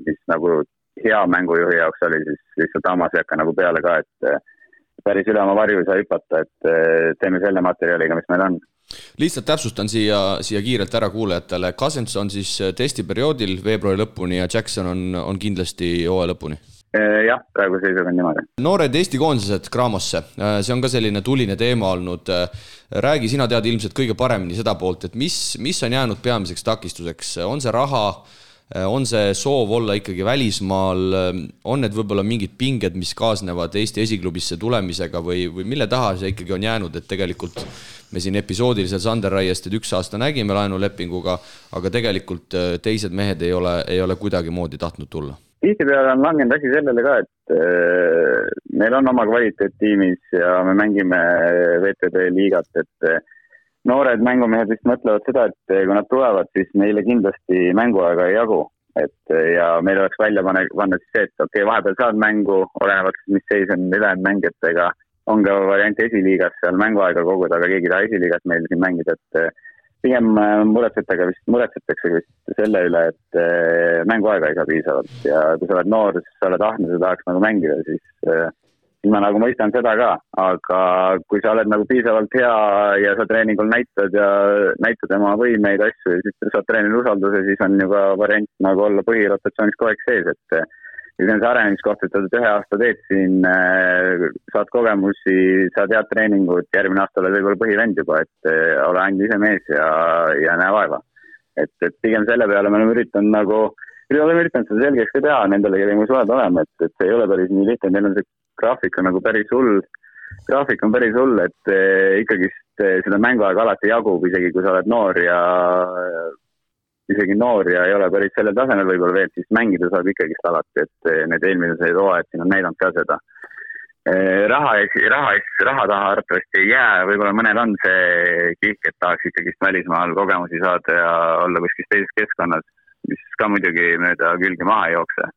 mis nagu hea mängujuhi jaoks oli, siis lihtsalt hammas ei hakka nagu peale ka, et päris üle oma varju ei saa hüpata, et teeme selle materjaliga, mis meil on.
Lihtsalt täpsustan siia kiirelt ära kuulajatele, Cousins on siis testiperioodil veebruari lõpuni ja Jackson on kindlasti hooaja lõpuni.
Jah, praegu seisuga on niimoodi.
Noored Eesti koondised Craamosse, see on ka selline tuline teema olnud. Räägi, sina tead ilmselt kõige paremini seda poolt, et mis on jäänud peamiseks takistuseks? On see raha, on see soov olla ikkagi välismaal, on need võib-olla mingid pinged, mis kaasnevad Eesti esiklubisse tulemisega või mille taha see ikkagi on jäänud, et tegelikult me siin episoodiliselt Sander Raiest 1 aasta nägime laenulepinguga, aga tegelikult teised mehed ei ole kuidagi moodi tahtnud tulla.
Tihtipeale on langenud asi sellele ka, et meil on oma kvaliteettiimis ja me mängime VTB liigat, et noored mängumehed vist mõtlevad seda, et kui nad tulevad, siis neile kindlasti mänguaega ei jagu. Ja meil oleks välja panna siis see, et okei, vahepeal saad mängu, olenevalt mis seis on ülejäänud mängijatega, on ka variant esiliigas seal mänguaega koguda, aga keegi taha esiliigas meil siin mängida, et pigem muretsetakse vist selle üle, et mänguaega ei saa piisavalt ja kui sa oled noor, siis sa oled ahne, sa tahaks nagu mängida, siis ma nagu mõistan seda ka, aga kui sa oled nagu piisavalt hea ja sa treeningul näitad oma võimeid asju ja siis saad treenil usalduse, siis on ju ka variant nagu olla põhirotatsioonis kogu aeg sees, et see on see arenemiskoht, et 1 aasta teed siin, saad kogemusi, saad head treeningut, järgmine aasta oled võib-olla põhivend juba, et ole ainult ise mees ja näe vaeva. Et pigem selle peale me oleme üritanud seda selgeks ka teha nendele, kellega me suhelda oleme, et see ei ole päris nii lihtne, neil on see graafik on nagu päris hull, et ikkagi seda mänguaega alati jagub, isegi kui sa oled noor ja ei ole päris sellel tasemel võib-olla veel, siis mängida saab ikkagist alati, et need eelmised hooajad siin on näidanud ka seda. Raha taha arvatavasti ei jää, võib-olla mõnel on see kihk, et tahaks ikkagist välismaal kogemusi saada ja olla kuskil teises keskkonnas, mis ka muidugi mööda külgi maha ei jookse.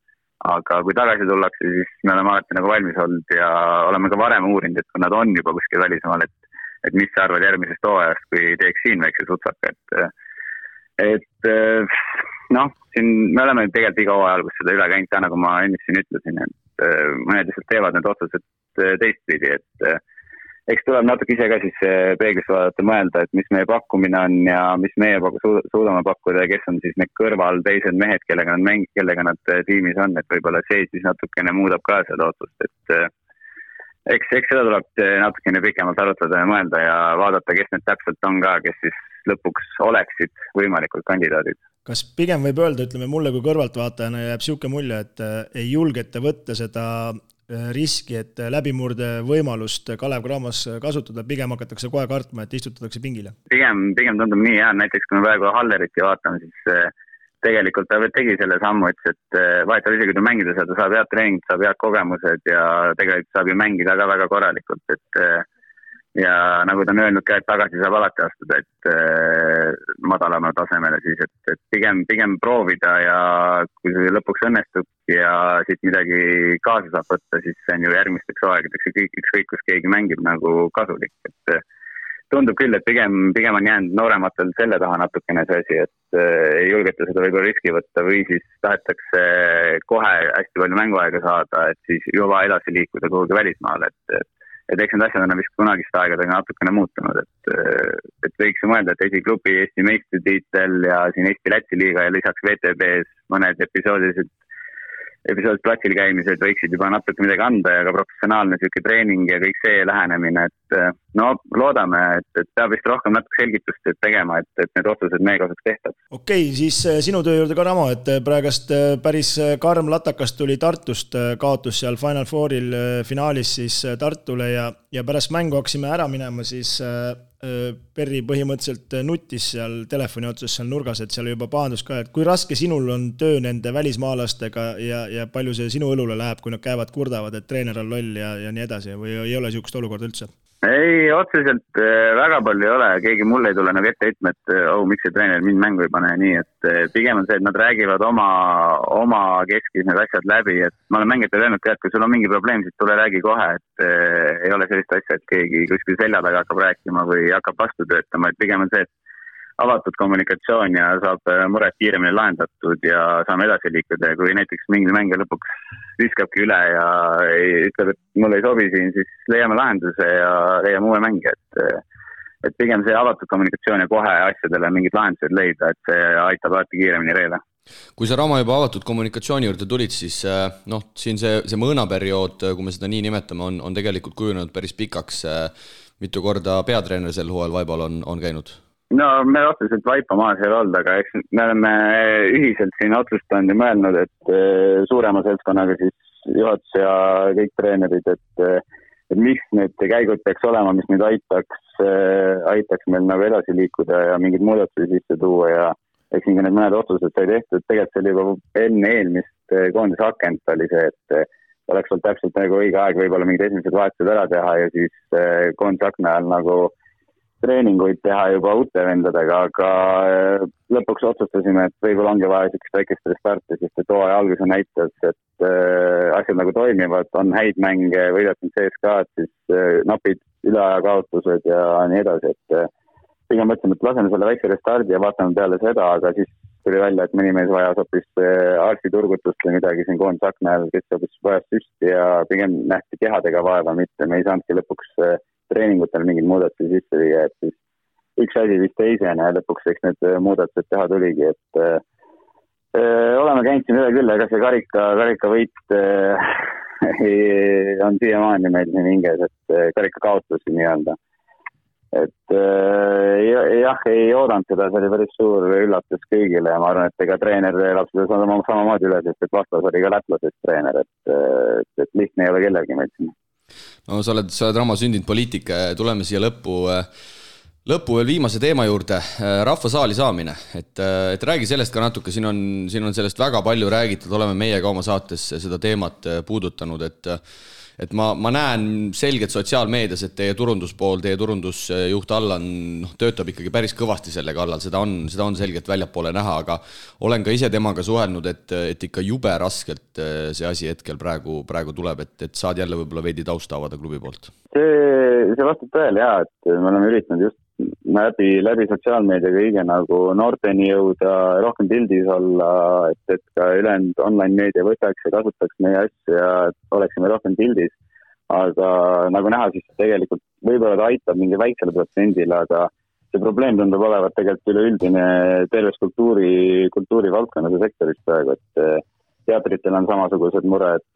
Aga kui tagasi tullakse, siis me oleme alati nagu valmis olnud ja oleme ka varem uurinud, et kui nad on juba kuskil välismaal, et mis sa arvad järgmisest hooajast, kui teeks siin väikse sutsaka, siin me oleme tegelikult iga hooaja alguses seda üle käinud, nagu ma ennist siin ütlesin, et mõned lihtsalt teevad need otsused teistpidi, et eks tuleb natuke ise ka siis peeglis vaadata mõelda, et mis meie pakkumine on ja mis meie suudame pakkuda ja kes on siis need kõrval teised mehed, kellega nad tiimis on, et võib-olla see siis natukene muudab ka seda otsust, et eks seda tuleb natukene pikemalt arutada ja mõelda ja vaadata, kes need täpselt on ka, kes siis lõpuks oleksid võimalikud kandidaadid.
Kas pigem võib öelda, ütleme mulle kui kõrvaltvaatajana jääb siuke mulje, et ei julgete võtta seda riski, et läbimurde võimalust Kalev Cramos kasutada, pigem hakatakse kohe kartma, et istutatakse pingile?
Pigem tundub nii, jah, näiteks kui me praegu Halleriti vaatame, siis tegelikult ta tegi selle sammu, et vahetab isegi kui mängida seda, saab head treeningud, saab head kogemused ja tegelikult saab ju mängida ka väga korralikult, et ja nagu ta on öelnud ka, et tagasi saab alati astuda, et madalama tasemele siis, et pigem proovida ja kui see lõpuks õnnestub ja siit midagi kaasa saab võtta, siis see on ju järgmisteks aegadeks ükskõik, kus keegi mängib nagu kasulik, et tundub küll, et pigem on jäänud noorematel selle taha natukene see asi, et ei julgeta seda võib-olla riski võtta või siis tahetakse kohe hästi palju mänguaega saada, et siis juba edasi liikuda kuhugi välismaale, et eks need asjad on vist kunagist aegadega natukene muutunud, et võiks ju mõelda, et esiklubi Eesti meistritiitel ja siin Eesti-Läti liiga ja lisaks VTB-s mõned episoodid platsil käimised võiksid juba natuke midagi anda ja ka professionaalne selline treening ja kõik see lähenemine, et loodame, et peab vist rohkem natuke selgitust tegema, et need otsused meie kasuks tehtab.
Okei, siis sinu töö juurde ka Ramo, et praegast päris karm latakas tuli Tartust, kaotus seal Final Fouril finaalis siis Tartule ja pärast mängu hakkasime ära minema, siis Perri põhimõtteliselt nutis seal telefoni otsas seal nurgas, et seal juba pahandus ka, et kui raske sinul on töö nende välismaalastega ja palju see sinu õlule läheb, kui nad käivad kurdavad, et treener on loll ja nii edasi või ei ole niisugust olukorda üldse?
Ei, otseselt väga palju ei ole, keegi mulle ei tule nagu ette ütlema, et miks see treener mind mängu ei pane nii, et pigem on see, et nad räägivad oma keskis need asjad läbi, et ma olen mängijatele öelnud ka, et kui sul on mingi probleem, siis tule räägi kohe, et ei ole sellist asja, et keegi kuskil selja taga hakkab rääkima või hakkab vastu töötama, et pigem on see, et avatud kommunikatsioon ja saab mured kiiremini lahendatud ja saame edasi liikuda ja kui näiteks mingi mängija lõpuks viskabki üle ja ütleb, et mulle ei sobi siin, siis leiame lahenduse ja leiame uue mängija, et pigem see avatud kommunikatsioon ja kohe asjadele mingid lahendused leida, et see aitab alati kiiremini reele.
Kui sa Ramo juba avatud kommunikatsiooni juurde tulid, siis siin see mõõnaperiood, kui me seda nii nimetame, on tegelikult kujunenud päris pikaks. Mitu korda peatreener sel hooajal Vaibal on käinud?
No me otseselt vaipa maas ei olnud, aga eks me oleme ühiselt siin otsustanud ja mõelnud, et suurema seltskonnaga siis juhatus ja kõik treenerid, et mis need käigud peaks olema, mis nüüd aitaks meil nagu edasi liikuda ja mingid muudatusi sisse tuua ja eks nii need mõned otsused sai tehtud. Tegelikult see oli juba enne eelmist koondise akent oli see, et oleks olnud täpselt nagu õige aeg võib-olla mingid esimesed vahetused ära teha ja siis koondise akna ajal nagu treeninguid teha juba uute vendadega, aga lõpuks otsustasime, et võib-olla ongi vaja sellist väikest restarti, sest et hooaja alguse näitas, et asjad nagu toimivad, on häid mänge, võidetud CSKA-d, siis napid üleaja kaotused ja nii edasi, et pigem mõtlesime, et laseme selle väikse restardi ja vaatame peale seda, aga siis tuli välja, et mõni mees vajas hoopis arstiturgutust või midagi siin koondise akna ajal, kes hoopis vajas süsti ja pigem nähti kehadega vaeva, mitte me ei saanudki lõpuks treeningutel mingid muudatusi sisse viia, et siis üks asi vist teisena ja lõpuks eks need muudatused teha tuligi, et oleme käinud siin üle küll, aga see karika võit on siiamaani meil siin hinges, et karika kaotusi nii-öelda. Et jah, ei oodanud seda, see oli päris suur üllatus kõigile ja ma arvan, et ega treener elab seda samamoodi üle, sest et vastas oli ka lätlasest treener, et lihtne ei ole kellelgi meil siin.
No sa oled Ramo sündinud poliitik, tuleme siia lõppu veel viimase teema juurde, rahvasaali saamine, et räägi sellest ka natuke, siin on sellest väga palju räägitud, oleme meie ka oma saates seda teemat puudutanud, et ma näen selgelt sotsiaalmeedias, et teie turunduspool, teie turundusjuht Allan töötab ikkagi päris kõvasti selle kallal, seda on selgelt väljapoole näha, aga olen ka ise temaga suhelnud, et ikka jube raskelt see asi hetkel praegu tuleb, et saad jälle võib-olla veidi tausta avada klubi poolt.
See vastab tõele jah, et me oleme üritanud just läbi sotsiaalmeedia kõige nagu noorteni jõuda, rohkem pildis olla, et ka ülejäänud online-meedia võtaks ja kasutaks meie asju ja oleksime rohkem pildis. Aga nagu näha, siis tegelikult võib-olla ta aitab mingi väiksele protsendile, aga see probleem tundub olevat tegelikult üleüldine terves kultuuri valdkonnas ja sektoris praegu, et teatritel on samasugused mured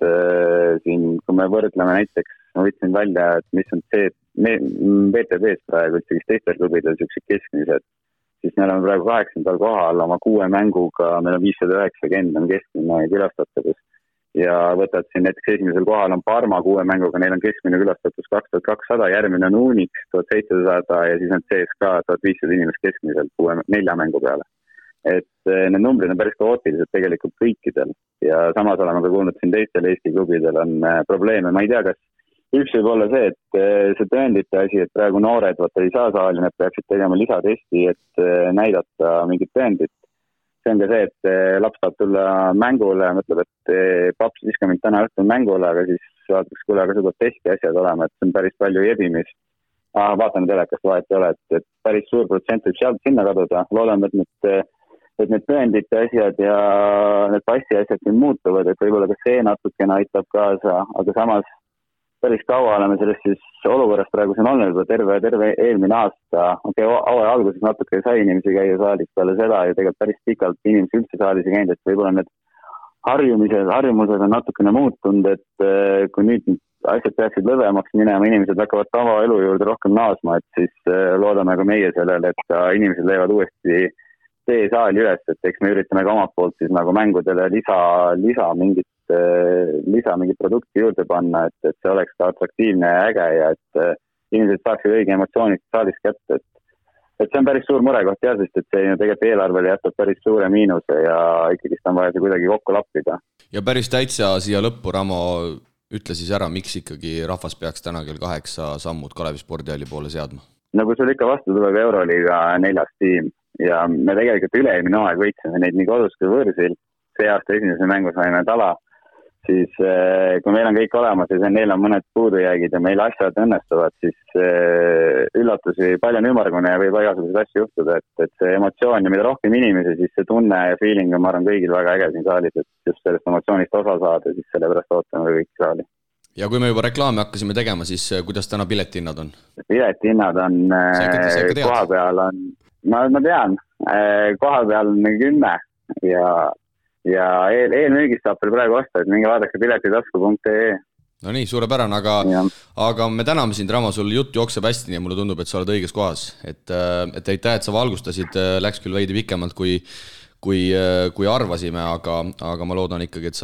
siin, kui me võrdleme näiteks, ma võtsin välja, et mis on see BTB-s praegu, et teistel klubidel sellised keskmised, siis me oleme praegu 8. kohal oma 6 mänguga, meil on 590 on keskmine külastatavus ja võtad siin näiteks esimesel kohal on Parma 6 mänguga, neil on keskmine külastatus 2200, järgmine on Unix 1700 ja siis on CSKA 1500 inimest keskmiselt 4 mängu peale. Et need numbrid on päris kaootilised tegelikult kõikidel ja samas oleme ka kuulnud siin teistel Eesti klubidel on probleeme, ma ei tea, kas üks võib olla see, et see tõendite asi, et praegu noored ei saa saali, need peaksid tegema lisatesti, et näidata mingit tõendit. See on ka see, et laps saab tulla mängule, mõtleb, et paps viska mind täna õhtul mängule, aga siis vaataks, kuule, aga seda testi asjad olema, et see on päris palju jebimist. Vaatame telekast vahet ei ole, et päris suur protsent võib sealt sinna kaduda. Loodame, et need tõendite asjad ja need passi asjad siin muutuvad, et võib-olla ka see natukene aitab kaasa, aga samas päris kaua oleme sellest siis olukorrast praegu siin olnud juba terve eelmine aasta. Hooaja alguses natuke sai inimesi käia saalis peale seda ja tegelikult päris pikalt inimesi üldse saalis ei käinud, et võib-olla need harjumused on natukene muutunud, et kui nüüd asjad peaksid lõdvemaks minema, inimesed hakkavad tavaelu juurde rohkem naasma, et siis loodame ka meie sellele, et ka inimesed leiavad uuesti tee saali üles, et eks me üritame ka omalt poolt siis nagu mängudele lisa mingit produkti juurde panna, et see oleks ka atraktiivne ja äge ja et inimesed saaksid õige emotsioonid saalis kätte, et see on päris suur murekoht jah, sest et see tegelikult eelarvele jätab päris suure miinuse ja ikkagi on vaja see kuidagi kokku lappida.
Ja päris täitsa siia lõppu, Ramo, ütle siis ära, miks ikkagi rahvas peaks täna kell 8 sammud Kalevi spordihalli poole seadma?
Nagu sul ikka vastu tuleb Euroliiga 4. tiim ja me tegelikult üle-eelmine aeg võitsime neid nii kodus kui võõrsil. See aasta esimese mängu saime tala, siis kui meil on kõik olemas ja neil on mõned puudujäägid ja meil asjad õnnestuvad, siis üllatusi palju on ümmargune ja võib igasuguseid asju juhtuda, et see emotsioon ja mida rohkem inimesi, siis see tunne ja feeling on, ma arvan, kõigil väga äge siin saalis, et just sellest emotsioonist osa saada, siis sellepärast ootame kõik saali. Ja
kui me juba reklaami hakkasime tegema, siis kuidas täna piletihinnad on?
Piletihinnad on koha peal on, ma tean, koha peal on 10 ja eelmüügist saab veel praegu osta, et minge vaadake piletitasku.ee.
No nii, suurepärane, aga me täname sind, Ramo, sul jutt jookseb hästi, nii mulle tundub, et sa oled õiges kohas. Et aitäh, et sa valgustasid, läks küll veidi pikemalt kui arvasime, aga ma loodan ikkagi, et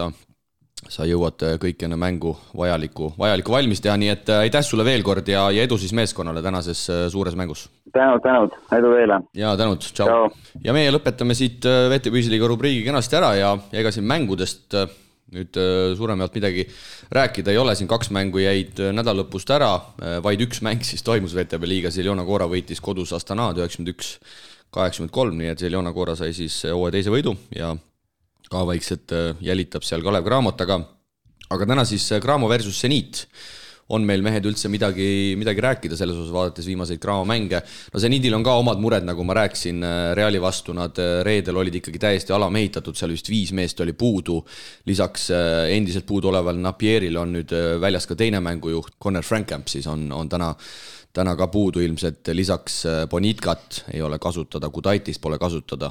sa jõuad kõik enne mängu vajalikku valmis teha, nii et aitäh sulle veel kord ja edu siis meeskonnale tänases suures mängus.
Tänud, edu teile.
Ja tänud, tšau. Ja meie lõpetame siit VT Püsiliiga rubriigi kenasti ära ja ega siin mängudest nüüd suuremalt midagi rääkida ei ole, siin 2 mängu jäid nädallõpust ära, vaid 1 mäng siis toimus VTB liigas, Zeljona Gora võitis kodus Astanaad 91-83, nii et Zeljona Gora sai siis hooaja teise võidu ja ka vaikselt jälitab seal Kalev Cramot, aga täna siis Cramo versus Zenit on meil mehed üldse midagi rääkida selles osas, vaadates viimaseid Cramo mänge. No Zenidil on ka omad mured, nagu ma rääkisin, Reali vastu nad reedel olid ikkagi täiesti alamehitatud, seal vist 5 meest oli puudu, lisaks endiselt puudu oleval Napieril on nüüd väljas ka teine mängujuht, Conor Frankamp siis on täna ka puudu ilmselt, lisaks Bonitkat ei ole kasutada, Kudaitist pole kasutada.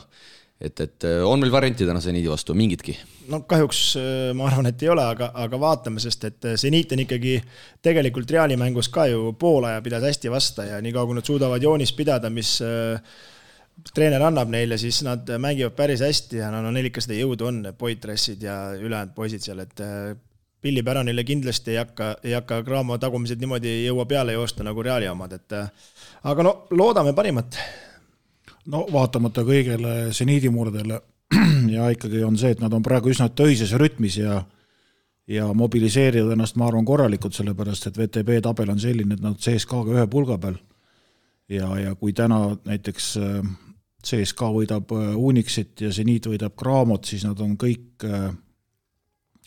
Et on meil varianti täna Zenidi vastu, mingitki?
No kahjuks ma arvan, et ei ole, aga vaatame, sest et Zenit on ikkagi tegelikult Reali mängus ka ju poolaja pidas hästi vasta ja nii kui nad suudavad joonist pidada, mis treener annab neile, siis nad mängivad päris hästi ja neil ikka seda jõudu on, Poitressid ja ülejäänud poisid seal, et Pilli Päranile kindlasti ei hakka Cramo tagumised niimoodi jõua peale joosta nagu Reali omad, aga loodame parimat.
No vaatamata kõigele Zenidi murdele ja ikkagi on see, et nad on praegu üsna töises rütmis ja mobiliseerivad ennast, ma arvan, korralikult, sellepärast, et VTB tabel on selline, et nad CSKA-ga 1 pulga peal ja kui täna näiteks CSKA võidab Unixit ja Zenit võidab Cramot, siis nad on kõik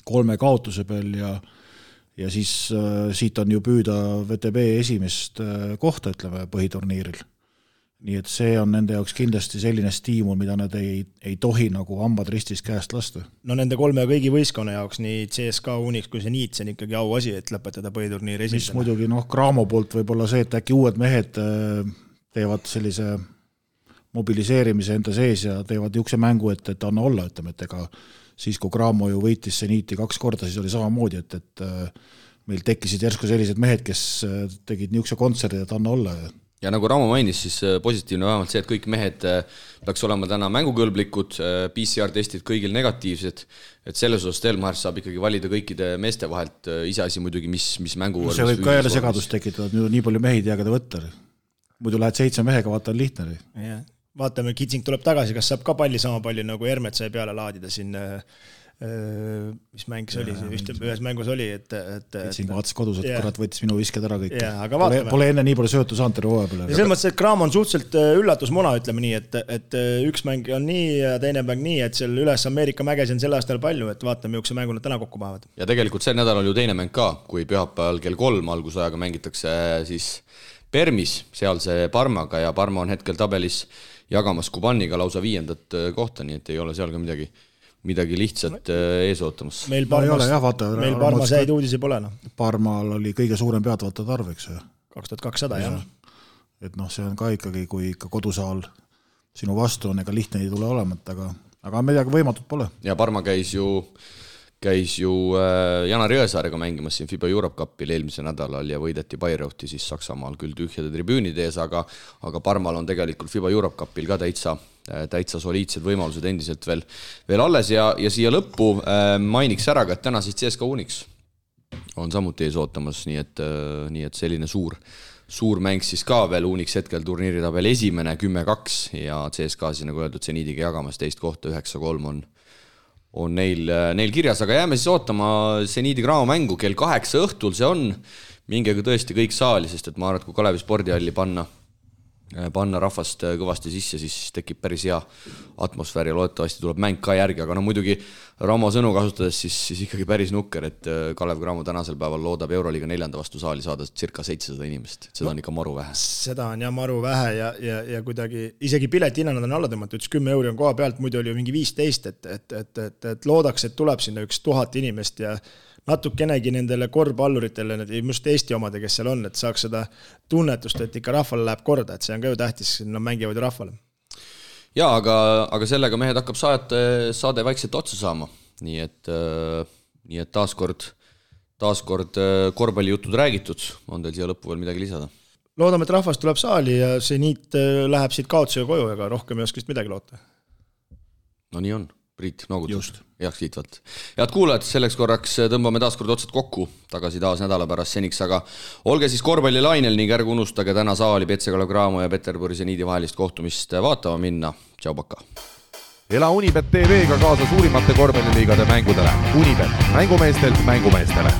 3 kaotuse peal ja siis siit on ju püüda VTB esimest kohta, ütleme, põhiturniiril. Nii et see on nende jaoks kindlasti selline stiimul, mida nad ei tohi nagu hambad ristis käest lasta.
No nende 3 kõigi võistkonna jaoks, nii CSKA, Unix kui Zenit, see on ikkagi auasi, et lõpetada põhiturniiri esimesena.
Mis muidugi Cramo poolt võib-olla see, et äkki uued mehed teevad sellise mobiliseerimise enda sees ja teevad niisuguse mängu, et anna olla, ütleme, et ega siis, kui Cramo ju võitis Zeniti 2 korda, siis oli samamoodi, et meil tekkisid järsku sellised mehed, kes tegid niisuguse kontserdi, et anna olla.
Ja nagu Ramo mainis, siis positiivne vähemalt see, et kõik mehed peaks olema täna mängukõlblikud, PCR-testid kõigil negatiivsed, et selles osas Stelmar saab ikkagi valida kõikide meeste vahelt iseasi muidugi, mis mängu
see võib ka jälle segadust tekitada, nii palju mehi jääga ta võtta. Muidu lähed 7 mehega, vaata on lihtne.
Vaatame, Kitsing tuleb tagasi, kas saab ka palli sama palju nagu Hermet sai peale laadida siin mis mäng see oli, ühes mängus oli, et
Kitsing vaatas kodus, et kurat võttis minu visked ära kõik.
Pole
enne nii palju söötu saanud terve hooaja peale.
Ja selles mõttes, et Cramo on suhteliselt üllatusmuna, ütleme nii, et üks mäng on nii ja teine mäng nii, et seal üles Ameerika mägesi on selle aastal palju, et vaatame, milline mängu nad täna kokku paavad.
Ja tegelikult see nädal on ju teine mäng ka, kui pühapäeval kell 3 algusajaga mängitakse siis Permis, seal see Parmaga ja Parma on hetkel tabelis jagamas Kubaniga lausa 5. kohta, nii et ei ole seal ka midagi lihtsalt ees ootamas.
Meil Parmas häid uudisi pole.
Parmal oli kõige suurem peatavatad arv, eks.
2200, jah.
Et see on ka ikkagi, kui ikka kodusaal sinu vastu on, ega lihtne ei tule olemat, aga midagi võimatut pole.
Ja Parma käis ju Janar Jõesaarega mängimas siin FIBA Europe Cupil eelmise nädalal ja võideti Bayreuthi siis Saksamaal küll tühjade tribüünide ees, aga Parmal on tegelikult FIBA Europe Cupil ka täitsa soliidsed võimalused endiselt veel alles ja siia lõppu mainiks ära, et täna siis CSKA Unix on samuti ees ootamas, nii et selline suur mäng siis ka veel Unix hetkel turniiritabel esimene 10-2 ja CSKA siis nagu öeldud Zenidiga jagamas 2 kohta 9-3 on neil kirjas, aga jääme siis ootama Zenidi Cramo mängu kell 8 õhtul, see on mingega tõesti kõik saali, sest et ma arvan, et kui Kalevi spordihalli panna rahvast kõvasti sisse, siis tekib päris hea atmosfäär ja loodetavasti tuleb mäng ka järgi, aga muidugi Ramo sõnu kasutades siis ikkagi päris nukker, et Kalev Cramo tänasel päeval loodab Euroliiga 4. vastu saali saada circa 700 inimest, seda on ikka maru vähe.
Seda on jah maru vähe ja kuidagi isegi piletihinnad on alla tõmmatud, 10 euri on koha pealt, muidu oli ju mingi 15, et loodaks, et tuleb sinna 1000 inimest ja natukenegi nendele korvpalluritele, just Eesti omade, kes seal on, et saaks seda tunnetust, et ikka rahvale läheb korda, et see on ka ju tähtis, nad mängivad ju rahvale.
Jaa, aga sellega mehed hakkab saade vaikselt otsa saama, nii et taaskord korvpallijutud räägitud, on teil siia lõppu veel midagi lisada?
Loodame, et rahvas tuleb saali ja see niit läheb siit kaotusega koju, ega rohkem ei oska vist midagi loota.
No nii on. Priit noogutus, heaks kiitvalt. Head kuulajad, selleks korraks tõmbame taaskord otsad kokku, tagasi taas nädala pärast seniks, aga olge siis korvpallilainel ning ärge unustage täna saali Petsegala Graamo ja Peterburi Seniidi vahelist kohtumist vaatama minna. Tšau, paka!
Ela Unibet TV-ga kaasa suurimate korvpalliliigade mängudele. Unibet, mängumeestelt mängumeestele.